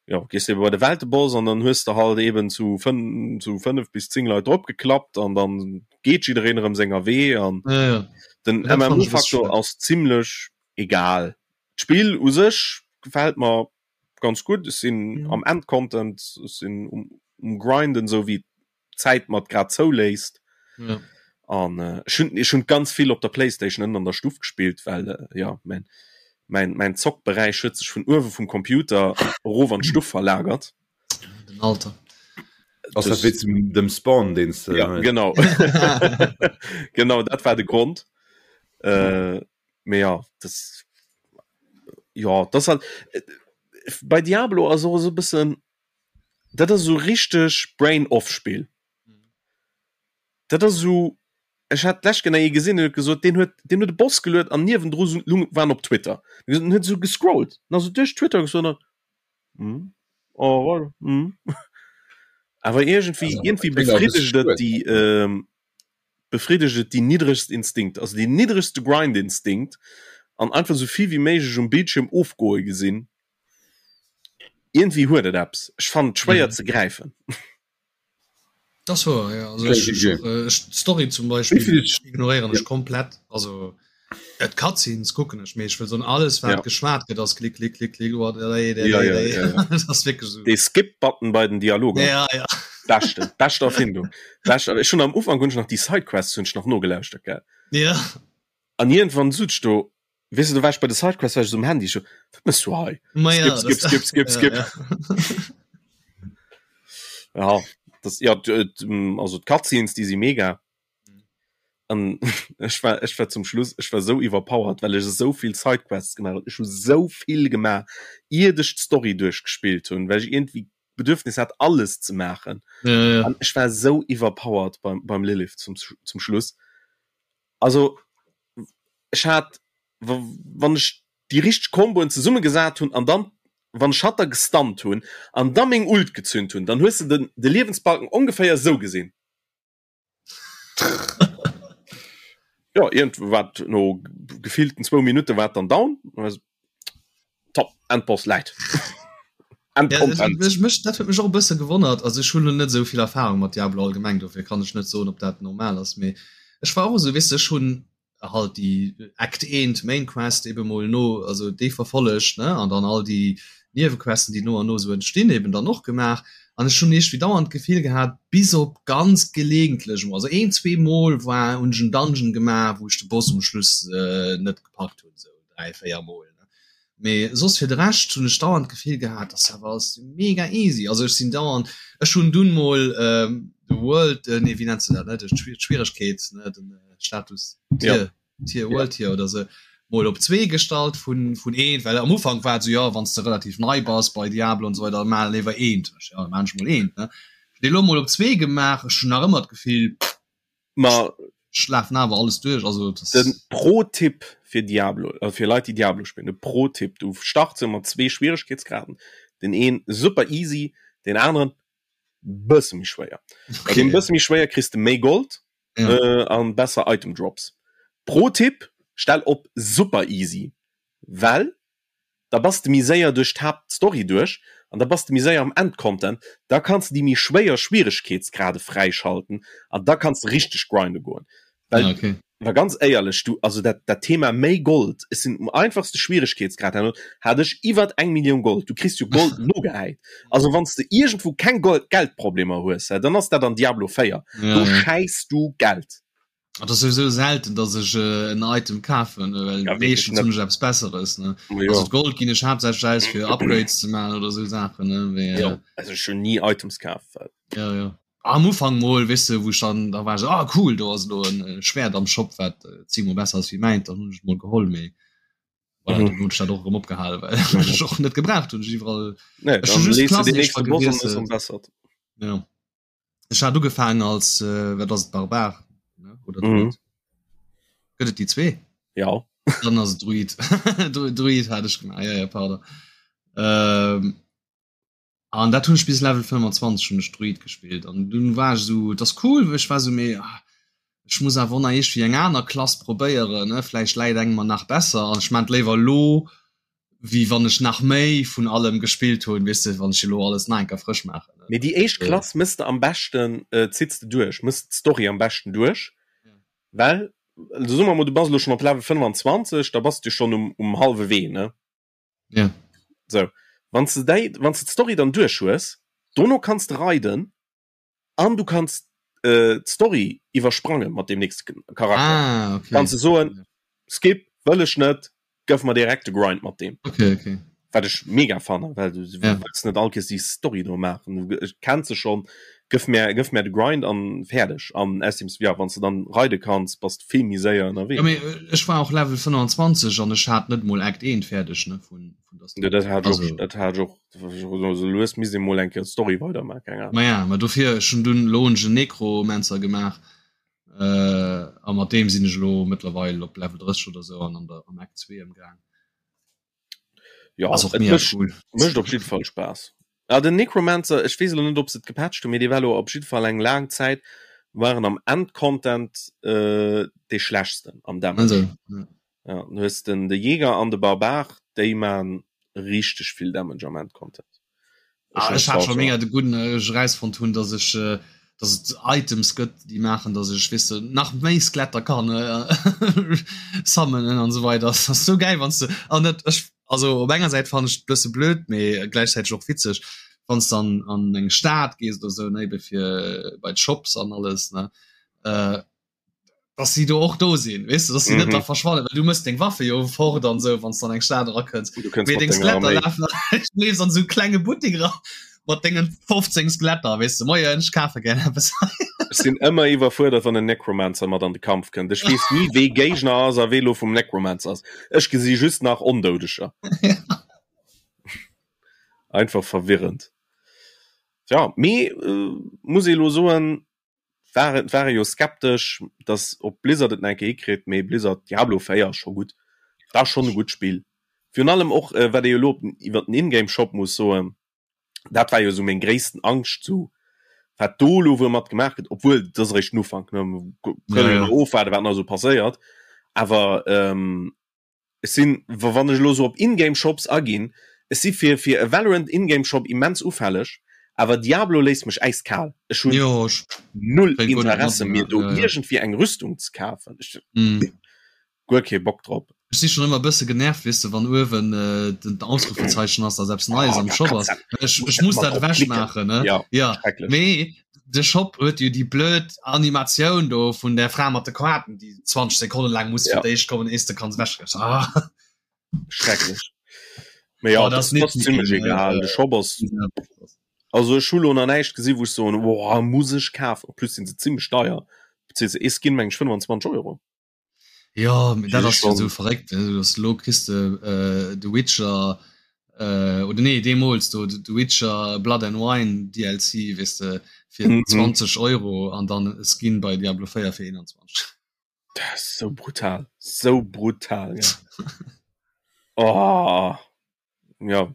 [SPEAKER 3] ja gees de bei de Welteboss an dann hues de halt eben zu fënn zu 5 bis 10 Leit drop geklappt an dann geet jiddereen erëm senger Wee an
[SPEAKER 4] Ja, ja.
[SPEAKER 3] den
[SPEAKER 4] Dat fand ech e bësse
[SPEAKER 3] MMO-Faktor
[SPEAKER 4] schued.
[SPEAKER 3] ass zimmlech egal. D'Spill u sech gefält mer ganz gutt, ech sinn
[SPEAKER 4] Mhm.
[SPEAKER 3] am Endcontent, ech sinn um, um Grinden, sou wéi d'Zäit mer et grad zouléisst.
[SPEAKER 4] Ja.
[SPEAKER 3] An äh, ech hunn ech hunn ganz vill op der Playstation ënnen an der Stuff gespillt, well äh, ja mein, mein, mein Zockberäich huet sech vun uewe vum Computer erof an d'Stuff verlagert.
[SPEAKER 4] Den Alter.
[SPEAKER 2] Ass dat wéi zum dem Spawn deen s de
[SPEAKER 3] Ja, genau. genau, dat war de Grond. Äh, mee ja, das ja, das halt äh, bei Diablo ass och esou e bëssen dat ass esou richteg Brain off Spill. Dat ass esou ech hat d'lescht Kéier ee gesinn, deen huet gesot, deen huet deen huet e Boss geluet an niewendru lung war en op Twitter. En huet esou gescrollt, en ass esou duerch Twitter gescrollt an hm, oh voilà, hm. Awer iergendwéi iergendwéi befriddegt et déi befriddegt et déi niddregst Instinkt, also deen niddregste Grind-Instinkt an einfach esou vill wéi méiglech um Bildschierm ofgoe gesinn. Iergendwéi huet et eppes. Ech fannen et schwéier ze gräifen.
[SPEAKER 4] Das wor ja. Also ech, ech, äh, ech, d'Story zum Beispill ignoréieren ech komplett. Also et Cutscenes kucken ech mee ech wëll soen alles wat ja. geschwat gëtt ass klick klick klick klick oh, ja, ja,
[SPEAKER 3] ja, ja.
[SPEAKER 4] Das ass wierklech so.
[SPEAKER 3] Dee Skip-Button bei den Dialoger.
[SPEAKER 4] Ja, ja.
[SPEAKER 3] Beschte, beschte Erfindung. Beschte, ech hunn am Ufank hunn ech nach déi Sidequests hunn ech nach nogelauschtert, gell.
[SPEAKER 4] Ja.
[SPEAKER 3] An iergendwann sot ech do, Weess de, do war ech bei de Sidequests, war ech esou um Handy, ech so, wat mëss du hei?
[SPEAKER 4] Ma ja,
[SPEAKER 3] Skip, skip, skip, skip, skip.
[SPEAKER 4] Ja,
[SPEAKER 3] ja. ja das, ja, also d'Cutscenes, déi si mega. An ech war, ech war zum Schluss, ech war sou iwwerpowered, well ech esou vill Sidequests gemaach hunn. Ech hu sou vill gemaach, iert ech d'Story duerchgespillt hunn, well ech iergendwéi d'Bedürfnis hat, alles ze maachen.
[SPEAKER 4] Ja, ja.
[SPEAKER 3] An ech war sou iwwerpowered beim, beim Lilith zum, zum Schluss. Also ech hat wann ech déi richteg Komboen zesummegesat hunn an dann wann ech hatt da gestunt hunn an da meng Ult gezünt hunn, dann hues de den de Liewensbalken ongeféier esou gesinn. Jo iergendwat no gefillten zwou Minutte war et dann down. Top, Endboss läit.
[SPEAKER 4] Ja, ech, mech, dat huet mech och e bësse gewonnert. Also ech hunn lo net esou vill Erfahrung mat Diablo allgemeng, dofir kann ech net soen, ob dat normal ass. Mee ech war och esou, weess de, ech hunn halt déi Act 1 Main Quest ebe mol no, also déi verfollegt, ne, an dann all déi Niewequesten, déi no an no esou entstinn, eben dann och gemaach. An ech hunn iergendwéi dauernd d'Gefill gehat, bis op ganz gelegentlech emol, also een, zwee Mol war, hunn ech en Dungeon gemaach, wou ech de Boss um Schluss net gepackt hunn, esou 3, 4 Mol, ne. Mee soss fir de Rescht hunn ech dauernd d'Gefill gehat, dass awer alles mega easy. Also ech sinn dauernd, ech hunn dunn mol de World, nee wéi nenns de dat, ne, de d'Schwieregkeet, ne, den Status Tier, Tier, World Tier oder sou, mol op zwee gestallt vun vun eent, well am Ufank war et sou, jo wann s de relativ nei bass bei Diablo an esou weider, maach léiwer eent. Ech, jo da maan ech mol eent, ne. Ech hunn dee lo mol op zwee gemaach, ech hunn nach ëmmer d'Gefill,
[SPEAKER 3] Ma
[SPEAKER 4] Ech lafen awer alles duerch, also das
[SPEAKER 3] den Pro-Tipp fir Diablo, äh, fir Leit déi Diablo spillen, de Pro-Tipp, du starts jo mat zwee Schwieregkeetsgraden, den een super easy, den aneren bësse méi schwéier. Bei
[SPEAKER 4] okay.
[SPEAKER 3] deem bësse méi schwéier kriss de méi Gold
[SPEAKER 4] Ja.
[SPEAKER 3] äh, an besser Item Drops. Pro-Tipp, stell op super easy, well da bass de méi séier duerch d'Haaptstory duerch an da bass de méi séier am Endcontent, da kanns de déi méi schwéier Schwieregkeetsgrade fräischalten an da kanns de richteg grinde goen. Well,
[SPEAKER 4] Ah, okay.
[SPEAKER 3] wa ganz éierlech, du, also dat, dat Thema méi Gold, ech sinn um einfachste Schwieregkeetsgrad herno, hat ech iwwert eng Millioun Gold, du kriss jo Gold nogehäit. Also wann s de iergendwou keng Gold, Geldproblemer hues, dann ass dat an Diablo 4,
[SPEAKER 4] Ja,
[SPEAKER 3] do
[SPEAKER 4] ja.
[SPEAKER 3] schäiss du Geld.
[SPEAKER 4] Et ass souwisou selten, dass ech en Item kafen, well
[SPEAKER 3] Ja, wierklech
[SPEAKER 4] meeschtens
[SPEAKER 3] net.
[SPEAKER 4] hunn ech eppes Besseres, ne?
[SPEAKER 3] Ma
[SPEAKER 4] Also
[SPEAKER 3] jo.
[SPEAKER 4] d'Gold ginn ech haaptsächlech aus fir Upgrades ze maachen oder esou Saachen, ne? Mee
[SPEAKER 3] Jo, also ech hunn ni Items kaf, well.
[SPEAKER 4] Ja, ja. Am Ufank mol, weess de, wou ech dann, da war ech esou, ah cool, do ass elo en Schwäert am Shop, wat zéngmol besser ass wéi mäint, dann hunn ech et mol geholl, mee. Voilà, mhm. Hunn dat och erëm opgehalen, well ech och net gebraucht hunn iwwerall.
[SPEAKER 3] Nee,
[SPEAKER 4] just ja. Ech hat ugefaangen als äh, wat ass et Barbar ne? oder Druid? Mhm. Gëtt et déi zwee?
[SPEAKER 3] Ja.
[SPEAKER 4] Dann ass et Druid. Druid hat ech gemaach. Ja, ja, pardon. Ähm, an dat hunn ech bis Level 25 hunn ech Druid gespillt an dunn war ech so das cool, ech war so méi ah, ech muss awer nach iergendwéi eng aner Klass probéieren, ne? Vläicht läit eng mer nach besser an ech maan et léiwer elo wéi wann ech nach méi vun allem gespillt hunn, weess de, wann ech elo alles nach eng Kéier frësch maachen.
[SPEAKER 3] Mee déi éischt Klass mëss de am beschten, zitts de duerch, mëss d'Story am beschten duerch, well, also soe mer mol, du bass elo schonn op Level 25, da bass de jo schonn um, um hallwe Wee, ne?
[SPEAKER 4] Ja.
[SPEAKER 3] Sou, wann s de déi, wann s de d'Story dann duerch hues, dono kanns de raiden an du kanns d'Story iwwersprange mat deem nächste Charakter.
[SPEAKER 4] Ah, okay.
[SPEAKER 3] Kanns de soen, skip, wëll ech net, gëff mer direkt de Grind mat deem.
[SPEAKER 4] Okay, okay.
[SPEAKER 3] Wat ech mega fannen, well du ja. wëlls net all Kees déi Story do maachen. Du kenns se schon, gëff mir, gëff mir de Grind an fäerdeg. An ausserdeem, ja, wann s de dann raide kanns, bass de vill méi séier ënnerwee.
[SPEAKER 4] Ja, mee ech war och Level 25 an ech hat net mol Act 1 fäerdeg, ne, vun,
[SPEAKER 3] vun der Story. Ja, dat hat ech och, dat hat ech och So lues misst ee mol eng Kéier d'Story weidermaachen, keng
[SPEAKER 4] Ahnung. Ma ja, ma dofir, ech hunn dunn elo hunn ech en Necromancer gemaach a mat deem sinn ech elo mëttlerweil op Level 30 oder sou an an der am Act 2 ëmgaang.
[SPEAKER 3] Ja, Ass och mega cool. Mécht op jidde Fall Spaass. Ah, den Necromancer, ech weess elo net, ob se et gepatcht hunn, mee dee war elo op jidde Fall eng laang Zäit war en am Endcontent dee schlechtsten am Damage.
[SPEAKER 4] Also, ja.
[SPEAKER 3] Ja, du hues den de Jäger an de Barbar, déi man richteg vill Damage am Endcontent.
[SPEAKER 4] Ah, ech hat schon mega de gudden äh, ech erausfonnt hunn, dass ech äh, dass et Items gëtt, déi maachen, dass ech weess de nach méi Skeletter kann äh, summonen an esou weider. Das ass sou gäil, wann s de an dat ech also op enger Säit fannen ech et bësse blöd, mee gläichzäiteg och witzeg, wann s dann an eng Stad gees oder sou, ne, ebe fir bei d'Shops an alles, ne, äh, dass sie do och do sinn weißt du, dass sie mm -hmm. net da mhm. verschwannen du musst deng Waffe jo fort an so wann dann eng Stad rakënns deng Skeletter laufen leefs an so klenge Buttek ra mat dengen 15 Skeletter weißt du moien ech kafe gär eppes
[SPEAKER 3] Ech sinn ëmmer iwwerfuerdert wann en Necromancer mat an de Kampf kënnt. Ech weess ni wee Géigner ass a wee lo vum Necromancer ass. Ech gesi just nach Ondoudeger.
[SPEAKER 4] Ja.
[SPEAKER 3] Einfach verwirrend. Ja, mee äh, muss ee lo soen, war et ware jo skeptesch dass op Blizzard et nach eng Kéier hikritt, mee Blizzard Diablo 4 ass scho gutt, dat ass schonn e gutt Spill. Virun allem och äh, wat ee jo elo op den iwwer den Ingame Shop muss soen, dat war jo esou meng gréissten Angscht sou wat do elo wuel mat gemaach gëtt, obwuel dat ass eréischt den Ufank ne, kënne jo nach ofwaarde wat nach esou passéiert, awer ähm, Ech sinn, wann ech elo sou op In-Game Shops aginn, ech si fir fir e Valorant In-Game Shop immens ufälleg, awer Diablo léisst mech äiskal. Ech hunn null Interesse mir do iergendwéi eng Rüstung ze kafen. Ech guer kee Bock drop.
[SPEAKER 4] Ech si schonn ëmmer e bësse genervt, weess de, wann uewen den Ausrufezeichen ass, dass eppes Neies am Shop ass. Ech muss dat ewech maachen, ne? Jo, mee De Shop huet jo déi blöd Animatioun do vun der Fra mat de Koaten, déi 20 Sekonnen laang muss fir d'éischt kommen, ees de kanns ewech.
[SPEAKER 3] Ah. Schrecklech. Mee ja, oh, das, das ass zimmlech egal. De Shop ass. Also ech hu lo nach näischt gesi wou ech soen, woah, muss ech kafen. En plus sinn se zimmlech deier. Beziehungsweise ee Skin meng ech 25 Euro.
[SPEAKER 4] Ja, mee dat ass jo sou verréckt, dass elo kriss de äh, The Witcher äh, oder nee deemools do The Witcher Blood and Wine DLC weess de fir mm -hmm. 20 Euro an dann e Skin bei Diablo 4 fir 21.
[SPEAKER 3] Dat ass sou brutal, sou brutal ja. oh. Ja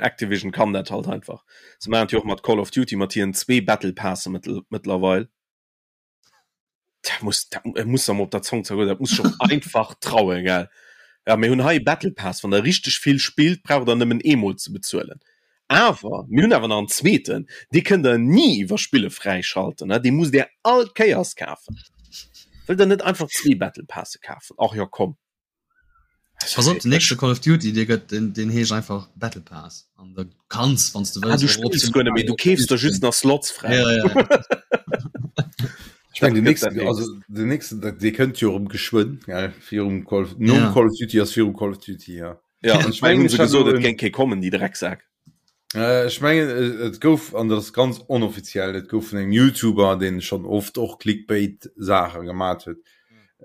[SPEAKER 3] Activision kann dat halt einfach. Se maachen et jo och mat Call of Duty mat hiren zwee Battle Passe mëttlerweil. Dat muss dat muss am op der Zong zergoen, dat muss schon einfach trauen gell. Ja mir hunn hei Battle Pass, wann der richteg vill spillt, braucht der nëmmen eemol ze bezuelen. Awer mir hunn awer nach en zweeten, dee kënnt der ni iwwer Spille fräischalten, ne, dee musst der all Kéiers kafen. Wëllt der net einfach zwee Battle Passe kafen? Ach jo komm.
[SPEAKER 4] Pass op, den nächste Call of Duty, dee gëtt, den, den heescht einfach Battle Pass. An da kanns, wann du
[SPEAKER 3] wëlls, ah, du spills guer net méi, du keefs der just nach Slots fräi.
[SPEAKER 4] Ja, ja.
[SPEAKER 2] Ich mein, den nächsten, also den nächsten, dee kënnt jo erëm geschwënn, gell, virum Call, nom ja. Call of Duty ass virum Call of Duty, ja.
[SPEAKER 3] Ja, ich mein, hun se gesot, et géing kee kommen, déi Drecksak.
[SPEAKER 2] Äh, ech mengen, et gouf, an dat ass ganz onoffiziell, et gouf vun engem YouTuber, deen schonn oft och Clickbait-Saache gemat huet,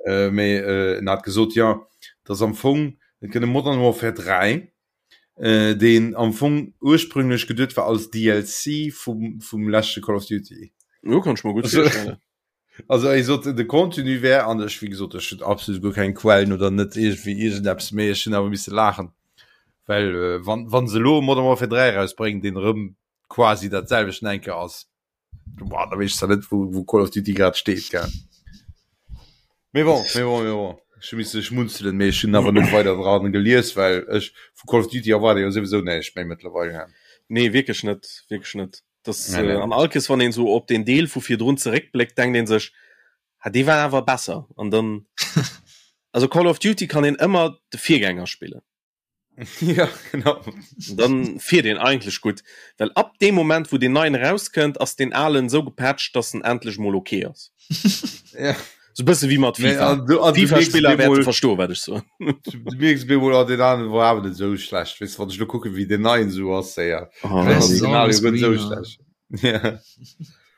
[SPEAKER 2] äh, mee äh, en hat gesot, jo, dass am Fong. Et gëtt e Modern Warfare 3, äh, deen am Fong ursprünglech geduet war als DLC vum, vum leschte Call of Duty.
[SPEAKER 3] Jo, kann ech mer gutt virstellen.
[SPEAKER 2] Also ech sot de Contenu wär an ech wéi gesot ech hunn absolut guer keng Quellen oder net iergendwéi iergendeppes méi ech hunn awer misse laachen well äh, wann wann se elo Modern Warfare 3 erausbréngen deen erëm quasi dat selwechten enke ass boah, da weess ech zwar net wou wou Call of Duty grad steet gell. Mee bon, mee bon, mee bon. Ech hu misse schmunzelen, mee ech hunn awer net weider dran gelies, well ech vu Call of Duty erwaarde jo souwisou näischt méi mëttlerweil.
[SPEAKER 3] Nee wierklech net, wierklech net. Das, nee, nee. Äh, an all Kees wann een so op den Deel vu virdrun zeréckbléckt, denkt een sech ha dee war awer besser an dann also Call of Duty kann een ëmmer de Virgänger spillen.
[SPEAKER 2] ja, genau.
[SPEAKER 3] Dann fiert een eigentlech gutt, well ab deem Moment wou den neien erauskënnt, ass den alen sou gepatcht, dass en endlech mol okay ass.
[SPEAKER 2] ja.
[SPEAKER 3] So bësse wéi mat
[SPEAKER 2] FIFA. Nee, an, an
[SPEAKER 3] FIFA-Spiller wäerte verstoen, wat ech soen.
[SPEAKER 2] Du mierks bemol, oh, den aneren war awer net sou schlecht. Weess du, wann ech lo kucken, wéi den neien sou ass, ja.
[SPEAKER 3] Oh,
[SPEAKER 2] Original jo guer net sou schlecht. Ja.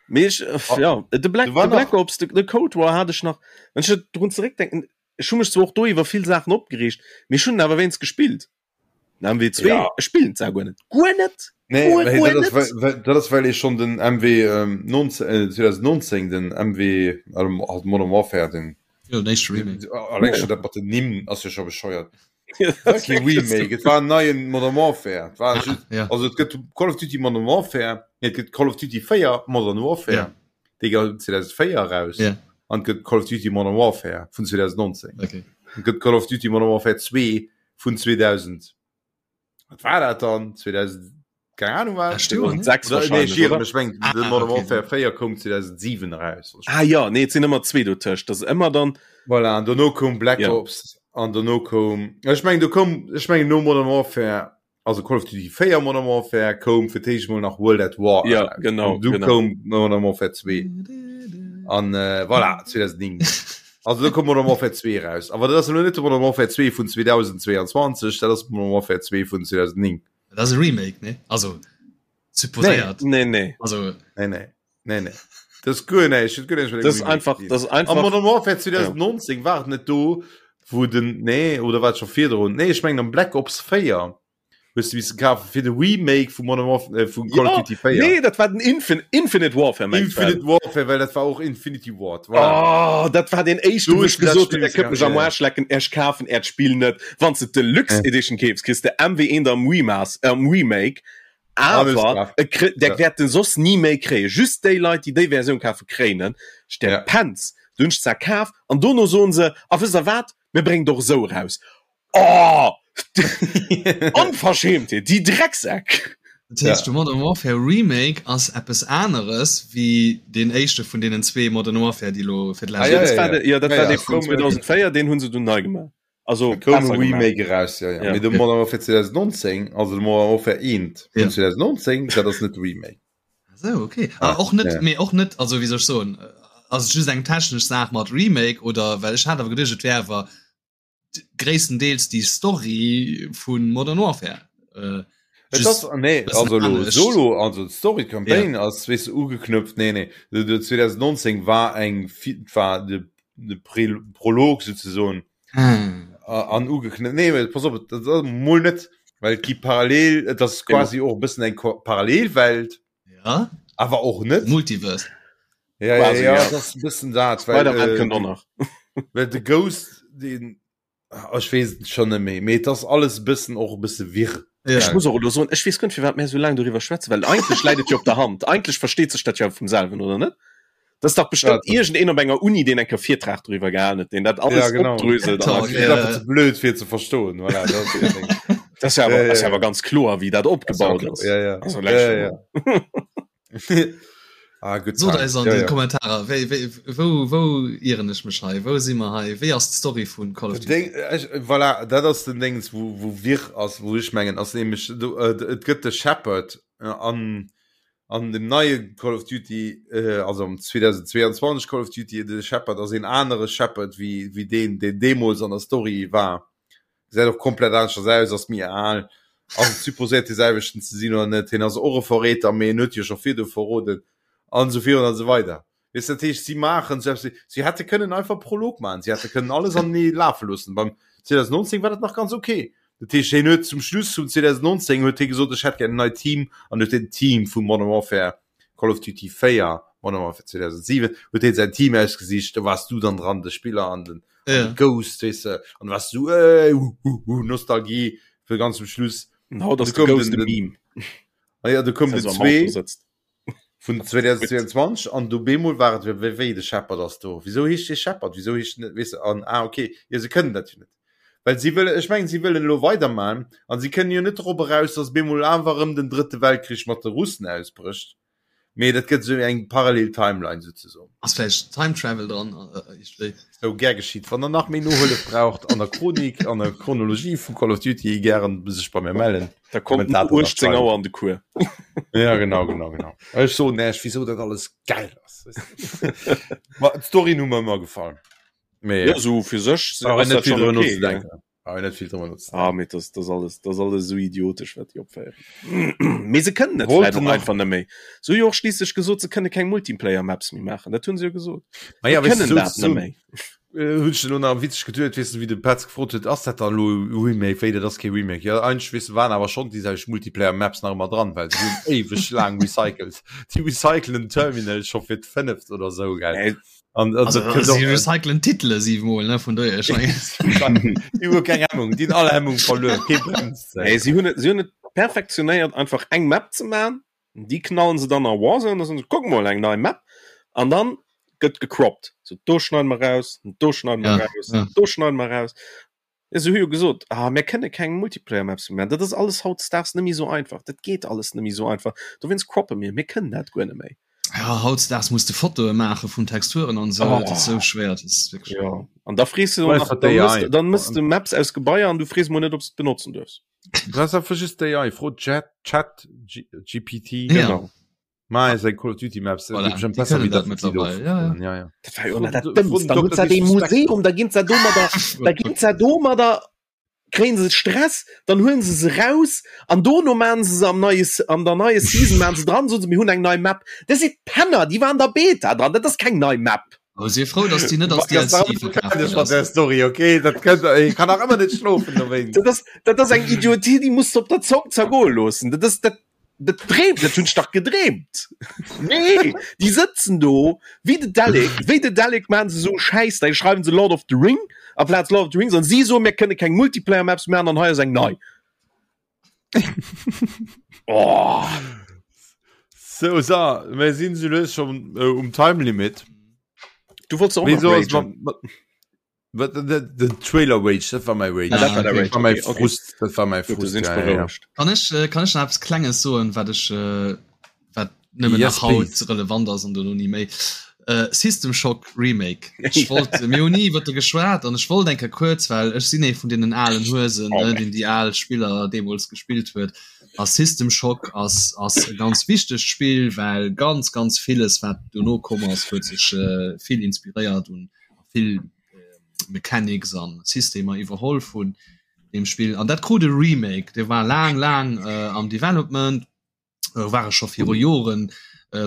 [SPEAKER 3] Mee ech, äh, ja, de Black, de Black Ops, de, de Cold War hat ech nach, wann ech drun zeréckdenken, ech hu mech zwar och do iwwer vill Saachen opgereegt, mee ech hunn en awer wéinst gespillt. Den MW2,
[SPEAKER 2] Ja.
[SPEAKER 3] ech spillen zwar guer net. Guer net!
[SPEAKER 2] Nee,
[SPEAKER 3] Guer,
[SPEAKER 2] well
[SPEAKER 3] guer
[SPEAKER 2] dat ass,
[SPEAKER 3] net!
[SPEAKER 2] well, well, dat ass well ee schonn den MW ähm, 19, äh, 2019, den MW, also halt Modern Warfare, den
[SPEAKER 4] Jo, den éischte Remake.
[SPEAKER 2] alleng schon dat mat den Nimm ass jo scho bescheuert. Et war kee Remake, et war en neien Modern Warfare. Et war just,
[SPEAKER 4] Ja.
[SPEAKER 2] also et gëtt Call of Duty Modern Warfare, nee, et gëtt Call of Duty 4 Modern Warfare,
[SPEAKER 4] Ja.
[SPEAKER 2] dee gouf 2004 eraus,
[SPEAKER 4] Ja.
[SPEAKER 2] an et gëtt Call of Duty Modern Warfare vun 2019.
[SPEAKER 4] Okay.
[SPEAKER 2] Et gëtt Call of Duty Modern Warfare 2 vun 2000 wat war dat dann 2000 keine Ahnung wat
[SPEAKER 4] Lescht Joer, ne?
[SPEAKER 3] 2006
[SPEAKER 2] Oder, nee,
[SPEAKER 3] wahrscheinlech,
[SPEAKER 2] ech iere
[SPEAKER 3] oder?
[SPEAKER 2] mech, ech mengen,
[SPEAKER 4] Ah,
[SPEAKER 2] de Modern
[SPEAKER 4] okay.
[SPEAKER 2] Warfare 4 koum 2007 eraus.
[SPEAKER 3] Ah ja, nee, et sinn ëmmer zwee dotëscht. Dat ass ëmmer dann
[SPEAKER 2] Voilà, an dono koum Black
[SPEAKER 3] Ja.
[SPEAKER 2] Ops an dono koum ech mengen do koum ech mengen no Modern Warfare also Call of Duty 4 Modern Warfare koum fir d'éischt mol nach World at War
[SPEAKER 3] Ja,
[SPEAKER 2] eraus.
[SPEAKER 3] genau,
[SPEAKER 2] An du
[SPEAKER 3] genau.
[SPEAKER 2] koum Modern Warfare 2 an äh, voilà 2009 also do koum Modern Warfare 2 eraus awer dat ass elo net de Modern Warfare 2 vun 2022 dat ass Modern Warfare 2 vun 2009
[SPEAKER 4] Dat ass e Remake, ne? Also supposéiert.
[SPEAKER 3] Nee, nee.
[SPEAKER 4] Also
[SPEAKER 2] nee nee nee nee das ist guer näischt huet guer näischt mat
[SPEAKER 3] Das ist
[SPEAKER 2] engem Remake
[SPEAKER 3] einfach,
[SPEAKER 2] ze dinn.
[SPEAKER 3] das ist
[SPEAKER 2] Am
[SPEAKER 3] einfach.
[SPEAKER 2] Modern Warfare 2019 war et net do wou den nee oder war et scho virdrun nee ech mengen am Black Ops 4 hues du missen kafen fir de Remake vu Modern Warfare äh, vu Call of
[SPEAKER 3] Ja,
[SPEAKER 2] Duty 4
[SPEAKER 3] nee, dat war den Infin Infinite Warfare mengst du?
[SPEAKER 2] Infinite Warfare well dat war och Infinity Ward voilà.
[SPEAKER 3] Oh, dat war den éischten,
[SPEAKER 2] Du
[SPEAKER 3] wou
[SPEAKER 2] hues
[SPEAKER 3] ech
[SPEAKER 2] dat
[SPEAKER 3] gesot
[SPEAKER 2] Spill
[SPEAKER 3] hunn, der kënnt mech am
[SPEAKER 2] ja.
[SPEAKER 3] Arsch lecken, ech kafen äert Spill net. Wann s de d'Deluxe
[SPEAKER 2] Ja.
[SPEAKER 3] Edition keefs, kriss de MW1 am Remas am Remake,
[SPEAKER 2] Alles
[SPEAKER 3] awer
[SPEAKER 2] klar.
[SPEAKER 3] e kri der
[SPEAKER 2] Ja.
[SPEAKER 3] wäert den soss ni méi kréien. Just déi Leit, déi déi Versioun kafe kréien en. Ech der
[SPEAKER 2] Ja.
[SPEAKER 3] Penz, du hunn ech zwar kaf an dono soen se, a wësst der wat, mir bréngen et och esou eraus. Oh! Onverschämtheet, déi Drecksäck!
[SPEAKER 4] Dat heescht, de Modern Warfare Remake ass eppes aneres wéi deen éischte vun deenen zwee Modern Warfare, déi elo fir
[SPEAKER 2] Ah,
[SPEAKER 4] d'lescht
[SPEAKER 2] ja,
[SPEAKER 3] Dat
[SPEAKER 2] ja,
[SPEAKER 3] war de, ja, dat
[SPEAKER 2] Ja,
[SPEAKER 3] war
[SPEAKER 2] ja,
[SPEAKER 3] dee vun
[SPEAKER 2] koum, äh,
[SPEAKER 3] 2004, deen hunn se dunn nei gemaach. Also
[SPEAKER 2] koum e
[SPEAKER 3] besser gemaach.
[SPEAKER 2] Remake eraus, ja, ja.
[SPEAKER 3] Ja.
[SPEAKER 2] Mee de Modern Warfare 2019, also de Modern Warfare 1 vun
[SPEAKER 4] Ja.
[SPEAKER 2] 2019, dat ass net de Remake.
[SPEAKER 4] Ah sou, okay. Ah, och net,
[SPEAKER 2] Ja.
[SPEAKER 4] mee och net, also wéi soll ech soen, ass et just eng technesch Saach mat Remake oder well ech hat awer geduecht, et wär awer gréisstendeels déi Story vu Modern Warfare. Äh,
[SPEAKER 2] Et ass, nee, also lo Solo, also d'Story Campaign ja. ass weess ugeknüpft, nee nee, de, de 2019 war eng war de, de Prä Prolog sozusagen
[SPEAKER 4] ah.
[SPEAKER 2] an ugeknüpft. Nee, pass op, dat ass mol net, well et gi parallel, et ass quasi och e bëssen eng Parallelwelt.
[SPEAKER 4] Ja.
[SPEAKER 2] Awer och net.
[SPEAKER 4] Multiverse.
[SPEAKER 2] Ja, ja,
[SPEAKER 3] Quasi,
[SPEAKER 2] ja,
[SPEAKER 3] ja.
[SPEAKER 2] dat ass e bëssen dat, well,
[SPEAKER 3] Spider-Man
[SPEAKER 2] äh,
[SPEAKER 3] kënnt och nach.
[SPEAKER 2] well de Ghost, den, ah, ech weess et schon net méi, mee et ass alles e bëssen och e bësse wirr.
[SPEAKER 4] Ja.
[SPEAKER 3] Ech muss och elo soen, ech weess guer net, firwat mär esou laang doriwwer schwätzen, well eigentlech läit et jo op der Hand. Eigentlech versteet sech dat jo vum selwen, oder net? Dat ass dach bestëmmt
[SPEAKER 2] Ja,
[SPEAKER 3] iergendeen op enger Uni, deen eng Kéier Virtrag doriwwer gehalen huet, deen dat
[SPEAKER 2] Ja,
[SPEAKER 3] alles
[SPEAKER 2] genau.
[SPEAKER 3] opdröselt an
[SPEAKER 4] Talk,
[SPEAKER 3] erkläert.
[SPEAKER 2] Dat ass einfach ze blöd fir ze verstoen, voilà, dat ass dat Ding.
[SPEAKER 3] Dat ass jo awer,
[SPEAKER 2] Ja, ja,
[SPEAKER 3] ass jo
[SPEAKER 2] ja.
[SPEAKER 3] awer ganz kloer, wéi dat
[SPEAKER 2] Ass
[SPEAKER 3] opgebaut
[SPEAKER 2] ja,
[SPEAKER 3] ass.
[SPEAKER 2] ja, ja.
[SPEAKER 3] Also,
[SPEAKER 2] Ja,
[SPEAKER 3] leck
[SPEAKER 2] ja,
[SPEAKER 3] schon
[SPEAKER 2] ja. Ah, good
[SPEAKER 4] Sot
[SPEAKER 2] times.
[SPEAKER 4] eis an
[SPEAKER 2] Ja,
[SPEAKER 4] de
[SPEAKER 2] ja.
[SPEAKER 4] Kommentarer, wéi, wéi, wou, wou ieren ech mech hei? Wou si mer hei? Wéi ass d'Story vun Call of
[SPEAKER 2] Den
[SPEAKER 4] Duty?
[SPEAKER 2] Ding, ech, voilà, dat ass den Dings, wou, wou wirr ass, wou ech mengen, ass nämlech, do, äh, et gëtt de Shepard äh, an, an dem neie Call of Duty, äh, also am 2022 Call of Duty, de Shepard ass een anere Shepard wéi, wéi deen, deen deemools an der Story war. Gesäit och komplett aneschters aus, ass méi al, ass et supposéiert dee selwechten ze sinn oder net, hien ass och e Verräter, mee en huet jo scho virdu verroden an esou virun an esou weider. Weess dat heescht, si maachen sou eppes, si hätte kënnen einfach Prolog maachen, si hätte kënnen alles anenee lafe loossen. Beim. 2019 war dat nach ganz okay. Dat heescht, hien huet zum Schluss vum 2019 huet hie gesot, ech hätt gär en neit Team an huet den Team vu Modern Warfare, Call of Duty 4, Modern Warfare 2007, huet hien säin Team ausgesicht, do waars du dann dran, de Spiller an den, an
[SPEAKER 4] Ja.
[SPEAKER 2] de Ghost, weess de, an du waars du, äh, hu, hu, hu, Nostalgie fir ganz zum Schluss.
[SPEAKER 3] An haut ass
[SPEAKER 2] Du
[SPEAKER 3] de
[SPEAKER 2] koum
[SPEAKER 3] Ghost
[SPEAKER 2] den-
[SPEAKER 3] e Meme.
[SPEAKER 2] Ah ja, du koum
[SPEAKER 3] Dass
[SPEAKER 2] den
[SPEAKER 3] er am Auto
[SPEAKER 2] 2
[SPEAKER 3] sëtzt.
[SPEAKER 2] vun 2022 an du bemol war et wéi wéi de Shepard ass do. Wieso heescht dee Shepard? Wieso heescht net weess de an ah okay, jo se kënnen dat jo net. Well si wëllen ech mengen si wëllen elo weiderman an si kënnen jo net drop eraus, datt bemol awer erëm den drëtte Weltkrich mat de Russen ausbrécht. Mee dat gëtt esou eng parallel Timeline souzesoen.
[SPEAKER 4] Ass vläicht Time Travel dran iergendwéi?
[SPEAKER 2] Sou, gär geschitt. Wann der nach méi Nohëllef braucht an der Chronik, an der Chronologie vu Call of Duty, gären sech bei mir mellen.
[SPEAKER 3] Da kommt no 18 Auer an de Cours.
[SPEAKER 2] Ja, genau, genau, genau. Ech soen Iech, wieso dat alles geil ass. Ma d'Storyen hu mer ëmmer gefall. Mee
[SPEAKER 3] Ja, so fir sech
[SPEAKER 2] brauch een
[SPEAKER 3] ass
[SPEAKER 2] net
[SPEAKER 3] dat
[SPEAKER 2] vill
[SPEAKER 3] schon
[SPEAKER 2] drüber
[SPEAKER 3] okay, gell?
[SPEAKER 2] nozedenken. Brauch een net vill drüber nozedenken.
[SPEAKER 3] Ah, mee das, das alles, das alles so idiotesch, wat déi opféieren. Mee se kënnen et
[SPEAKER 2] Wollt
[SPEAKER 3] vläicht och
[SPEAKER 2] nach-
[SPEAKER 3] einfach net méi. Se hu jo och schliisslech gesot, se kënne keng Multiplayer-Maps méi maachen. Dat hunn se jo gesot.
[SPEAKER 2] Ma ja,
[SPEAKER 3] Se
[SPEAKER 2] weißt du,
[SPEAKER 3] kënnen
[SPEAKER 2] so,
[SPEAKER 3] dat
[SPEAKER 2] so,
[SPEAKER 3] net méi.
[SPEAKER 2] Äh, hunn ech elo nach witzeg geduet, weess de, wéi de Petz gefrot huet, ass dat dann elo e Remake? Wéi, dat ass kee Remake. Jo, eigentlech, weess de, waren awer schonn déi selwecht Multiplayer-Maps nach ëmmer dran, well se hunn éiweg laang recycelt. Déi recyclen den Terminal scho fir d'fënneft oder sou, gell?
[SPEAKER 3] Äh,
[SPEAKER 2] An, an
[SPEAKER 4] Also,
[SPEAKER 2] dat kënnt
[SPEAKER 4] si
[SPEAKER 2] och,
[SPEAKER 4] recyclen Titele siwemol, ne, vun dohier, ech mengen.
[SPEAKER 2] déi hu keng Hemmung, déi hunn all Hemmung verluer, kee bremst se.
[SPEAKER 3] Nee, si hunn et, si hunn et perfektionéiert, einfach eng Map ze maachen. Déi knallen se dann a Warzone, da soen se, kuck mol, eng nei Map. An dann gëtt gecroppt. So, do schneiden mer raus, do schneiden mer
[SPEAKER 4] Ja,
[SPEAKER 3] raus,
[SPEAKER 4] ja.
[SPEAKER 3] do schneiden mer raus. Ja, se hu jo gesot, ah, mir kënne keng Multiplayer-Maps méi maachen. Dat ass alles hautdesdaags net méi esou einfach. Dat geet alles net méi esou einfach. Dowéinst croppe mir. Mir kënnen dat guer net méi.
[SPEAKER 4] Ja, hautdesdaags muss de Fotoe maache vun Texturen an esou.
[SPEAKER 3] Oh.
[SPEAKER 4] Dat ass esou schwéier. Dat ass wierklech.
[SPEAKER 3] Ja. An da frees du
[SPEAKER 2] Weißt
[SPEAKER 3] nach,
[SPEAKER 2] wat
[SPEAKER 3] dann
[SPEAKER 2] AI?
[SPEAKER 3] mëss, dann mëss du Maps aus Gebaier an du frees mol net, ob s de benotzen duerfs.
[SPEAKER 2] Du brauchst einfach just d'AI, fro Chat, Chat G GPT.
[SPEAKER 4] Ja.
[SPEAKER 3] Genau.
[SPEAKER 2] Ma eis eng Call of Duty Maps,
[SPEAKER 4] Voilà,
[SPEAKER 2] dat bestimmt
[SPEAKER 4] déi
[SPEAKER 2] besser
[SPEAKER 4] kënnen
[SPEAKER 2] wéi
[SPEAKER 4] dat
[SPEAKER 2] dat wat si do
[SPEAKER 4] mittlerweile, ja, ja.
[SPEAKER 2] Ja, ja.
[SPEAKER 3] Dat war jo dat
[SPEAKER 2] Fro-
[SPEAKER 3] Dëmmst. Dann
[SPEAKER 2] fro
[SPEAKER 3] hunn se dee
[SPEAKER 2] Dr.
[SPEAKER 3] Museum, da ginn se domadder, da ginn se domadder, kréien se Stress, dann huelen se se raus an dono maachen se se am neie, an der neie Season maachen se dran, soen se, mir hunn eng nei Map. Dat si Penner, déi waren an der Beta dran, dat ass keng nei Map.
[SPEAKER 4] Oh, sief frou, dass déi net als DLC verkaf ginn
[SPEAKER 2] ass. Der Story, okay, dat kënnt, ech kann nach ëmmer net schlofen dowéinst.
[SPEAKER 3] Dat ass, dat ass eng Idiotie, déi muss de op der Zong zergoe loossen. Dat ass, dat, dat dreemt, dat hunn ech dach gedreemt. Nee, déi sëtzen do wéi de Dalek, wéi de Dalek maachen se esou Schäiss, da schreiwen se Lord of the Ring amplaz Lord of the Rings an si soen, mir kënne keng Multiplayer Maps maachen an hei ass eng nei.
[SPEAKER 2] Oh. So, so, mir sinn so lues schon äh, um Time Limit.
[SPEAKER 3] Du wolltest auch
[SPEAKER 2] Wieso
[SPEAKER 3] noch
[SPEAKER 2] ist
[SPEAKER 3] ragen.
[SPEAKER 2] man, man, den, den Trailer Rage, das war mein Rage.
[SPEAKER 3] Ah, dat war der
[SPEAKER 2] Das
[SPEAKER 3] Rage,
[SPEAKER 2] war mein
[SPEAKER 3] okay, okay.
[SPEAKER 2] Frust, das war mein
[SPEAKER 3] Gut, du
[SPEAKER 2] Frust.
[SPEAKER 3] sind
[SPEAKER 2] Ja, ja, ja.
[SPEAKER 3] berouegt.
[SPEAKER 4] Kann ech, äh, kann ech nach eppes Klenges soen, wat ech, äh, wat nëmmen
[SPEAKER 2] Yes,
[SPEAKER 4] nach haut
[SPEAKER 2] please.
[SPEAKER 4] relevant ass an dono ni méi. Äh, System Shock Remake. Ech wollt, mir hunn ni iwwer de geschwat an ech wollt eng Kéier kuerz, well ech sinn ee vun deenen alen Huesen,
[SPEAKER 3] Oh,
[SPEAKER 4] ne, deen déi al Spiller deemools gespillt huet. A System Shock ass, ass e ganz wichtegt Spill, well ganz, ganz villes, wat dono komm ass, huet sech äh, vill inspiréiert un vill äh, Mechanics an Systemer iwwerholl vun deem Spill. An dat krut e Remake, dee war laang, laang äh, am Development. ware scho viru Joren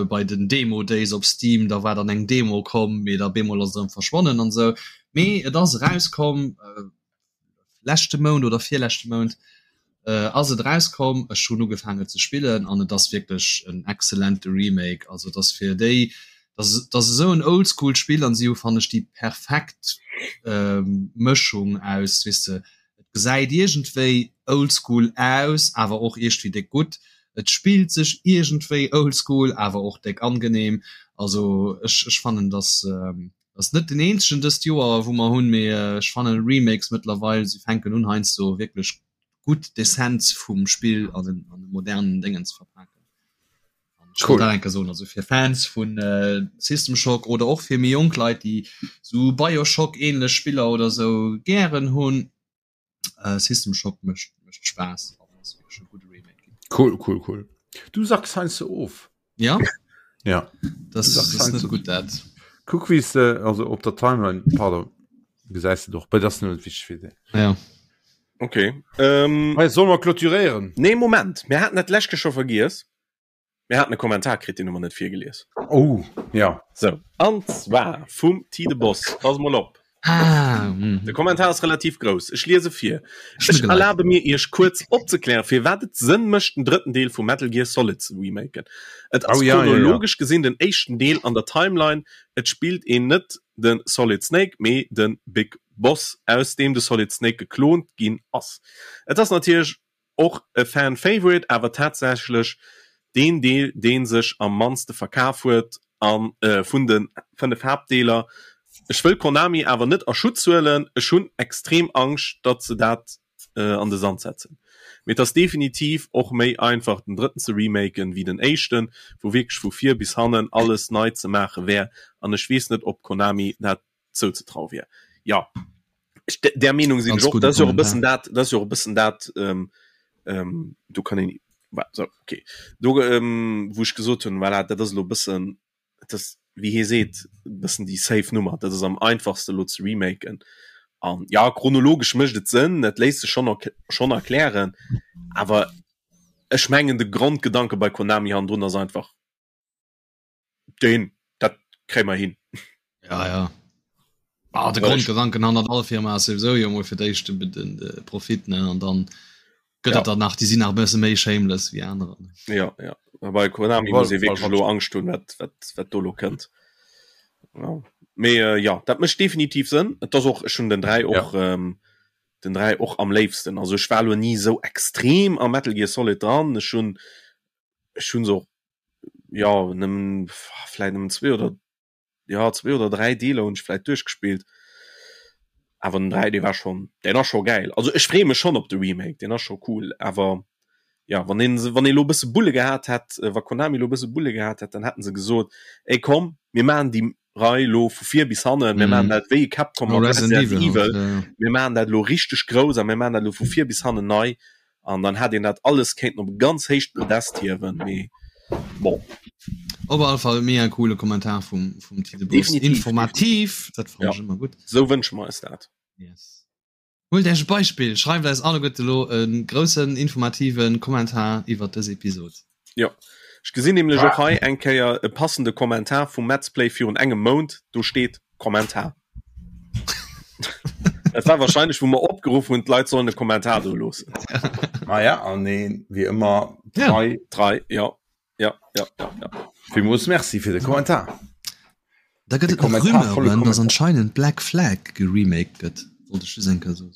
[SPEAKER 4] bei den Demo Days op Steam, da war dann eng Demo komm, mee da bemol ass et erëm verschwonnen an esou. Mee et ass erauskomm, leschte Mount oder virleschte Mount ass et erauskomm. Ech hunn ugefaangen ze spillen an et ass wierklech en excellente Remake. Also et ass fir déi, dat ass esou en Oldschool Spill an si hu fannen ech déi perfekt Mëschung aus, weess de, Et gesäit iergendwéi oldschool aus, awer och iergdwéi déck gutt. Et spillt sech iergendwéi oldschool, awer och déck angenehm. Also ech ech fannen dass ass net den eenzegen dëst Joer wou mer hunn, mee ech fannen Remakes mëttlerweil, se fänken un heiansdo wierklech gutt d'Essenz vum Spill an en an e modernen Déngen ze verpaken. Cool. Dat enke soen, also fir Fans vun äh, System Shock oder och fir méi jonk Leit, déi sou Bioshock ähnlech Spiller oder sou gären hunn. Äh, System Shock mécht mécht Spaass an ass wierklech e gudde Remake ginn.
[SPEAKER 2] Cool, cool, cool. Du sacks heiansdo of.
[SPEAKER 4] Ja?
[SPEAKER 2] Ja.
[SPEAKER 4] Das,
[SPEAKER 2] Du sacks
[SPEAKER 4] das ist net
[SPEAKER 2] heiansdo.
[SPEAKER 4] gutt dat.
[SPEAKER 2] Kuck wéi s de, also op der Timeline, pardon, gesäis de doch, bei dat ass net wichteg fir déi.
[SPEAKER 4] Ja.
[SPEAKER 3] Okay. Ähm,
[SPEAKER 2] Hey, soll mer clôturéieren?
[SPEAKER 3] nee, Moment. Mir haten dat lescht Keer scho vergiess. Mir haten e Kommentar kritt, deen hu mer net virgelies.
[SPEAKER 2] Oh, ja.
[SPEAKER 3] So, an zwar vum Tide Boss. Pass mol op.
[SPEAKER 4] Ah, mm.
[SPEAKER 3] De Kommentar ass relativ grouss. Ech liese vir. Ech erlabe mir Iech kuerz opzeklären, firwat et Sënn mécht den drëtten Deel vu Metal Gear Solid ze remaken. Et ass oh, ja, chronologesch ja, ja. gesinn den éischten Deel an der Timeline. Et spillt een net de Solid Snake, mee de Big Boss, aus deem de Solid Snake geklont ginn ass. Et ass natierlech Och e Fan Favorite, awer tatsächlech deen Deel deen sech am mannste verkaf huet an vun de 5 Haaptdeeler. Ech wëll Konami awer net a Schutz huelen, ech hunn extrem Angscht datt se dat an de Sand setzen. Mee et ass definitiv och méi einfach den drëtten ze remaken wéi den éischten, wou wierklech vu vir bis hannen alles nei ze maache wär an ech weess net ob Konami dat zouzetraue wier. Jo, ech, där Meenung sinn ech och. Dat ass jo och e bëssen dat, dat ass jo och e bëssen dat, ähm, ähm, do kann een, so, okay, do, ähm, wou ech gesot hunn, voilà, dat ass elo e bëssen, dat ass, wéi hie seet, e bëssen déi safe Nummer, dat ass am einfachste elo ze remaken. An ja, chronologesch mécht et Sënn, dat léisst sech schonn schonn erklären, awer ech mengen de Grondgedanke bei Konami hannendrun ass einfach, Den dat kréie mer hin.
[SPEAKER 4] Ja ja. Ah, de Grondgedanken an all Firma ass sowieso jo mol fir d'éischt den, den, de Profit ne an dann gëtt ja. dat dann nach déi sinn nach bësse méi shameless wéi anerer.
[SPEAKER 3] Ja ja bei Konami muss ee wierklech elo Angscht hunn, wat, wat, wat do lo kënnt. Ja. Mee äh, ja, dat mécht definitiv Sënn. Et ass och ech hunn den 3 och ja. ähm, den 3 och am léifsten. Also ech war lo ni sou extrem am Metal Gear Solid dran. Ech hunn ech hunn se och ja nëmmen vläit nëmmen zwee oder ja zwee oder dräi Deeler hunn ech vläit duerchgespillt. Awer den 3 dee war schonn deen ass scho gäil. Also ech freeë mech schonn op de Remake, deen ass scho cool. Awer ja wann een se wann ee lo e bësse Bulle gehat hätt, wa Konami lo e bësse Bulle gehat hätt, dann hätten se gesot, ey komm mir maachen déi Rei lo vu vir bis hannen, mir maachen dat wéi Capcom mat Resident Evil, mir maachen dat lo richteg grouss a mir maachen dat lo vu vir bis hannen nei. An dann hätt een dat alles kéinten op e ganz héicht Podest hiewen, mee bon.
[SPEAKER 4] Op alle Fall mega coole Kommentar vum, vum Tide Bus. Informativ, dat fannen ech ëmmer gutt.
[SPEAKER 3] Sou wënsche mer eis dat.
[SPEAKER 4] Yes. Huelt Iech e Beispill, schreift eis alleguerte elo e groussen informative Kommentar iwwert dës Episod.
[SPEAKER 3] Jo, ech gesinn nämlech och hei eng Kéier e passende Kommentar vum Metzplay virun engem Mount, do steet Kommentar. Dat war wahrscheinlech wou mer opgeruff hunn, d'Leit sollen e Kommentar do loossen.
[SPEAKER 2] Maja, an een wéi ëmmer
[SPEAKER 3] trei. Trei, jo. Ja, ja, ja, ja.
[SPEAKER 2] Villmools Merci fir de Kommentar.
[SPEAKER 4] Da gëtt et nach Rumeuren, dass anscheinend Black Flag geremaked gëtt. Wollt ech just eng Kéier soen.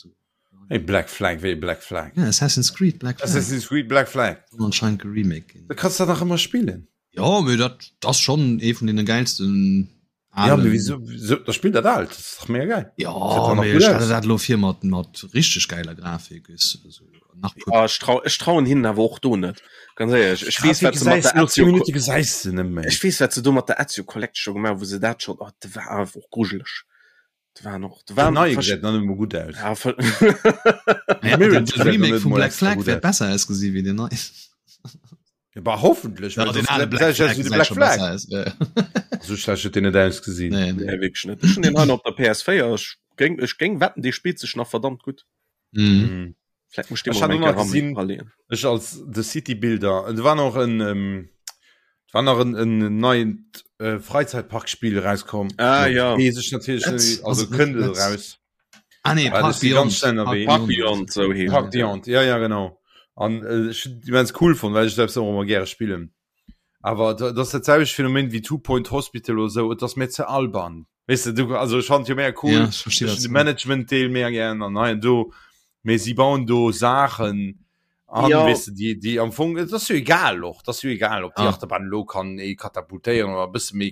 [SPEAKER 2] Hey, Black Flag, wéi Black Flag?
[SPEAKER 4] Ja, Assassin's Creed Black
[SPEAKER 2] Flag. Assassin's Creed Black Flag.
[SPEAKER 4] Soll anscheinend geremaked
[SPEAKER 2] ginn. Da kanns du dat nach ëmmer spillen.
[SPEAKER 4] Jo, mee dat ass schonn ee vun deene gäilsten
[SPEAKER 2] Ja, mee wieso, wieso, da spill dat alt, dat ass dach mega geil.
[SPEAKER 4] Ja, mee ech stelle dat elo vir mat, mat richteg gäiler Grafik, weess du, esou
[SPEAKER 3] nach puer. Ja, ech trau, ech trauen hinnen awer och do net, ganz éierlech. Ech weess, wat se mat der Ezio,
[SPEAKER 2] Minute gesäis de net méi.
[SPEAKER 3] Ech weess, wat se do mat der Ezio Collection gemaach hu, wou se dat schonn, oh, dat war awer och grujeleg. Dat waren och, dat
[SPEAKER 2] waren. Den neie gesäit nach net emol gutt aus.
[SPEAKER 3] Ja, voll.
[SPEAKER 4] Ja, de Remake vum Black Flag wäert besser ausgesi wéi den neien.
[SPEAKER 2] Ja, bah, hoffentlich.
[SPEAKER 4] Ja, den ale Black Flag
[SPEAKER 2] gesäit scho besser aus. So schlecht huet deen net ausgesinn.
[SPEAKER 3] Nee, nee. Nee, wierklech net. Ech hunn deen hei nach op der PS4. Ech géing, ech géing wetten, dee spillt sech nach verdammt gutt.
[SPEAKER 4] Mhm.
[SPEAKER 2] Mhm.
[SPEAKER 3] Vläicht muss ich dee
[SPEAKER 2] Ech
[SPEAKER 3] mol
[SPEAKER 2] hat
[SPEAKER 3] eng
[SPEAKER 2] och nach
[SPEAKER 3] Kéier
[SPEAKER 2] gesinn,
[SPEAKER 3] raleeën.
[SPEAKER 2] ech als The City Builder, et war nach en, ähm, et war nach en, en neient äh, Freizeitparkspiel erauskomm.
[SPEAKER 3] Ah, ja.
[SPEAKER 2] Weess ech natierlech
[SPEAKER 4] Let's-
[SPEAKER 2] net, also
[SPEAKER 4] ass et net
[SPEAKER 2] kënnt et
[SPEAKER 4] Let's-
[SPEAKER 2] eraus.
[SPEAKER 4] Ah nee,
[SPEAKER 2] Park
[SPEAKER 4] Beyond.
[SPEAKER 2] Beyond,
[SPEAKER 3] Park Beyond, so heescht
[SPEAKER 2] Park Beyond, ja, ja, genau. An äh, ech hunn immens cool fonnt, well ech selbst och ëmmer gäre spillen. Awer dat ass dat selwecht Phänomen wéi Two Point Hospital oder sou, et ass mir ze alban. Weess de, du, also ech fand jo mega cool,
[SPEAKER 4] Ja, ech versti
[SPEAKER 2] ech
[SPEAKER 4] wat
[SPEAKER 2] hunn de
[SPEAKER 4] du mengst.
[SPEAKER 2] Management-Deel mega gären an hei an do, mee si bauen do Saachen an,
[SPEAKER 3] Ja.
[SPEAKER 2] weess de, déi, déi am Fong, et ass jo egal och, et ass jo egal, ob déi
[SPEAKER 4] Ah.
[SPEAKER 2] Achterbahn elo kann ee katapultéieren oder e bësse méi,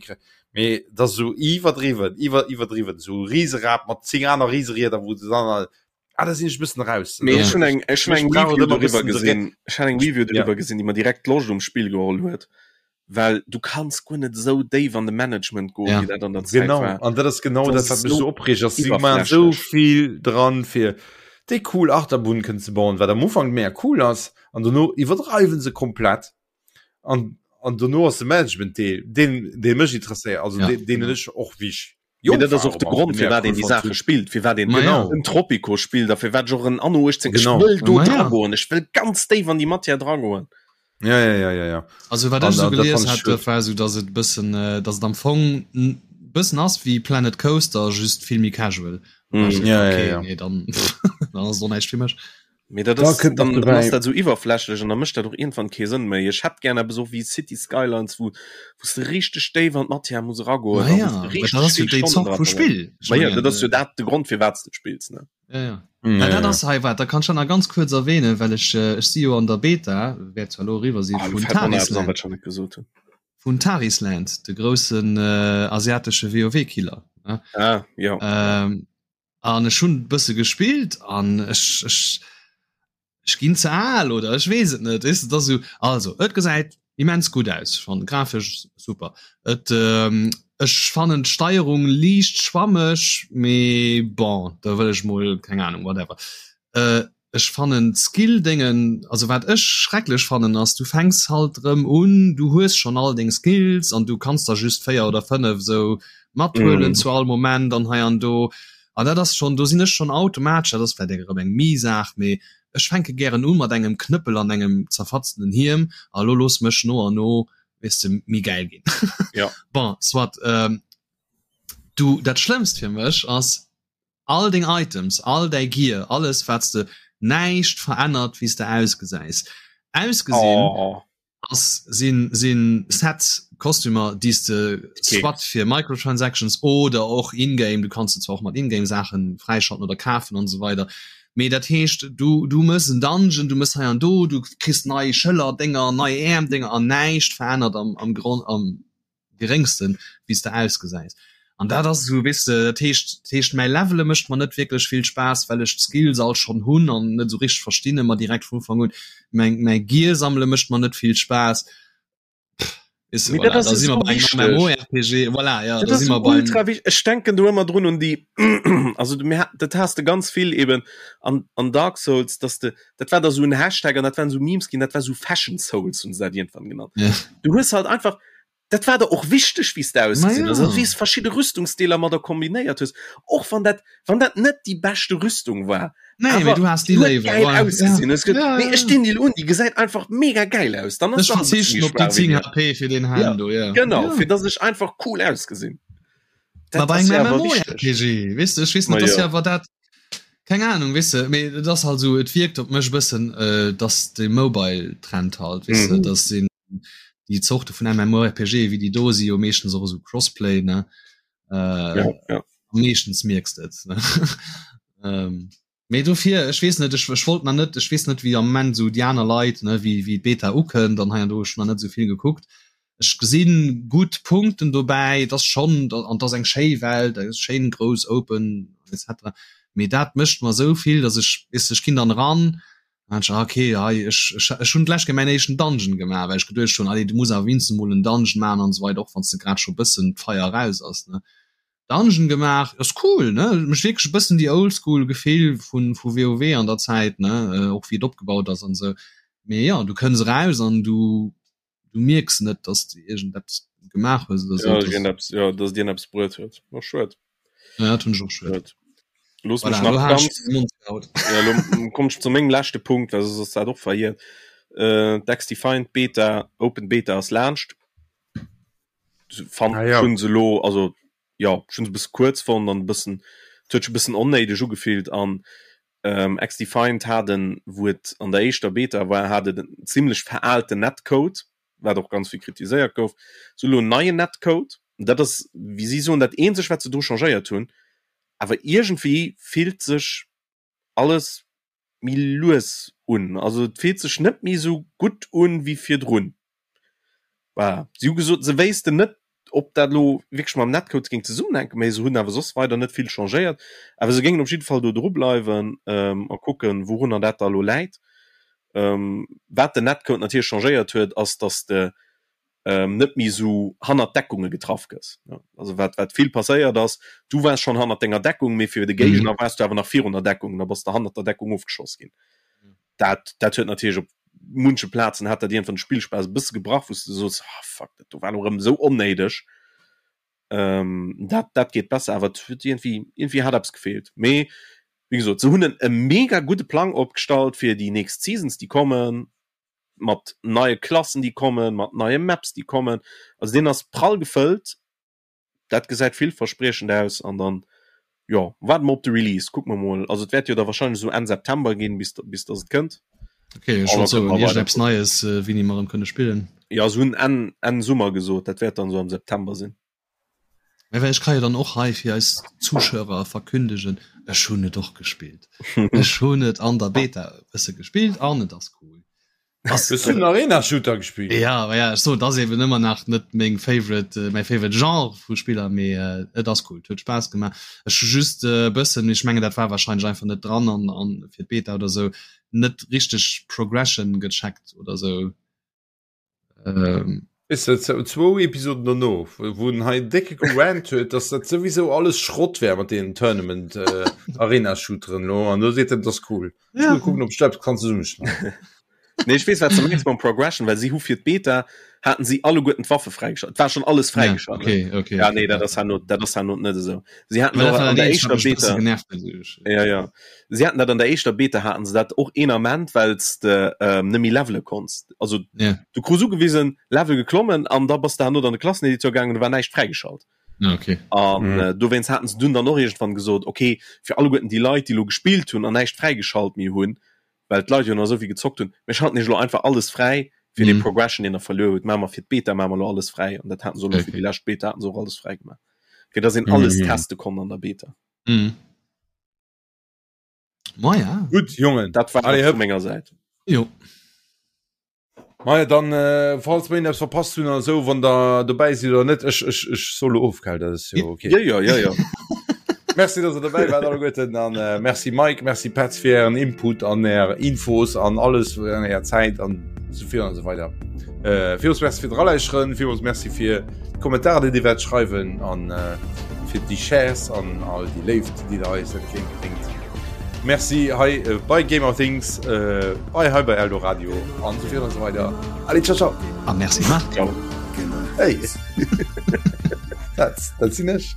[SPEAKER 2] mee et ass esou iwwerdriwwen, iwwer, iwwerdriwwen, esou e Riserad mat 10 aner Riserieder, wou de dann, ah, da sinn ech e bëssen raus.
[SPEAKER 3] Mee
[SPEAKER 4] Ja.
[SPEAKER 3] ech hunn eng, ech hunn
[SPEAKER 2] Ech
[SPEAKER 3] eng
[SPEAKER 2] brauch et
[SPEAKER 3] Review
[SPEAKER 2] ëmmer e
[SPEAKER 3] doriwwer
[SPEAKER 2] bëssen de
[SPEAKER 3] gesinn, ech hat eng Review
[SPEAKER 2] Ja.
[SPEAKER 3] doriwwer gesinn, déi mer direkt d'Loscht um Spill geholl huet. Well du kanns guer net esou déif an de Management goen,
[SPEAKER 4] Ja.
[SPEAKER 3] wéi dat an der Zäit
[SPEAKER 2] Genau,
[SPEAKER 3] war.
[SPEAKER 2] an dat ass genau
[SPEAKER 3] Dat
[SPEAKER 2] dat,
[SPEAKER 3] ass
[SPEAKER 2] wat mech
[SPEAKER 3] so
[SPEAKER 2] so opreegt, ass si man so
[SPEAKER 3] iwwerflächlech.
[SPEAKER 2] vill dran fir déi cool Achterbunn kënnen ze bauen, wat am Ufank mega cool ass, an dono iwwerdreiwen se komplett an an dono ass de Management-Deel deen dee mech interesséiert, also
[SPEAKER 4] Ja,
[SPEAKER 2] deen deen
[SPEAKER 4] genau.
[SPEAKER 2] ech och wéi ech
[SPEAKER 3] Mee
[SPEAKER 2] jonk
[SPEAKER 3] dat ass
[SPEAKER 2] war
[SPEAKER 3] och de
[SPEAKER 2] och
[SPEAKER 3] Grond,
[SPEAKER 2] mega
[SPEAKER 3] firwat
[SPEAKER 2] cool
[SPEAKER 3] een déi
[SPEAKER 2] fonnt
[SPEAKER 3] Saache
[SPEAKER 2] hunn.
[SPEAKER 3] spillt, firwat een
[SPEAKER 4] Ma ja.
[SPEAKER 3] en Tropico spillt a firwat ech och en Anno 18, ech
[SPEAKER 2] Genau.
[SPEAKER 3] wëll do
[SPEAKER 4] Ma ja.
[SPEAKER 3] dragoen, ech wëll ganz déif an déi Matière dragoen.
[SPEAKER 2] Ja, ja, ja, ja, ja.
[SPEAKER 4] Also wat
[SPEAKER 2] An
[SPEAKER 4] ech esou
[SPEAKER 2] dat, dat
[SPEAKER 4] gelies
[SPEAKER 2] fand ech
[SPEAKER 4] hat, dat
[SPEAKER 2] schued.
[SPEAKER 4] war esou, datt et e bëssen, datt et am Fong. bëssen ass wéi Planet Coaster, just vill méi casual.
[SPEAKER 2] Mm. Ja, okay, ja, ja.
[SPEAKER 4] Nee, dann, dann ass et och näischt fir mech.
[SPEAKER 3] Mee dat
[SPEAKER 2] Da
[SPEAKER 3] ass,
[SPEAKER 2] kënnt
[SPEAKER 3] dann,
[SPEAKER 2] nach
[SPEAKER 3] dann ass
[SPEAKER 2] dobäi.
[SPEAKER 3] dat sou iwwerflächlech an da mécht dat och iergendwann kee Sënn méi. Ech hätt gär eppes och wéi City Skylines, wou wou s de richteg déif an d'Matière muss eragoen
[SPEAKER 4] Ma
[SPEAKER 3] a wou
[SPEAKER 4] ja,
[SPEAKER 3] s de
[SPEAKER 4] mä dat
[SPEAKER 3] richteg
[SPEAKER 4] ass jo
[SPEAKER 3] vill
[SPEAKER 4] déi
[SPEAKER 3] Stonnen
[SPEAKER 4] Zort
[SPEAKER 3] dra
[SPEAKER 4] vu
[SPEAKER 3] verbréngs.
[SPEAKER 4] Spill. Ech
[SPEAKER 3] Ma jo,
[SPEAKER 4] mengen,
[SPEAKER 3] dat ass jo
[SPEAKER 4] äh,
[SPEAKER 3] dat de Grond firwat s de et spills, ne?
[SPEAKER 4] Ja, ja.
[SPEAKER 2] Ja,
[SPEAKER 4] Ja, dat
[SPEAKER 2] ja.
[SPEAKER 4] ass hei wat, da kann ech dat nach ganz kuerz erwähnen, well ech, äh, ech si jo an der Beta, wäert zwar elo eriwwer si
[SPEAKER 3] Ah, lo
[SPEAKER 4] vun
[SPEAKER 3] fält mer nach eppes an,
[SPEAKER 4] Tarisland.
[SPEAKER 3] wat ech nach net gesot hunn.
[SPEAKER 4] Vun Tarisland, de groussen äh, asiatesche WoW-Killer. Ne?
[SPEAKER 3] Ah, jo.
[SPEAKER 4] Ähm, an ech hunn e bësse gespillt an ech, ech, ech ginn ze al oder ech weess et net weess de, et ass esou also et gesäit immens gutt aus ech fannen grafesch super et ähm, ech fannen d'Steierung liicht schwammeg mee bon da wëll ech mol keng Ahnung whatever äh, ech fannen d'Skill Déngen also wat ech schrecklech fannen ass du fänks halt rëm un du hues schonn all deng Skills an du kanns der just 4 oder 5 esou mathuelen
[SPEAKER 3] Mm.
[SPEAKER 4] zu all Moment an hei an do An dat ass schonn, do sinn ech schonn automatesch, dat ass vläicht eng erëm eng Mi-Saach, mee ech fänke gären u mat engem Knëppel an engem zerfatzenen Hiem a lo looss mech no an no, weess de, méi gäil ginn.
[SPEAKER 3] Ja.
[SPEAKER 4] Bon, soit. Du, dat Schlëmmst fir mech ass, all deng Items, all däi Gear, alles wat s de, näischt verännert wéi s de ausgesäis. Ausgesinn.
[SPEAKER 3] Oh.
[SPEAKER 4] ass sinn sinn Sets Kostümer déi s de soit fir Microtransactions oder och in-game, du kanns se zwar och mat in-game Saachen fräischalten oder kafen an esou weider, mee dat heescht du du mëss en Dungeon, du mëss hei an do, du kriss nei Schëller-Dénger, nei Äerm-Dénger an näischt verännert am am Gronn am geréngsten wéi s de ausgesäis an dat ass esou weess de dat heescht dat heescht mäi Levele mécht mer net wierklech vill Spaass well ech d'Skills all schonn hunn an net esou richteg verstinn ëmmer direkt vun Ufank un mäin mäi Gear sammele mécht mer net vill Spaass weess de
[SPEAKER 3] Mee dat
[SPEAKER 4] voilà
[SPEAKER 3] ass
[SPEAKER 4] da si mer
[SPEAKER 3] esou
[SPEAKER 4] bei engem
[SPEAKER 3] wichteg.
[SPEAKER 4] MMORPG voilà ja
[SPEAKER 3] Dat
[SPEAKER 4] da
[SPEAKER 3] ass
[SPEAKER 4] si
[SPEAKER 3] esou
[SPEAKER 4] mer beim
[SPEAKER 3] ultra wichteg. Ech denken do ëmmer drun un déi also du mir dat has de ganz vill eben an an Dark Souls, dass de dat war da sou en Hashtag an dat waren sou Memes ginn, dat war sou Fashion Souls hunn se dat iergendwann genannt.
[SPEAKER 4] Ja.
[SPEAKER 3] Du hues halt einfach dat war der och wichteg wéi s de ausgesinn
[SPEAKER 4] Ma
[SPEAKER 3] hues,
[SPEAKER 4] ja.
[SPEAKER 3] also wéi s verschidde Rüstungsdeeler mat der kombinéiert hues, och wann dat wann dat net déi beschte Rüstung war,
[SPEAKER 4] Nee, mee
[SPEAKER 3] awer
[SPEAKER 4] du has déi
[SPEAKER 3] déi huet
[SPEAKER 4] léiwer,
[SPEAKER 3] gäil
[SPEAKER 4] voilà. Ja.
[SPEAKER 3] ausgesinn. Hues gesot,
[SPEAKER 4] Ja,
[SPEAKER 3] nee
[SPEAKER 4] ja,
[SPEAKER 3] ech
[SPEAKER 4] ja.
[SPEAKER 3] dinn déi elo un, déi gesäit einfach mega gäil aus, dann ass
[SPEAKER 4] Ech
[SPEAKER 3] se och e bësse
[SPEAKER 4] verzichten
[SPEAKER 3] méi
[SPEAKER 4] op déi
[SPEAKER 3] schwaach wéi
[SPEAKER 4] 10
[SPEAKER 3] déi
[SPEAKER 4] HP fir deen
[SPEAKER 3] Ja,
[SPEAKER 4] Helm do, ja.
[SPEAKER 3] genau,
[SPEAKER 4] Ja.
[SPEAKER 3] fir dass ech einfach cool ausgesinn.
[SPEAKER 4] Ma
[SPEAKER 3] Dat
[SPEAKER 4] bei
[SPEAKER 3] ass
[SPEAKER 4] engem
[SPEAKER 3] jo awer wichteg.
[SPEAKER 4] MMORPG, weess de, ech weess
[SPEAKER 3] Ma
[SPEAKER 4] net, dat ass
[SPEAKER 3] jo.
[SPEAKER 4] jo awer dat, Keng Ahnung, weess de, mee et ass halt esou, et wierkt op mech e bëssen, dass de Mobile-Trend halt, weess de, dass sinn déi Zorte vun MMORPG, wéi déi do si jo meeschtens och esou Crossplay, ne?
[SPEAKER 3] Ja, ja.
[SPEAKER 4] Meeschtens mierks de et, ne? Mee dofir, ech weess net, ech, ech wollt nach net, ech weess net, wéi am Moment esou déi aner Leit, ne, wéi, wéi d'Beta ukënnt an hei an do, ech hunn nach net esou vill gekuckt. Ech gesinn gutt Punkten dobäi, et ass schonn, an et ass eng schéi Welt, eng schéin grouss open etc. Mee dat mécht mer esou vill, datt ech, weess de, ech ginn dann eran an ech, ah okay, hei ech ech ech hunn d'lescht Kéier mäin éischten Dungeon gemaach, well ech geduecht hunn, allez du muss awer wéinstens emol en Dungeon maachen an esou weider, och wann s de grad scho bëssen d'Feier eraus ass, ne. Dungeon gemaach, ass cool, ne, mécht wierklech e bëssen déi Oldschool Gefill vun vu WoW an der Zäit, ne, och wéi et opgebaut ass an esou. Mee jo, du kënns eraus an du du mierks net dass du irgend eppes gemaach hues oder
[SPEAKER 3] ja, so, dass, ja, dass dir eppes bruet huet och schued
[SPEAKER 4] ja, dat hunn ech och schued
[SPEAKER 3] Los
[SPEAKER 4] voilà,
[SPEAKER 3] nach ganz, ja, lo komm ich zu mengem leschte Punkt well soss ass dat och verhiert äh, d'X-Defiant Beta Open Beta ass laanscht fand
[SPEAKER 2] Ah, ja.
[SPEAKER 3] schon se lo also ja schon se bësse kuerz fonnt an bëssen et huet sech e bëssen onnéideg ugefillt an ähm, X-Defiant hat en, wou et an der éischter Beta war, hat et en zimmlech veraalten Netcode, wat och ganz vill kritiséiert gouf. Se hu lo en neien Netcode, dat ass, wéi si soen, dat eenzegt, wat se dru changéiert hunn. Awer iergendwéi fillt sech alles méi lues un. Also et fillt sech net méi esou gutt un wéi virdrun. Voilà. Si hu gesot, se wéissten net, ob dat elo wierklech mam Netcode géing zesummenhänken, mä se hunn awer soss weider net vill changéiert. Awer se géingen op jidde Fall do dru bleiwen a kucken, wourunner dat da elo läit. Wat den Netcode natierlech changéiert huet, ass, datt de net méi esou hannert Deckunge getraff gëss. Also wat wat vill passéiert ass, du waars schonn hannert denger Deckung, mee fir de Géigner waars du awer nach virun der Deckung, da bass de hannert der Deckung ofgeschoss ginn. Dat dat huet natierlech op munche Plazen hat dat iergendwann de Spillspaass e bësse gebrach, wou s de soos, ah fuck, dat do war elo erëm esou onnéideg. Dat dat geet besser, awer et huet iergendwéi iergendwéi hat eppes gefeelt. Mee wéi gesot, se hunn en e mega gudde Plang opgestallt fir déi nächst Seasons déi kommen. mat neie Klassen déi kommen, mat neie Maps déi kommen. Also deen ass prall gefëllt. Dat gesäit villverspriechend aus an dann, jo, waarde mer op de Release, kucke mer mol. Also et wäert jo da wahrscheinlech esou Enn September ginn, bis bis dass et kënnt.
[SPEAKER 4] Okay, ech wollt soen, iergendeppes Neies, wéini mer erëm kënne spillen.
[SPEAKER 3] Jo, se hunn Enn Enn Summer gesot, dat wäert dann esou am September sinn.
[SPEAKER 4] Mä well ech ka jo dann och hei fir eis Zuschauer verkündegen, ech hunn et och gespillt. Ech hunn et an der Beta e bësse gespillt an et ass cool.
[SPEAKER 2] Ass Hues du den Arena Shooter gespillt?
[SPEAKER 4] Ja, ma ja, ech soen, et ass eben ëmmer nach net meng favorite, mäi favorite Genre vu Spiller, mee et ass cool, et huet Spaass gemaach. Ech hu just e bëssen, mee ech mengen dat war wahrscheinlech einfach net dran an an fir d'Beta oder sou, net richteg Progression gecheckt oder sou.
[SPEAKER 2] Ähm. Is dat zwou Episoden dono, wou en hei décke gerant huet, dass dat souwisou alles Schrott wär mat deenen Tournament äh, Arena Shooteren lo an do seet en, dat ass cool. Ja. Ech kucken, ob ech dat kann zesummeschneiden.
[SPEAKER 3] Nee, ech weess wat se mengs mam Progression, well si hu fir d'Beta haten si alleguerten d'Waffe fräigeschalt. Et war schon alles fräigeschalt.
[SPEAKER 4] Ja, okay, okay.
[SPEAKER 3] Ja, nee, dat ass herno, dat ass herno net esou. Si haten och an der éischter Beta.
[SPEAKER 4] Genervt,
[SPEAKER 3] ja, ja. Si haten dat an der éischter Beta haten se dat och een Ament, well s de ähm, net méi levele konns. Also
[SPEAKER 4] yeah.
[SPEAKER 3] du krus ugewisen, Level geklommen an da bass de herno an de Klasseneditor gaangen, do war näischt fräigeschalt.
[SPEAKER 4] Ja, okay.
[SPEAKER 3] An mhm. äh, dowéinst haten se dunn dann och irgendwann gesot, okay, fir alleguerten déi Leit, déi lo gespillt hunn an näischt fräigeschalt méi hunn, well d'Leit jo nach esou vill gezockt hunn, mir schalten iech lo einfach alles fräi fir mm. den Progression, deen der verluer hutt, maache mer fir d'Beta maache mer lo alles fräi an dat haten se okay. fir déi lescht Beta haten se och alles fräi gemaach, fir dass een alles mm. teste konnt an der Beta.
[SPEAKER 4] Mm. Ma ja.
[SPEAKER 2] Gutt Jongen,
[SPEAKER 3] dat war Allez, vu menger Säit.
[SPEAKER 4] Jo.
[SPEAKER 2] Maja dann äh, falls mir eppes verpasst hunn oder sou, wann der dobäi sidd oder net, ech, ech, ech soll lo of, gell, dat ass jo okay.
[SPEAKER 3] Ja, ja, ja, ja.
[SPEAKER 2] Merci, dass der dobäi waart alleguerten an äh, merci Mike, merci Petz fir ären Input an är Infos an alles an är Zäit an sou vill an sou weider. Äh, villmools merci fir d'Eralauschteren, villmools merci fir d'Kommentarer, déi dir wäert schreiwen an äh, fir déi Shares an all déi Léift, déi der eis entgéintbréngt. Merci hei äh, bei Gamer Things, äh, bei hei bei Eldoradio an so vill an so weiter. Allez, ciao, ciao.
[SPEAKER 4] Ah, merci Marc.
[SPEAKER 3] Ciao.
[SPEAKER 2] Hey. dat, dat sinn ech.